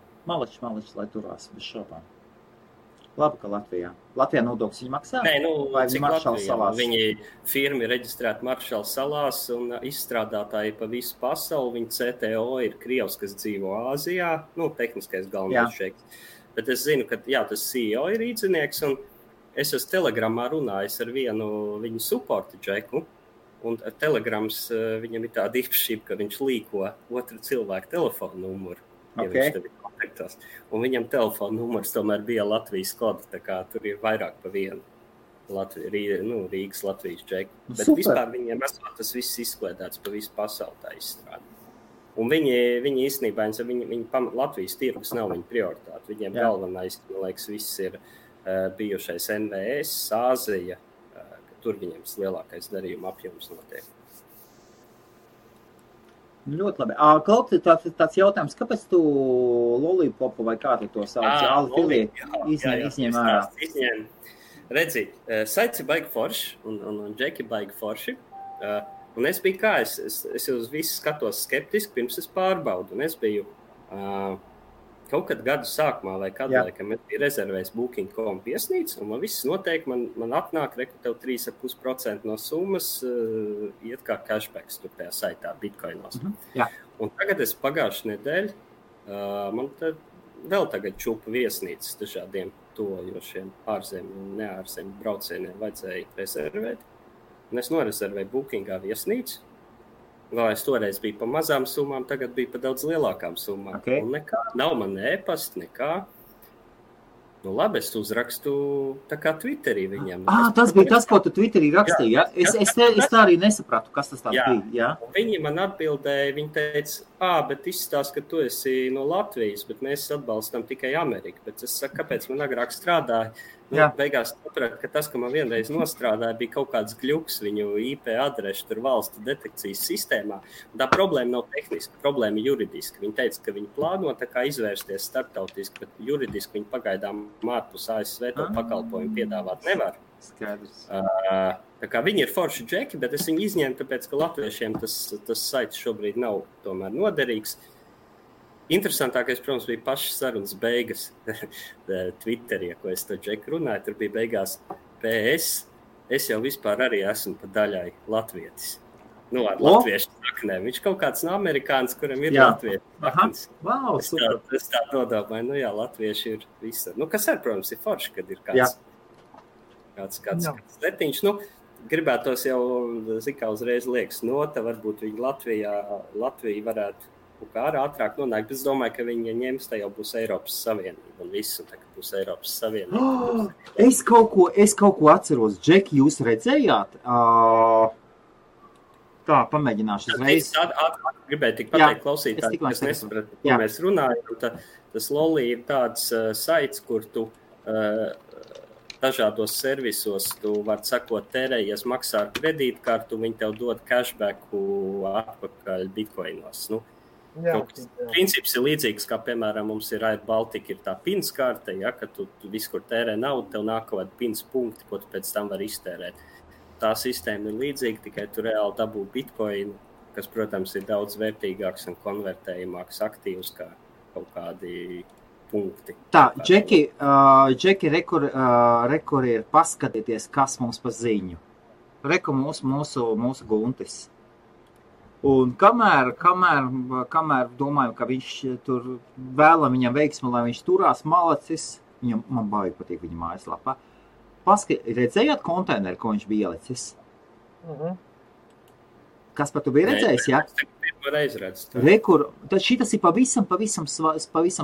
lai turās bez šobām. Labi, ka Latvijā nodokļus viņi maksā? Nē, vai cik Maršala Latvijā? salās? Viņi firma ir reģistrēta Maršala salās un izstrādātāji pa visu pasauli. Viņa CTO ir Krievs, kas dzīvo Āzijā, tehniskais galvenais šeiks. Bet es zinu, ka tas CEO ir īdzinieks, un es esmu Telegramā runājis ar vienu viņu supportu džeku, un Telegrams viņam ir tāda īpašība, ka viņš līko otru cilvēku telefonu numuru. Ja viņš tev ir kontaktos. Un viņam telefona numurs tomēr bija Latvijas koda, tā kā tur ir vairāk pa vienu Rīgas Latvijas džeku. Bet vispār viņiem esot tas viss izkliedēts pa visu pasauli tā izstrādi. Un viņi īstenībā, Latvijas tirgus nav viņa prioritāte. Viņiem galvenais, man liekas, viss ir bijušais NVS, Āzija, tur viņiem lielākais darījuma apjoms notiek. Ļoti labi. Kaut tāds jautājums, kāpēc tu lollipopu vai kā tu to sauc? Izņem ārā. Redzi, saits ir baigi forši un džeki baigi forši. Un es biju es uz visu skatos skeptiski, pirms es pārbaudu. Un es biju kaut kad gadu sākumā vai kādā laikam es biju rezervējis Booking.com viesnīcu, un man viss noteikti, man atnāk, reku tev 3,5% no summas iet kā cashbacks tur tajā saitā Bitcoinos. Un tagad es pagājušu nedēļu, man vēl tagad čupa viesnīcas dažādiem tojošiem ārzemju un neārzemju braucieniem vajadzēja rezervēt. Un es norezervēju Bookingā viesnīcu. Vēl es toreiz biju pa mazām summām, tagad bija pa daudz lielākām summām. Un nekā, nav man ēpast, nekā. Nu labi, es uzrakstu tā kā Twitterī viņiem. Tas bija tas, ko tu Twitterī rakstīji, ja? Es tā arī nesapratu, kas tas bija. Jā. Viņi man atbildēja, viņi teica, bet izstāst, ka tu esi no Latvijas, bet mēs atbalstam tikai Ameriku. Bet es saku, kāpēc man agrāk strādāja? Beigās sapratu, ka tas, ka man vienreiz nostrādāja, bija kaut kāds gļuks viņu IP adrešu tur valstu detekcijas sistēmā. Un tā problēma nav tehniska, problēma ir juridiska. Viņi teica, ka viņi plāno tā kā izvērsties starptautiski, bet juridiski viņi pagaidām ārpus ASV to pakalpojumu piedāvāt nevar. Skaidrs. Tā kā viņi ir forši džeki, bet es viņu izņēmu, tāpēc, ka latviešiem tas saits šobrīd nav tomēr noderīgs. Interesantākais, protams, bija pašas sarunas beigas Twitterī, ko es to džeku runāju. Tur bija beigās PS. Es jau vispār arī esmu pa daļai latvietis. Ar latviešu saknēm. Viņš kaut kāds no amerikānis, kuram ir latviešu saknes. Wow, super. Es tā nodomāju, latvieši ir visur. Kas ar, protams, ir forši, kad ir kāds letiņš. Gribētos jau, zikā uzreiz liekas nota, varbūt viņi Latvija varētu kā ātrāk nonāk, bet es domāju, ka viņi ņems, tā jau būs Eiropas Savienība un visu, tā kā būs Eiropas Savienība. Es kaut ko atceros. Džeki, jūs redzējāt? Tā, pamēģināšu uzreiz. Gribēju tik pateikt klausītāji, kas nesapratu, ko mēs runājam. Tas Lolli ir tāds saits, kur tu dažādos servisos tu vari sakot tērējies, maksā ar kredītkartu, viņi tev dod cashbacku atpakaļ bitcoinos. Princips ir līdzīgs, kā, piemēram, mums ir Air Baltica, ir tā pins karte, ka tu visu, kur tērē naudu, tev nāk kaut kādi pins punkti, ko tu pēc tam vari iztērēt. Tā sistēma ir līdzīga, tikai tu reāli dabū bitcoinu, kas, protams, ir daudz vērtīgāks un konvertējumāks aktīvs kā kaut kādi punkti. Tā, Džeki, rekur ir paskatieties, kas mums pa ziņu. Reku mūsu Guntis. Un kamēr domājam, ka viņš tur vēlam viņam veiksmi, lai viņš turās malacis, man baigi patīk viņa mājaslapā. Redzējāt konteineru, ko viņš bija ielicis? Kas par tu bija redzējis, ja? Rekur, tad šitas ir pavisam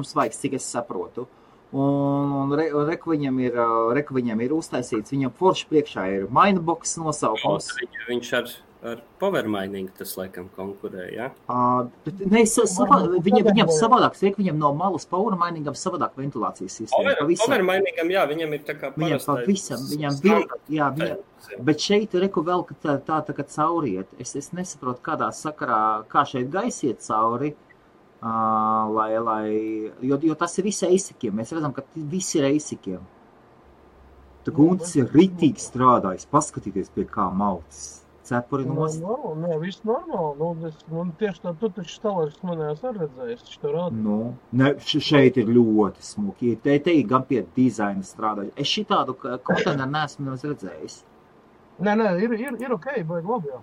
svaigs, cik es saprotu. Un reku viņam ir uztaisīts, viņam forši priekšā ir Mainbox nosaukums. Viņš ar power mining tas laikam konkurē, ja? Bet viņam savādāk, viņam no malas power miningam savādāk ventilācijas sistēma. Power miningam, jā, viņam ir tā kā parastais. Bet šeit reku vēl, ka tā kā cauriet. Es nesaprotu, kādā sakarā, kā šeit gaisiet cauri, jo tas ir visi eisikiem. Mēs redzam, ka visi ir eisikiem. Tā Guntis ir ritīgi strādājis, paskatīties pie kā maucis. Cepuri nost. Nē, viss normāli. Tieši tā, tu taču stāvēs manējās ar redzējis, taču to rāda. Šeit ir ļoti smuki. Te ir gan pie dizaina strādājis. Es šitādu konteineru neesmu redzējis. Nē, ir ok, baigi labi, jā.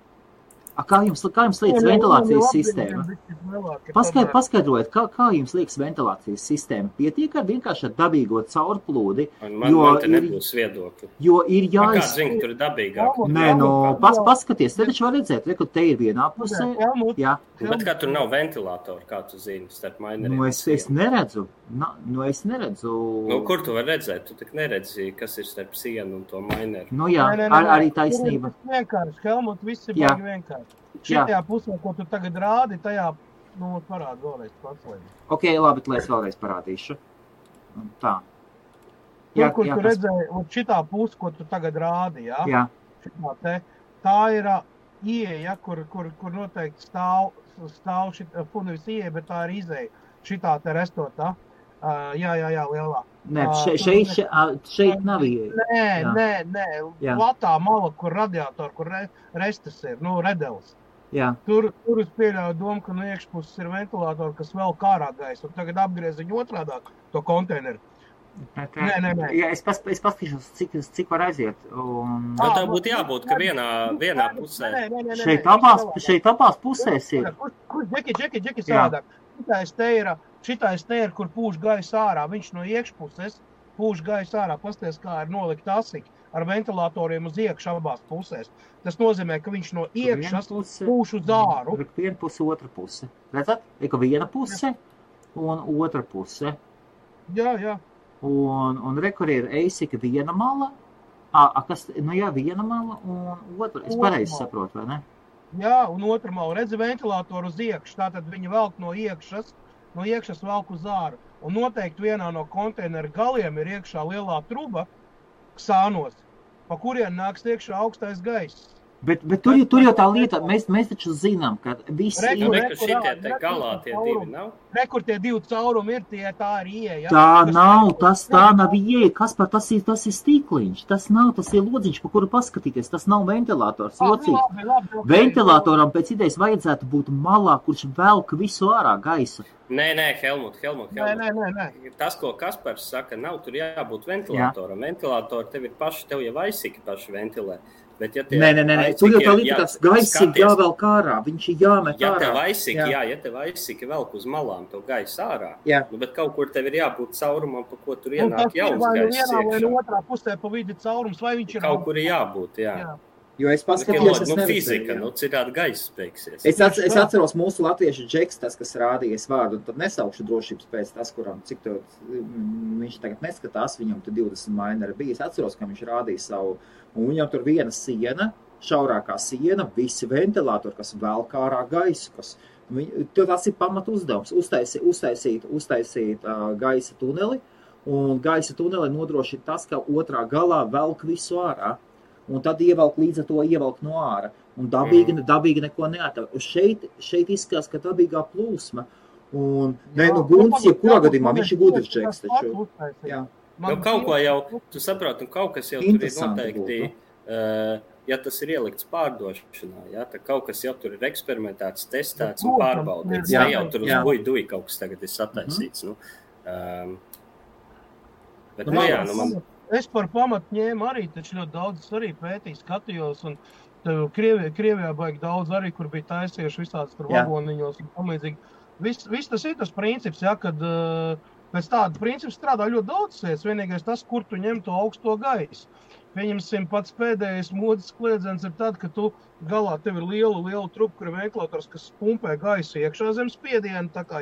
Kā jums liekas ventilācijas sistēma? Paskaidrojiet, kā jums liekas ventilācijas sistēma? Pietiek ar vienkārši ar dabīgo caurplūdi? Man te nebūs viedokļi. Jo ir Kā zini, tur ir dabīgāk? Nē, paskaties, te taču var redzēt, ka te ir vienā pusē. Jā. Bet kā tur nav ventilātori, kā tu zini, starp maineriem? Es neredzu. Es neredzu. Kur tu var redzēt? Tu tik neredzi, kas ir starp sienu un to maineru. Jā, arī taisnība. Vienkārši, Helmut, viss ir baigi vienkārši. Šitajā pusē, ko tu tagad rādi, tajā, parādi vēlreiz pats. Ok, labi, lai es vēlreiz parādīšu. Tā. Kur tu redzēji, šitā puse, ko tu tagad rādi, jā? Jā. Šitā te, tā ir ieeja, kur noteikti stāv nevis ieeja, bet tā ir izeja. Šitā te restotā. Jā, lielā. Nē, šeit nav ieeja. Nē. Platā mala, kur radiatori, kur restas ir, redelis. Jā. Tur es pieļauju domu, ka no iekšpuses ir ventilātori, kas vēl kārā gaisa, un tagad apgriez viņu otrādāk to konteineru. Nē. Jā, es paskatīšos, cik var aiziet. Tā būtu jābūt, ka vienā pusē. Šeit abās pusēs ir. Džeki sādāk. Šitais te ir, kur pūš gaisa ārā. Viņš no iekšpuses pūš gaisa ārā. Pasties, kā ir nolikt asiki ar ventilatoriem uz iekšu abās pusēs. Tas nozīmē, ka viņš no iekšas pūš uz āru. Viena puse, otra puse. Redzat? Ir viena puse un otra puse. Jā. Un rekur ir eisika viena mala. Viena mala un otra. Es pareizi saprotu, vai ne? Jā, un otra mala. Redzi ventilātoru uz iekšu. Tātad viņi velk no iekšas velk uz āru. Un noteikti vienā no konteineru galiem ir iekšā lielā truba ksānos, pa kurien nāks iekšā augstais gaiss. Bet tur jau tā lieta, mēs taču zinām, ka visi ir... Šitie te galā tie divi nav? Kur tie divi caurumi ir, tā ir ieeja. Tā nav ieeja. Kaspar, tas ir stīkliņš. Tas ir lodziņš, pa kuru paskatīties. Tas nav ventilators. Labi. Ventilatoram pēc idejas vajadzētu būt malā, kurš velk visu ārā gaisa. Nē, Helmut. Nē. Tas, ko Kaspars saka, nav tur jābūt ventilatoram. Ventilatori tev jau aizsiki paši ventilē. Bet, ja nē, tur jau tā lieta, tas gaisa ir jāvelk ārā, viņš ir jāmet ārā. Ja tev aizsiki velk uz malām to gaisa ārā, bet kaut kur tev ir jābūt caurumam, pa ko tur ienāk jauns gaiss iekšā. Vai otrā pusē pa vidi caurums, vai viņš ir... Kaut kur ir jābūt, jā. Jo es paskatījos, fizika, citādi gaiss beigsies. Es atceros mūsu latviešu Džeks, tas, kas rādījies vārdu, un tad nesaukšu drošības pēc tas, kuram cik to viņš tagad neskatās, viņam tur 20 maineri bija. Es atceros, ka viņš rādīja savu, un viņam tur viena siena, šaurākā siena, visi ventilatori, kas velk ārā gaisu, tas ir pamatu uzdevums, uztaisīt gaisa tuneli, un gaisa tuneli nodrošina tas, ka otrā galā velk visu ārā. Un tad līdz ar to ievelk no āra. Un dabīgi neko neatver. Šeit izskatās, ka dabīgā plūsma. Un, Guntis, jebkurā gadījumā, viņš ir gudrs Džeks taču. Jā. Kaut ko jau, tu saproti, kaut kas jau tur ir noteikti, ja tas ir ielikts pārdošanā, tad kaut kas jau tur ir eksperimentēts, testēts un pārbaudīts. Ne jau tur uz buiduji kaut kas tagad ir sataisīts. Bet, man... Es par pamatu ņēmu arī, taču ļoti daudz arī pētīju, skatījos, un Krievijā baigi daudz arī, kur bija taisieši visāds tur vagoniņos un tamlīdzīgi. Viss tas ir tas princips, kad pēc tāda principa strādā ļoti daudz lietas, vienīgais tas, kur tu ņem to augsto gaisu. Pieņemsim, pats pēdējais modes kliedzens ir tad, ka tu galā tev ir liela trupa, kur ir ventilators, kas pumpē gaisu iekšā zem spiedienu, tā kā,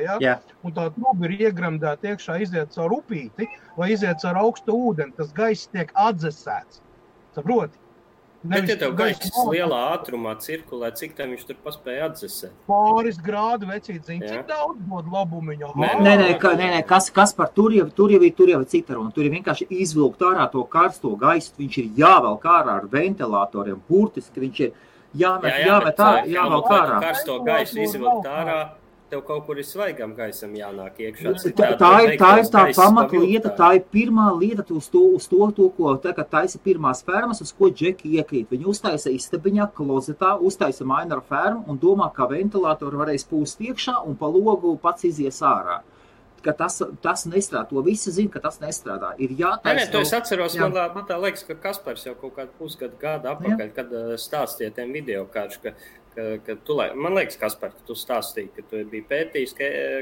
un tā truba ir iegremdēta iekšā, iziet caur upīti vai iziet caur augstu ūdeni, tas gaiss tiek atdzesēts. Saproti? Bet, ja tev gaiss lielā ātrumā cirkulē, cik tam viņš tur paspēja atdzesēt? Pāris grādu vecīt, zini, cik daudz dod labumiņu. Nē, kas par tur jau ir cita runa. Tur ir vienkārši izvilkt ārā to karsto gaisu, viņš ir jāvelk ārā ar ventilatoriem, burtiski viņš ir jāmet ārā, jāvelk ārā. Karsto gaisu izvilkt ārā, tev kaut kur ir svaigam gaisam jānāk iekšā. Tā ir tā pamatlieta, tā ir pirmā lieta uz to, ko tagad taisa pirmās fermas, uz ko Džeki iekrīt. Viņi uztaisa istabiņā, klozetā, uztaisa Minera fermu un domā, ka ventilātori varēs pūst iekšā un pa logu pats izies ārā. Ka tas nestrādā. To visi zina, ka tas nestrādā. Ir jātaisa. Nē, to es atceros, man tā liekas, ka Kaspars jau kaut kādu pusgadu atpakaļ, kad stāstīja tiem video kāršu, ka tu, man liekas, Kaspar, ka tu stāstīji, ka tu biji pētījis,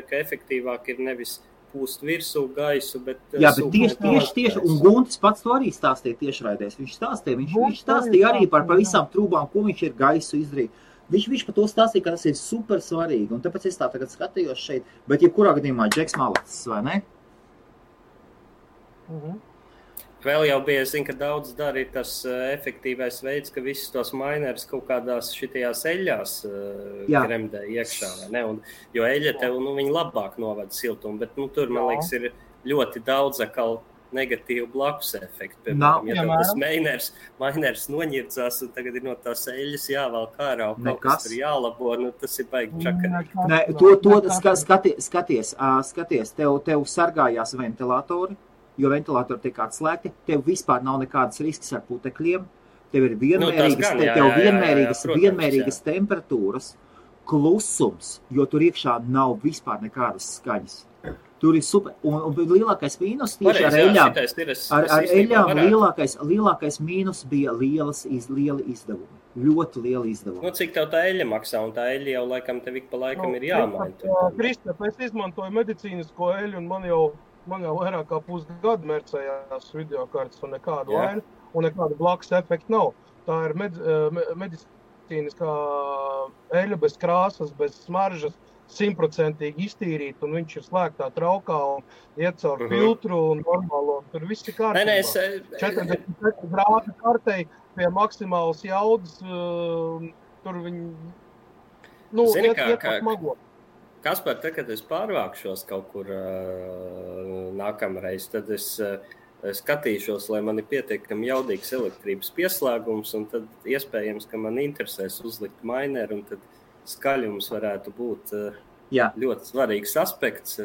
ka efektīvāk ir nevis pūst virsū gaisu, bet... Jā, bet tieši, un Guntis pats to arī stāstīja tiešraidēs. Viņš stāstīja arī par visām trūbām, ko viņš ir gaisu izdarījis. Viņš par to stāstīja, ka tas ir super svarīgi, un tāpēc es tā tagad skatījos šeit, bet jebkurā gadījumā Džeks malacis, vai ne? Vēl jau bija, es zinu, ka daudz dara ir tas efektīvais veids, ka visus tos minerus kaut kādās šitajās eļļās kremdē iekšā, vai ne? Jo eļļa tev, viņi labāk novada siltumu, bet tur, man liekas, ir ļoti daudz atkal negatīvu blakus efektu. Piemēram, ja tev tas miners noņirdzās, un tagad ir no tās eļļas jāvelk ārā, un kaut kas tur jālabo, tas ir baigi čakarīgi. Nē, skaties, tev sargājās ventilatori, jo ventilatori tiek atslēgti, tev vispār nav nekādas risks ar putekļiem, tev ir vienmērīgas temperatūras, klusums, jo tur iekšā nav vispār nekādas skaņas. Tur ir super, un lielākais mīnus tieši ar eļļām, lielākais mīnus bija lieli izdevumi, ļoti lieli izdevumi. Cik tev tā eļļa maksā, un tā eļļa jau laikam tev ik pa laikam ir jāmaina. Kristap, es izmantoju medicīnisko eļļu, un man jau vairāk kā pusgadu mercējās videokartes un nekādu vainu, un nekādu blakus efektu nav. Tā ir medicīniskā eļļa bez krāsas, bez smaržas, 100% iztīrīt, un viņš ir slēgtā traukā un iet caur filtru un normālo. Tur viss ir kārtībā. 40 grādu kartei pie maksimālas jaudas, tur viņi, iet pat mago. Kaspar, kad es pārvākšos kaut kur nākamreiz, tad es skatīšos, lai man ir pietiekami jaudīgs elektrības pieslēgums, un tad iespējams, ka man interesēs uzlikt mineru, un tad skaļums varētu būt ļoti svarīgs aspekts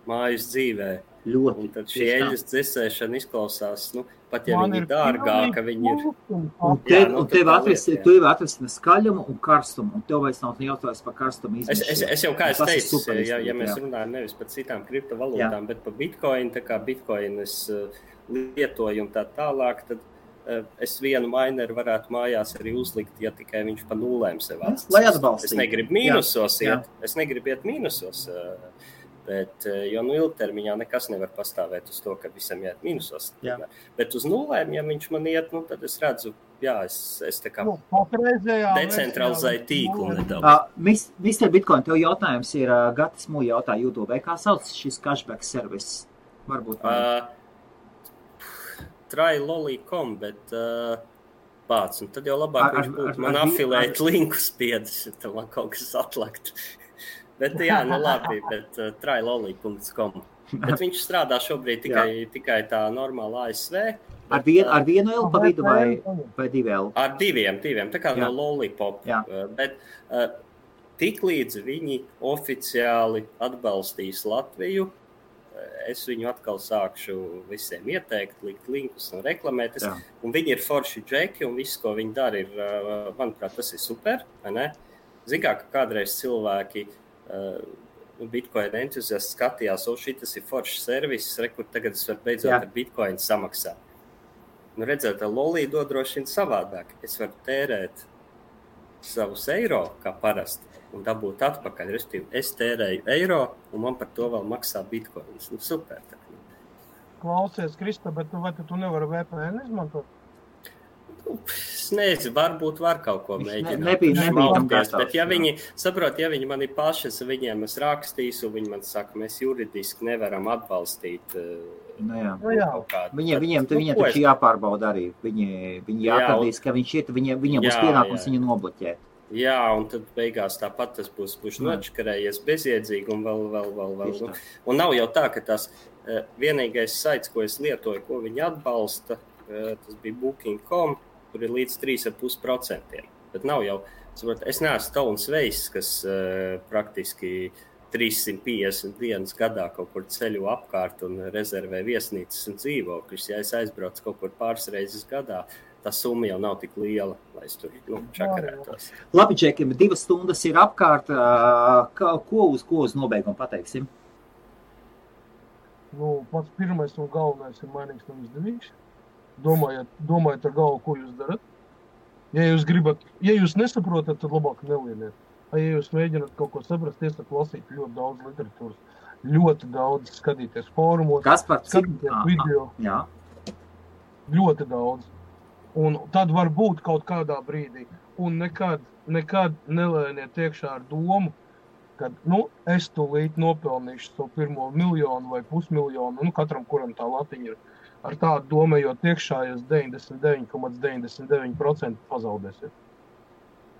mājas dzīvē. Ļoti. Un tad šī eļļas dzesēšana izklausās, pat ja viņi ir dārgāka, viņi ir... Un tev atrisinās skaļumu un karstumu, un tev vairs nav jautājums par karstumu izmešanu. Es jau kā es teicu, ja mēs runājam nevis par citām kriptovalūtām, bet par Bitcoin, tā kā Bitcoin es lietoju un tā tālāk, tad es vienu mineru varētu mājās arī uzlikt, ja tikai viņš pa nulēm sev atstāst. Lai atbalstītu. Es negribu mīnusos iet, es negribu iet mīnusos, bet, jo ilgtermiņā nekas nevar pastāvēt uz to, ka visam iet mīnusos. Bet uz nulēm, ja viņš man iet, tad es redzu, es tā kā decentralizēju tīklu nedaudz. Mr. Bitcoin, tev jautājums ir, Gatis Mū jautā YouTube, kā sauc šis cashback service? Varbūt try.lolly.com, bet pāc, un tad jau labāk viņš būtu man afilēt linku spiedis, tad man kaut kas atlakt. Bet labi, bet try.lolly.com. Bet viņš strādā šobrīd tikai tā normāla ASV. Ar vienu L pa vidu vai divi L? Ar diviem, tā kā no Lollipop. Bet tik līdz viņi oficiāli atbalstīs Latviju, es viņu atkal sākšu visiem ieteikt, likt linkus un reklamēt. Un viņi ir forši džeki, un viss, ko viņi dara, ir, manuprāt, tas ir super, vai ne? Zin kā, ka kādreiz cilvēki Bitcoin entuziasti skatījās, šitas ir foršs servis, kur tagad es varu beidzot ar Bitcoin samaksāt. Redzēt, Lolly dod droši vien savādāk. Es varu tērēt savus eiro, kā parasti, un dabūt atpakaļ. Es tērēju eiro, un man par to vēl maksā bitcoins. Super. Klausies, Krista, bet vai tu nevari VPN izmantot? Es nezinu, varbūt var kaut ko mēģināt. Nebija bet ja viņi mani paši, viņiem es rakstīšu, viņi man saka, mēs juridiski nevaram atbalstīt kaut kādu. Viņiem taču jāpārbauda arī. Viņi jāatradīs, ka viņš ir, viņiem būs pienākums viņu nobloķēt. Jā, un tad beigās tāpat tas būs nočakarējies bezjēdzīgi un vēl. Un nav jau tā, ka tas vienīgais saits, ko es lietoju, ko viņi atbalsta, tas bija Booking.com, kur ir līdz 3,5%. Bet nav jau, es neesmu Tauns Veiss, kas praktiski 350 dienas gadā kaut kur ceļu apkārt un rezervē viesnīcas un dzīvokļus. Ja es aizbraucu kaut kur pāris reizes gadā, tā summa jau nav tik liela, lai es tur čakarētos. Labi, Džekim, 2 stundas ir apkārt. Ko uz nobeigumu pateiksim? Pats pirmais un galvenais ir mainīgs un izdevīgs. Domājiet ar galvu, ko jūs darat. Ja jūs nesaprotat, tad labāk nelieniet. Ja jūs mēģināt kaut ko saprast, iesaka lasīt ļoti daudz literatūras, ļoti daudz skatīties fórumos, skatīties video. Jā. Ļoti daudz. Un tad var būt kaut kādā brīdī. Un nekad nelēniet iekšā ar domu, ka, es tūlīt nopelnīšu savu pirmo 1 miljonu vai 500 000, katram, kuram tā latiņa ir. Ar tādu domējot iekšā, jūs 99,99% pazaudēsiet.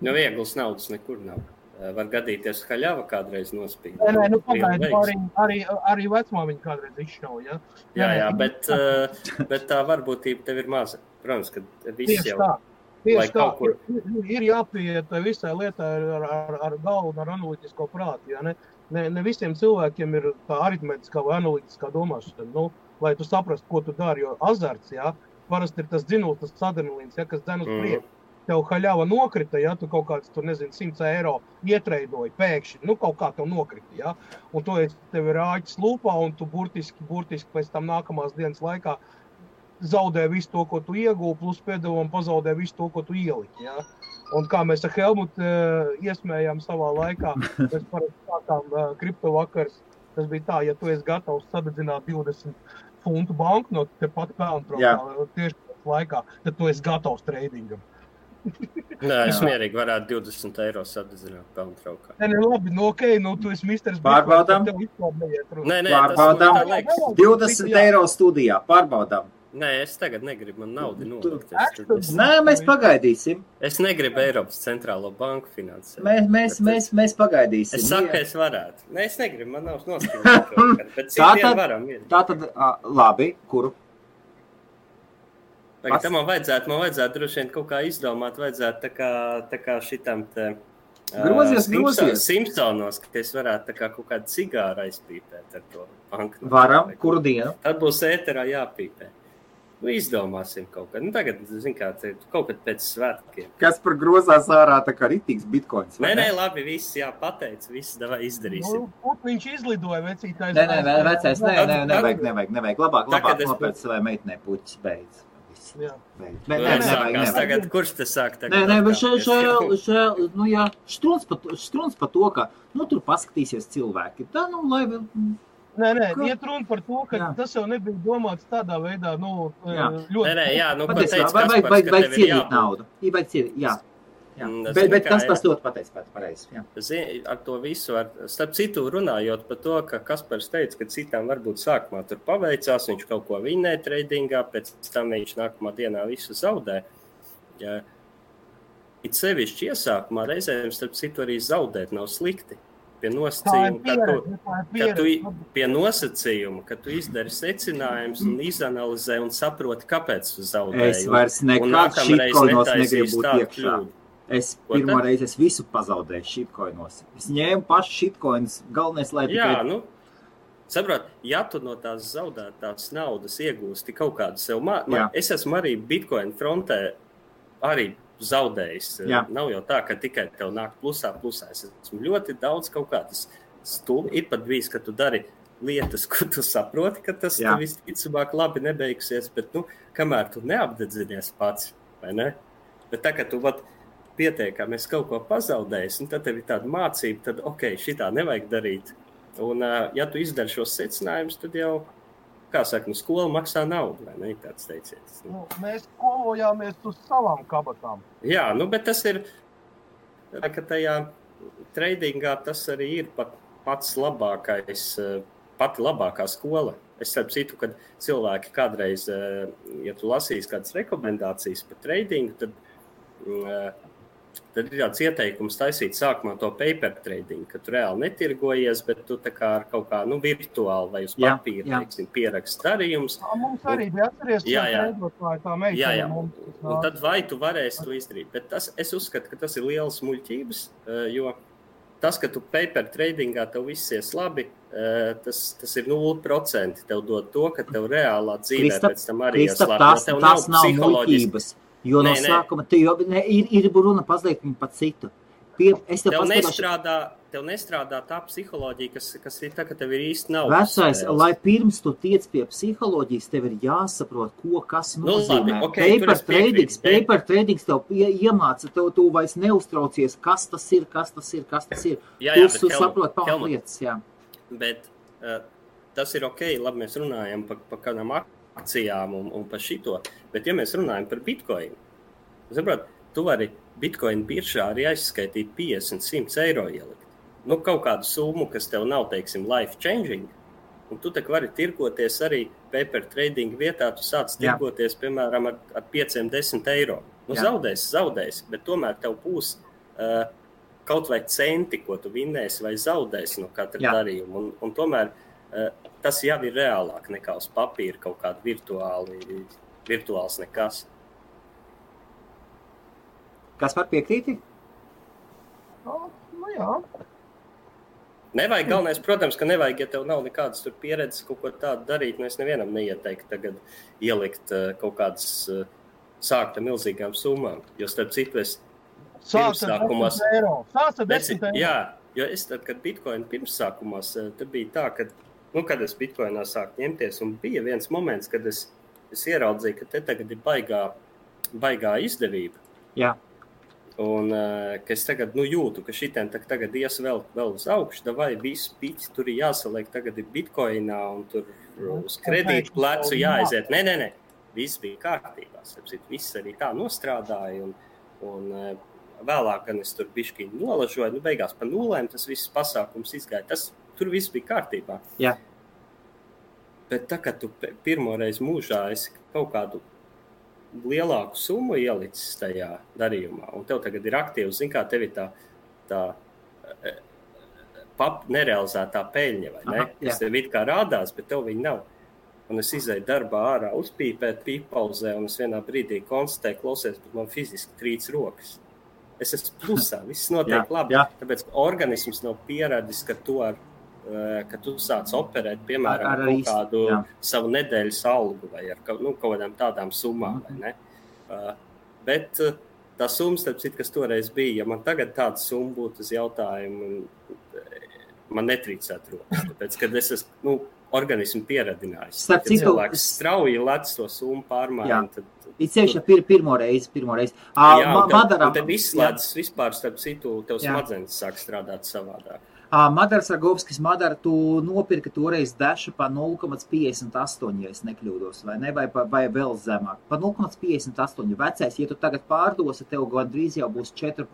Vieglas naudas nekur nav. Var gadīties haļava kādreiz nospīd. Arī vecmāmiņa kādreiz izšauja. Jā, bet tā varbūtība tev ir maza. Protams, ka viss jau... Tieši tā, ir jāpieiet visai lietai ar galvu un ar analītisko prātu. Ja? Ne visiem cilvēkiem ir tā aritmetiskā vai analītiskā domāšana, lai tu saprastu, ko tu dari, jo azarts, ja? Parasti ir tas dzinuls, tas adrenalīns, ja? Kas dzen uz priekšu. Tev haļava nokrita, ja? Tu kaut kāds, 100 eiro ietreidoji pēkšņi, kaut kā tev nokrita, ja? Un tev ir āķis lūpā, un tu burtiski pēc tam nākamās dienas laikā zaudē visu to, ko tu iegūvi, plus pēdējām pazaudē visu to, ko tu ieliki. Ja? Un kā mēs ar Helmutu iesmējām savā laikā, mēs parasti sākām kriptovakars, tas bija tā, ja tu esi gatavs sadedzināt 20 funtu banknotu, tepat pelntraukā tieši pēc laikā, tad tu esi gatavs treidingam. Nē, es mierīgi varētu 20 eiro sadedzināt pelntraukā. Labi, tu esi misters. Pārbaudām. Nē, pārbaudām. 20 eiro studijā. Pārbaudām. Nē, es tagad negribu, man naudu nolikt. Nē, mēs pagaidīsim. Es negribu Eiropas centrālo banku finansēt. Mēs pagaidīsim. Es saku, ka es varētu. Nē, es negribu, man nav noskaidrot. Bet citiem varam. Tātad, labi, kuru? Tagad man vajadzētu droši vien kaut kā izdomāt, vajadzētu tā kā šitam te grozies. Simpsonos, ka es varētu tā kā kaut kādu cigāru aizpīpēt ar to banku. Varam, kuru dienu? Tad būs ēterā jāpīpē. Izdomāsim kaut kā. Tagad, kā, kaut kad pēc svētkiem. Kas par grozās ārā tā kā ritīgs bitkoins? Nē, labi, viss jāpateic, viss davai izdarīsim. Viņš izlidoja vecītājs. Nē, vecais, nevajag. Labāk nopēc savai meitnē puķis beidz. Nevajag. Tagad, kurš te sāk tagad? Nē, štruns par to, ka, tur paskatīsies cilvēki. Tā, lai... Nē, iet runa par to, ka tas jau nebija domāts tādā veidā, ļoti... Vajag cienīt naudu. Bet kas tas ļoti pateic pareizi. Ar to visu, starp citu runājot par to, ka Kaspars teica, ka citām varbūt sākumā tur paveicās, viņš kaut ko vinnē treidingā, pēc tam viņš nākamā dienā visu zaudē. It sevišķi iesākumā reizēm, starp citu, arī zaudēt nav slikti. Pie nosacījuma, ka tu izdari secinājumus un izanalizē un saproti, kāpēc tu zaudēji. Es vairs nekad šitkoinos negribu būt iekšā. Es pirmo reizi visu pazaudēju šitkoinos. Es ņēmu pašu šitkoinus, galvenais, lai tikai... Saprot, ja tu no tās zaudētās naudas iegūsti kaut kādu sev es esmu arī Bitcoin frontē arī zaudējis. Nav jau tā, ka tikai tev nāk plusā. Es esmu ļoti daudz kaut kādas stulbi. Ir pat bijis, ka tu dari lietas, ko tu saproti, ka tas visticamāk labi nebeigsies, bet, kamēr tu neapdedzinies pats, vai ne? Bet tā, ka tu pietiekami esi kaut ko pazaudējis, tad tev ir tāda mācība, tad, šitā nevajag darīt. Un, ja tu izdari šos secinājumus, tad jau kā saka, skola maksā naudu, vai ne, tāds teiciens. Mēs skolojāmies uz savām kabatām. Jā, bet tas ir, ka tajā tradingā tas arī ir pats labākais, pati labākā skola. Es starp citu, kad cilvēki kādreiz, ja tu lasīsi kādas rekomendācijas par tradingu, tad ir tāds ieteikums taisīt sākumā to paper trading, ka tu reāli netirgojies, bet tu tā kā ar kaut kā, virtuāli vai uz papīra, teiksim, pierakst darījumus. Mums arī bija atceries, tā meitene. Un tad vai tu varēsi to izdarīt. Bet es uzskatu, ka tas ir liels muļķības, jo tas, ka tu paper tradingā tev viss ies labi, tas ir 0%. Tev dod to, ka tev reālā dzīvē pēc tam arī ies labi. Tas nav muļķības. Jo no sākuma ir runa pazliet par citu. Tev nestrādā tā psiholoģija, kas ir tā, ka tev ir īsti nav. Vecais, lai pirms tu tiec pie psiholoģijas, tev ir jāsaprot, kas nozīmē. Paper tradings tev iemāca, tu vairs neuztraucies, kas tas ir. Tu saprot pamatlietas, jā. Bet tas ir ok, labi, mēs runājam par kādām akcijām un par šito, bet ja mēs runājam par Bitcoin, tu vari Bitcoin biržā arī aizskaitīt 50-100 eiro ielikt. Kaut kādu summu, kas tev nav, teiksim, life changing, un tu tak vari tirgoties arī paper trading vietā, tu sāc tirgoties, piemēram, ar 5-10 eiro. Zaudēs, bet tomēr tev būs kaut vai centi, ko tu vinnēsi vai zaudēsi no katra darījuma, un tomēr tas jau ir reālāk nekā uz papīra kaut kāda virtuāls nekas. Kas var piekrīti? Jā. Nevajag, galvenais, protams, ka nevajag, ja tev nav nekādas tur pieredzes kaut ko tādu darīt, es nevienam neieteiktu tagad ielikt kaut kādas sākt ar milzīgām summām, jo starp citu es pirmsākumās... Sāc ar 10 eiro. Jā, jo es tad, kad Bitcoin pirmsākumās, tad bija tā, ka kad es Bitcoinā sāku ņemties, un bija viens moments, kad es ieraudzīju, ka te tagad ir baigā izdevība. Jā. Un ka es tagad jūtu, ka šitien tagad ies vēl uz augšu, vai visu piķi tur ir jāsaliek, tagad ir Bitcoinā, un tur uz kredītu plecu jāaiziet. Nē, viss bija kārtībā. Viss arī tā nostrādāja, un vēlāk, gan es tur bišķi nolažoju, beigās pa nulēm tas viss pasākums izgāja. Tur viss bija kārtībā. Jā. Bet tā, kad tu pirmoreiz mūžā esi kaut kādu lielāku summu ielicis tajā darījumā, un tev tagad ir aktīvs, kā tev ir tā nerealizētā peļņa, vai ne? Kas tev it kā rādās, bet tev viņa nav. Un es izēju darbā ārā uzpīpēt pīpauzē, un es vienā brīdī konstatēju, klausies, bet man fiziski trīc rokas. Es esmu plusā, viss notiek labi, tāpēc organisms nav pieradis, ka tu sāc operēt, piemēram, kaut kādu savu nedēļas algu vai ar kaut kādām tādām summām, vai ne? Bet tā summa, starp citu, kas toreiz bija, ja man tagad tāda summa būtu uz jautājumu, man netrīcētu rokas, tāpēc, kad es esmu, organismu pieradinājis. Kad cilvēks strauji lec to summu pārmaiņu, tad... Ir ceļš pirmo reizi. Un tad izslēdzas vispār, starp citu, tev smadzenes sāk strādāt savādāk. Madaras Ragovskis, tu nopirka toreiz Dašu pa 0,58, ja es nekļūdos, vai ne, vai vēl zemāk. Pa 0,58 vecais, ja tu tagad pārdosi, tev gandrīz jau būs 4%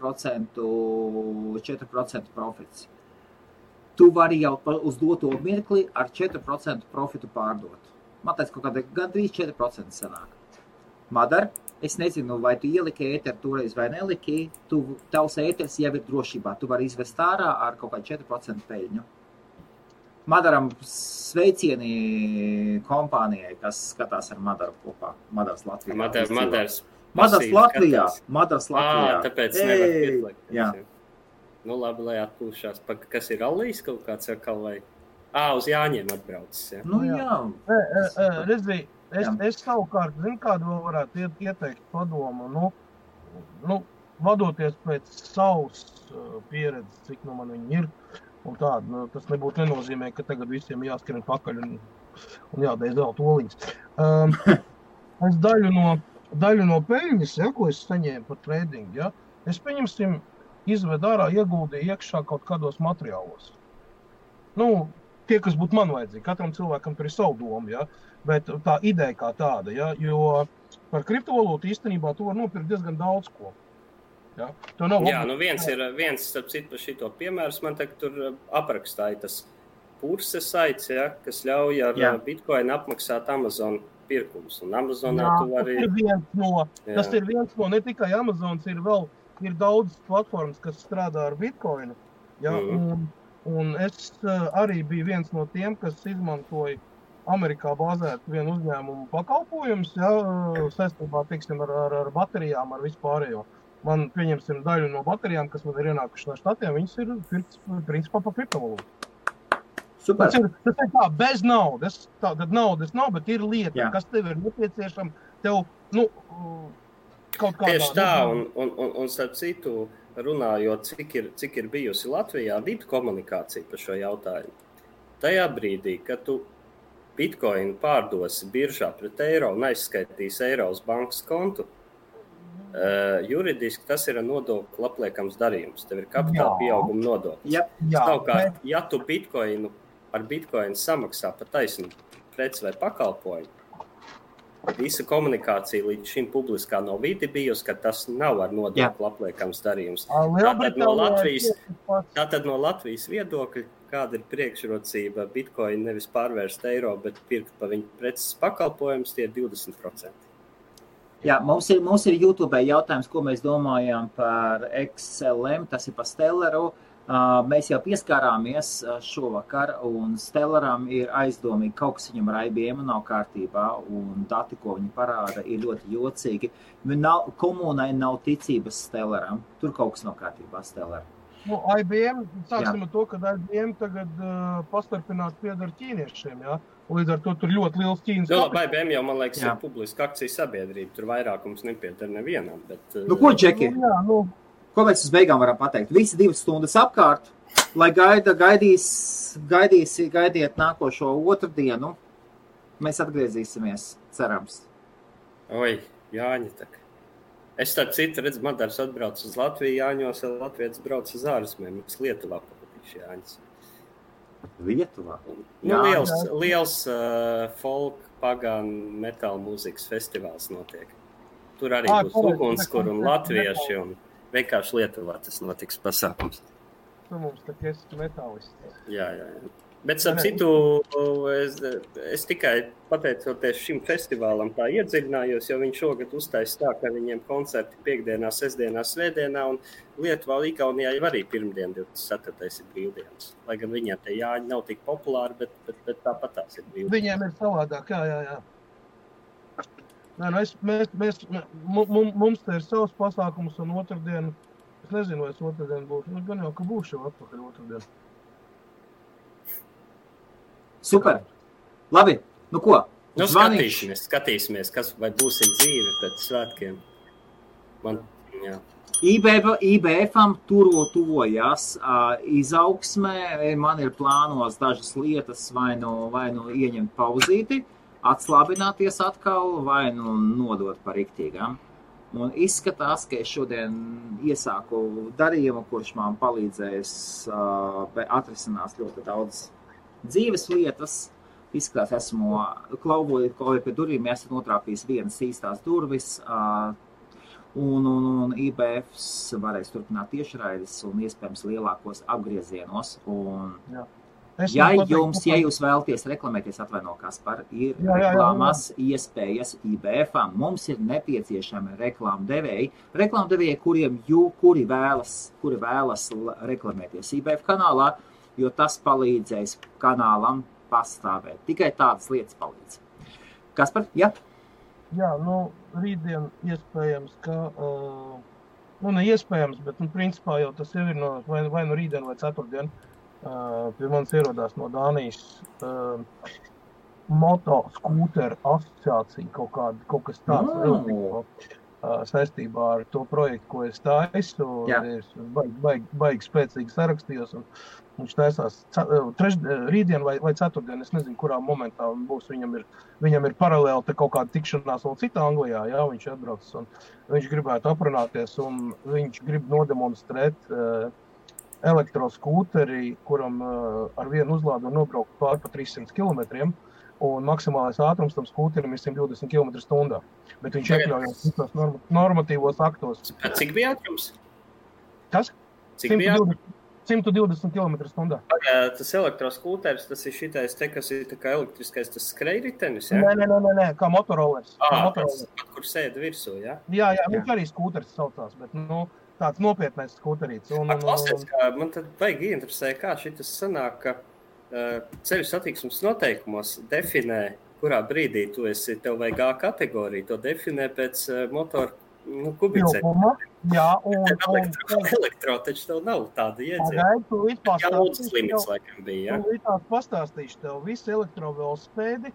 profits. Tu vari jau uz doto mirkli ar 4% profitu pārdot. Man teica, kaut kāda gandrīz 4% sanāk. Madar, es nezinu, vai tu ieliki ēteru toreiz vai neliki, tavs ēters jau ir drošībā. Tu vari izvest ārā ar kaut kādu 4% peļņu. Madaram sveicieni kompānijai, kas skatās ar Madaru kopā. Madars Latvijā. Madars Latvijā. Tāpēc nevar pieslēgt. Jā. Labi, lai atpūšās. Kas ir Allīs kaut kāds atkal vai? Uz Jāņiem atbraucis. Jā. Redzī, es savukārt, kādu vēl varētu ieteikt padomu, vadoties pēc savas pieredzes, cik man viņi ir, un tāda, tas nebūtu nenozīmē, ka tagad visiem jāskrien pakaļ un jādēļ zelta oliņas. Es daļu no peļņas, ko es saņēmu par tradingu, es pieņemsim, izved ārā, ieguldīju iekšā kaut kādos materiālos. tie, kas būtu man vajadzīgi. Katram cilvēkam tur ir savu domu, ja? Bet tā ideja kā tāda, ja? Jo par kriptovalūtu īstenībā tu var nopirkt diezgan daudz ko. Ja? Viens starp citu par šito piemērs, man tagad tur aprakstāja tas Purse saits, ja, kas ļauj ar Bitcoin apmaksāt Amazon pirkumus. Un Amazonā tu vari... Tas ir viens no, ne tikai Amazons, ir daudz platformas, kas strādā ar Bitcoinu. Ja? Un es arī biju viens no tiem, kas izmantoja Amerikā bāzētu vienu uzņēmumu pakalpojumus, ja, saistībā, teiksim, ar baterijām, ar vispārējo. Man, pieņemsim, daļu no baterijām, kas man ir ienākuši no štatiem, viņas ir principā pa kriptovalūtu. Super. Tas ir tā, bez naudas. Tad naudas nav, bet ir lieta, kas tev ir nepieciešama. Tev, kaut kādā... Tieši tā, un starp citu, runājot, cik ir bijusi Latvijā vidu komunikācija par šo jautājumu. Tajā brīdī, kad tu Bitcoin pārdosi biržā pret eiro un aizskaitīs eiro uz bankas kontu, juridiski tas ir nodokļu apliekams darījums. Tev ir kapitāla pieauguma nodoklis. Savukārt, ja tu ar Bitcoin samaksā pa taisnu preci vai pakalpojumu, visa komunikācija līdz šim publiskā no vidi bijusi, ka tas nav ar nodokļu apliekams darījums. Tātad no Latvijas viedokļa, kāda ir priekšrocība Bitcoin nevis pārvērst eiro, bet pirkt pa viņu preces pakalpojumus, tie ir 20%. Jā, mums ir YouTube jautājums, ko mēs domājām par XLM, tas ir par Stellaru. Mēs jau pieskārāmies šovakar, un Stellaram ir aizdomīgi, kaut kas viņam ar IBM nav kārtībā, un dati, ko viņi parāda, ir ļoti jocīgi. Komunai nav ticības Stellaram, tur kaut kas nav kārtībā Stellaram. IBM, sāksim ar to, ka IBM tagad pastarpināt piedar ķīniešiem, jā? Līdz ar to tur ļoti liels Ķīnas kapitāls. IBM jau, man liekas, ir publiska akcija sabiedrība, tur vairākums nepiedar nevienam, bet... Ko, Džeki? Ko mēs uz beigām varam pateikt? Visi 2 stundas apkārt, lai gaidiet nākošo otrdienu. Mēs atgriezīsimies, cerams. Oi, Jāņa tak. Es tā citu redzu, Madars atbrauc uz Latviju, Jāņos, Latvijas brauc uz ārzemēm, uz Lietuvā patīši Jāņas. Lietuvā? Liels folk, pagan, metāla mūzikas festivāls notiek. Tur arī būs Ugunskur un latvieši un vienkārši Lietuvā tas notiks pasākums. Tu mums tā esi metālists. Jā. Bet ap citu, es tikai pateicoties šim festivālam tā iedziļinājos, jo viņš šogad uztais tā, ka viņiem koncerti piekdienā, sestdienā, svētdienā un Lietuvā, Igaunijā jau arī pirmdien 24. ir brīvdienas. Lai gan viņiem te Jāņi nav tik populāri, bet tāpat tās ir brīvdienas. Viņiem ir savādāk, jā. Mums te ir savs pasākums un otrdienu, es nezinu, vai es otrdienu būšu, gan jau, ka būšu jau atpakaļ otrdienu. Super. Labi, nu ko? Skatīsimies, kas vai būsim dzīvi pēc svētkiem. IBF-am tuvojās izaugsmē, man ir plānos dažas lietas vai nu ieņemt pauzīti, atslābināties atkal vai nodot par riktīgām. Un izskatās, ka es šodien iesāku darījumu, kurš man palīdzēs atrisinās ļoti daudz dzīves lietas. Izskatās, esmu klauvojot pie durvīm, esmu notrāpījis vienas īstās durvis, un IBFs varēs turpināt tiešraides un iespējams lielākos apgriezienos. Ja jūs vēlaties reklamēties, atvaino Kaspar, ir reklāmas iespējas IBF-am. Mums ir nepieciešami reklāmdevēji, kuri vēlas reklamēties IBF kanālā, jo tas palīdzēs kanālam pastāvēt. Tikai tādas lietas palīdz. Kaspar, jā? Jā, rītdien iespējams, ka... ne iespējams, bet principā jau tas jau ir vai rītdien vai ceturtdien. Pie manis ierodās no Dānijas motoskūteru asociācija, kaut kas tāds saistībā ar to projektu, ko es taisu. Es baigi spēcīgi sarakstījos, un viņš taisās rītdien vai ceturtdien, es nezinu, kurā momentā būs. Viņam ir paralēli te kaut kāda tikšanās vēl citā Anglijā, jā, viņš atbraucis, un viņš gribētu aprunāties, un viņš grib nodemonstrēt elektroskūteri, kuram ar vienu uzlādu nobraukt pār pa 300 km, un maksimālais ātrums tam skūterim ir 120 km/h. Bet viņš iekļaujās visos normatīvos aktos. Cik bija ātrums? Kas? Cik bija ātrums? 120 km/h. Tas elektroskūteris, tas ir šitais te, kas ir tā kā elektriskais, tas skrejritenis, jā? Nē, kā motorolers. Kur sēd virsū, jā? Jā, viņš arī skūteris saucās, bet, tāds nopietnais skūterīts. Klausies, man tad vajag interesē, kā šitas sanāk, ka ceļu satiksmes noteikumos definē, kurā brīdī tu esi, tev vajag A kategoriju, to definē pēc motoru kubicēm. Jā, elektro, taču tev nav tāda iedziena. Pagaid, tu Jaudas limits laikam bija, jā? Tu līdzās pastāstīšu tev, visi elektrovelospēdi,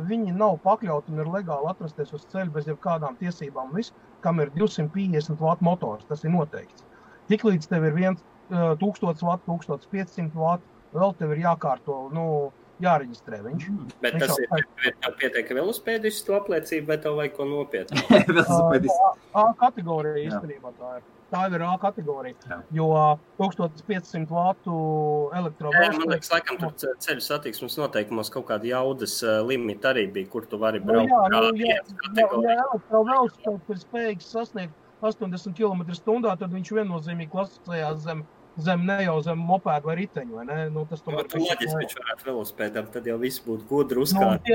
viņi nav pakļauti un ir legāli atrasties uz ceļu bez jebkādām tiesībām. Viss, kam ir 250 W motors, tas ir noteikts. Tiklīdz tev ir 1000 W, 1500 W, vēl tev ir jākārto, jāreģistrē viņš. Bet tas ir pietiek velospēdistu to apliecību, vai tev vajag ko nopietnu? A kategorija īstenībā tā ir. Tā ir A kategorija, jo 1500 W elektrovelospēdi. Man liekas, laikam tur ceļu satiksmes noteikumos kaut kāda jaudas limita arī bija, kur tu vari braukt Ja elektrovelospēds ir spējīgs sasniegt 80 km/h, tad viņš viennozīmīgi klasificējās zem mopēdu vai riteņu, vai ne? Tas tomēr tu loģiski, viņš varētu velospēdam, tad jau viss būtu gudri uzkārt.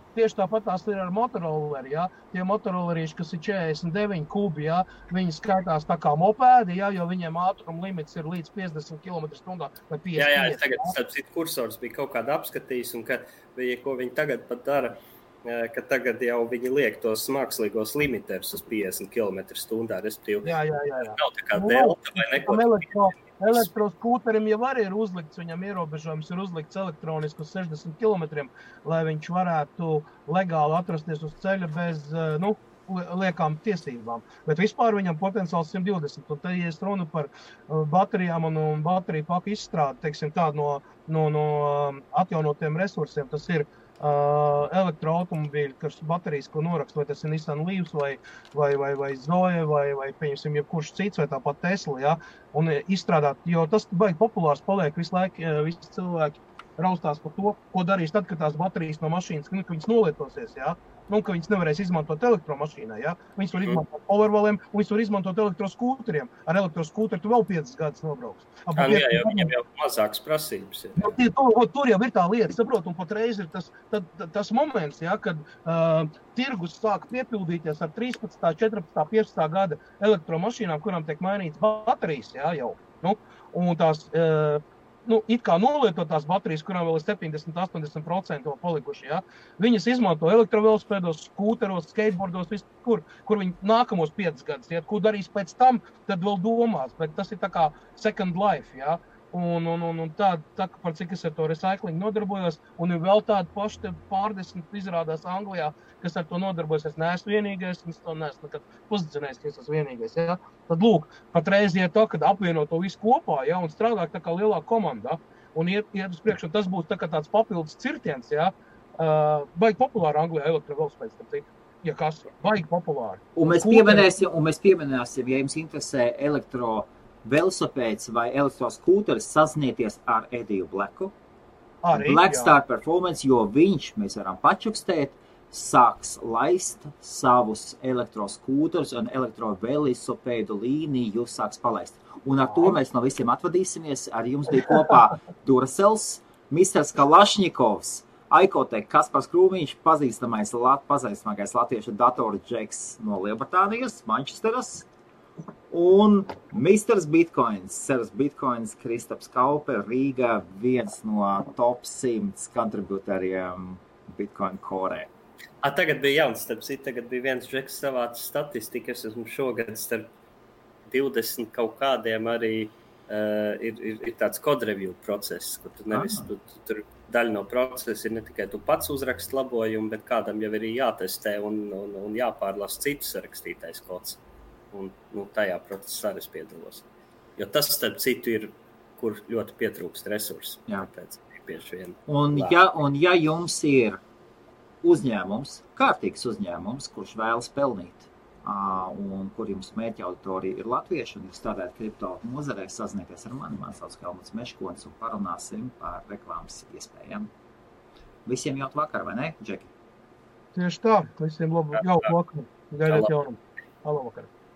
Tieši tāpat tās ir ar motorolleri, jā. Tie motorollerīši, kas ir 49 kubi, jā, viņi skaitās tā kā mopēdi, jā, jo viņiem ātruma limits ir līdz 50 km/h vai 50. Jā, tagad starp citu kursors bija kaut kāda apskatījis, un ko viņi tagad pat dara, ka tagad jau viņi liek tos mākslīgos limiterus uz 50 km/h, respektīvi. Jā. Nav tā kā delta vai neko. Elektroskūterim jau arī ir uzlikts, viņam ierobežojums ir uzlikts elektroniski uz 60 km, lai viņš varētu legāli atrasties uz ceļa bez, liekām tiesībām. Bet vispār viņam potenciāls 120. Un te, ja es runu par baterijām un bateriju paku izstrādi, teiksim tā, no atjaunotiem resursiem, tas ir elektroautomobīļi, kas baterijas, ko norakst, vai tas ir Nissan Leafs, vai Zoe, vai pieņemsim, jebkurš cits, vai tāpat Tesla, jā, un izstrādāt, jo tas baigi populārs paliek visu laiku, visi cilvēki raustās par to, ko darīs tad, kad tās baterijas no mašīnas, ka viņas nolietosies, jā, ka viņas nevarēs izmantot elektromašīnā, jā, viņas var izmantot powerwalliem, un viņas var izmantot elektroskūteriem. Ar elektroskūteri tu vēl 5 gadus nobrauks. Jā, viņam jau mazākas prasības ir. Tur jau ir tā lieta, saprot, un patreiz ir tas moments, jā, kad tirgus sāk piepildīties ar 13, 14, 15 gada elektromašīnām, kurām tiek mainīts baterijas, jā, jau. Un tās it kā nolietotās baterijas, kurām vēl ir 70-80% palikuši, ja? Viņas izmanto elektrovelospēdos, skūteros, skateboardos, viskur, kur viņi nākamos 5 gadus, ja? Ko darīs pēc tam, tad vēl domās, bet tas ir tā kā second life, ja? Un tā, par cik es ar to recycling nodarbojos, un ir vēl tādi paši pārdesmit izrādās Anglijā, kas ar to nodarbojas. Es neesmu vienīgais, un es to neesmu nekad pozicionējis, ka es esmu vienīgais. Ja? Tad lūk, patreiz iet tā, kad apvieno to visu kopā, ja? Un strādāt tā kā lielā komandā, un iet uz priekšu, un tas būs tā kā tāds papildus cirtiens, ja? Baigi populāri Anglijā elektrovelospēds, starp citu. Ja kas, baigi populāri. Un mēs pieminēsim, ja jums interesē velosipēds vai elektroskūteris, sazināties ar Ediju Blacku. Blackstar Performance, jo viņš, mēs varam pačukstēt, sāks laist savus elektroskūterus un elektrovelosipēdu līniju jūs sāks palaist. Un ar to mēs no visiem atvadīsimies. Ar jums bija kopā Duracels, Misters Kalašņikovs, Aikotek, Kaspars Krūmiņš, pazīstamākais latviešu datoru džeks no Lielbritānijas, Manchesteras. Un Misters Bitcoins, Seras Bitcoins, Kristaps Kaupe, Rīga, viens no top 100 kontributoriem Bitcoin korē. Tagad bija jauns, tagad bija viens džeks savāds statistikas, esmu šogad starp 20 kaut kādiem arī ir tāds code review process, kur tu nevis, tur daļa no procesa ir ne tikai tu pats uzrakst labojumu, bet kādam jau ir jātestē un jāpārlasa citu sarakstītais kods. Un tajā procesā es piedalos. Jo tas, starp citu, ir, kur ļoti pietrūkst resursi. Tāpēc bieži vien. Un ja jums ir uzņēmums, kārtīgs uzņēmums, kurš vēlas pelnīt un kur jums mērķa auditorija ir latvieši, un jūs strādājat kripto nozarē, sazinieties ar mani, man sauc Helmuts Meškonis, un parunāsim par reklāmas iespējām. Visiem jauku vakar, vai ne, Džeki? Tieši tā, visiem labu jauku vakaru. Gaidiet jaunumu. Halo vakar.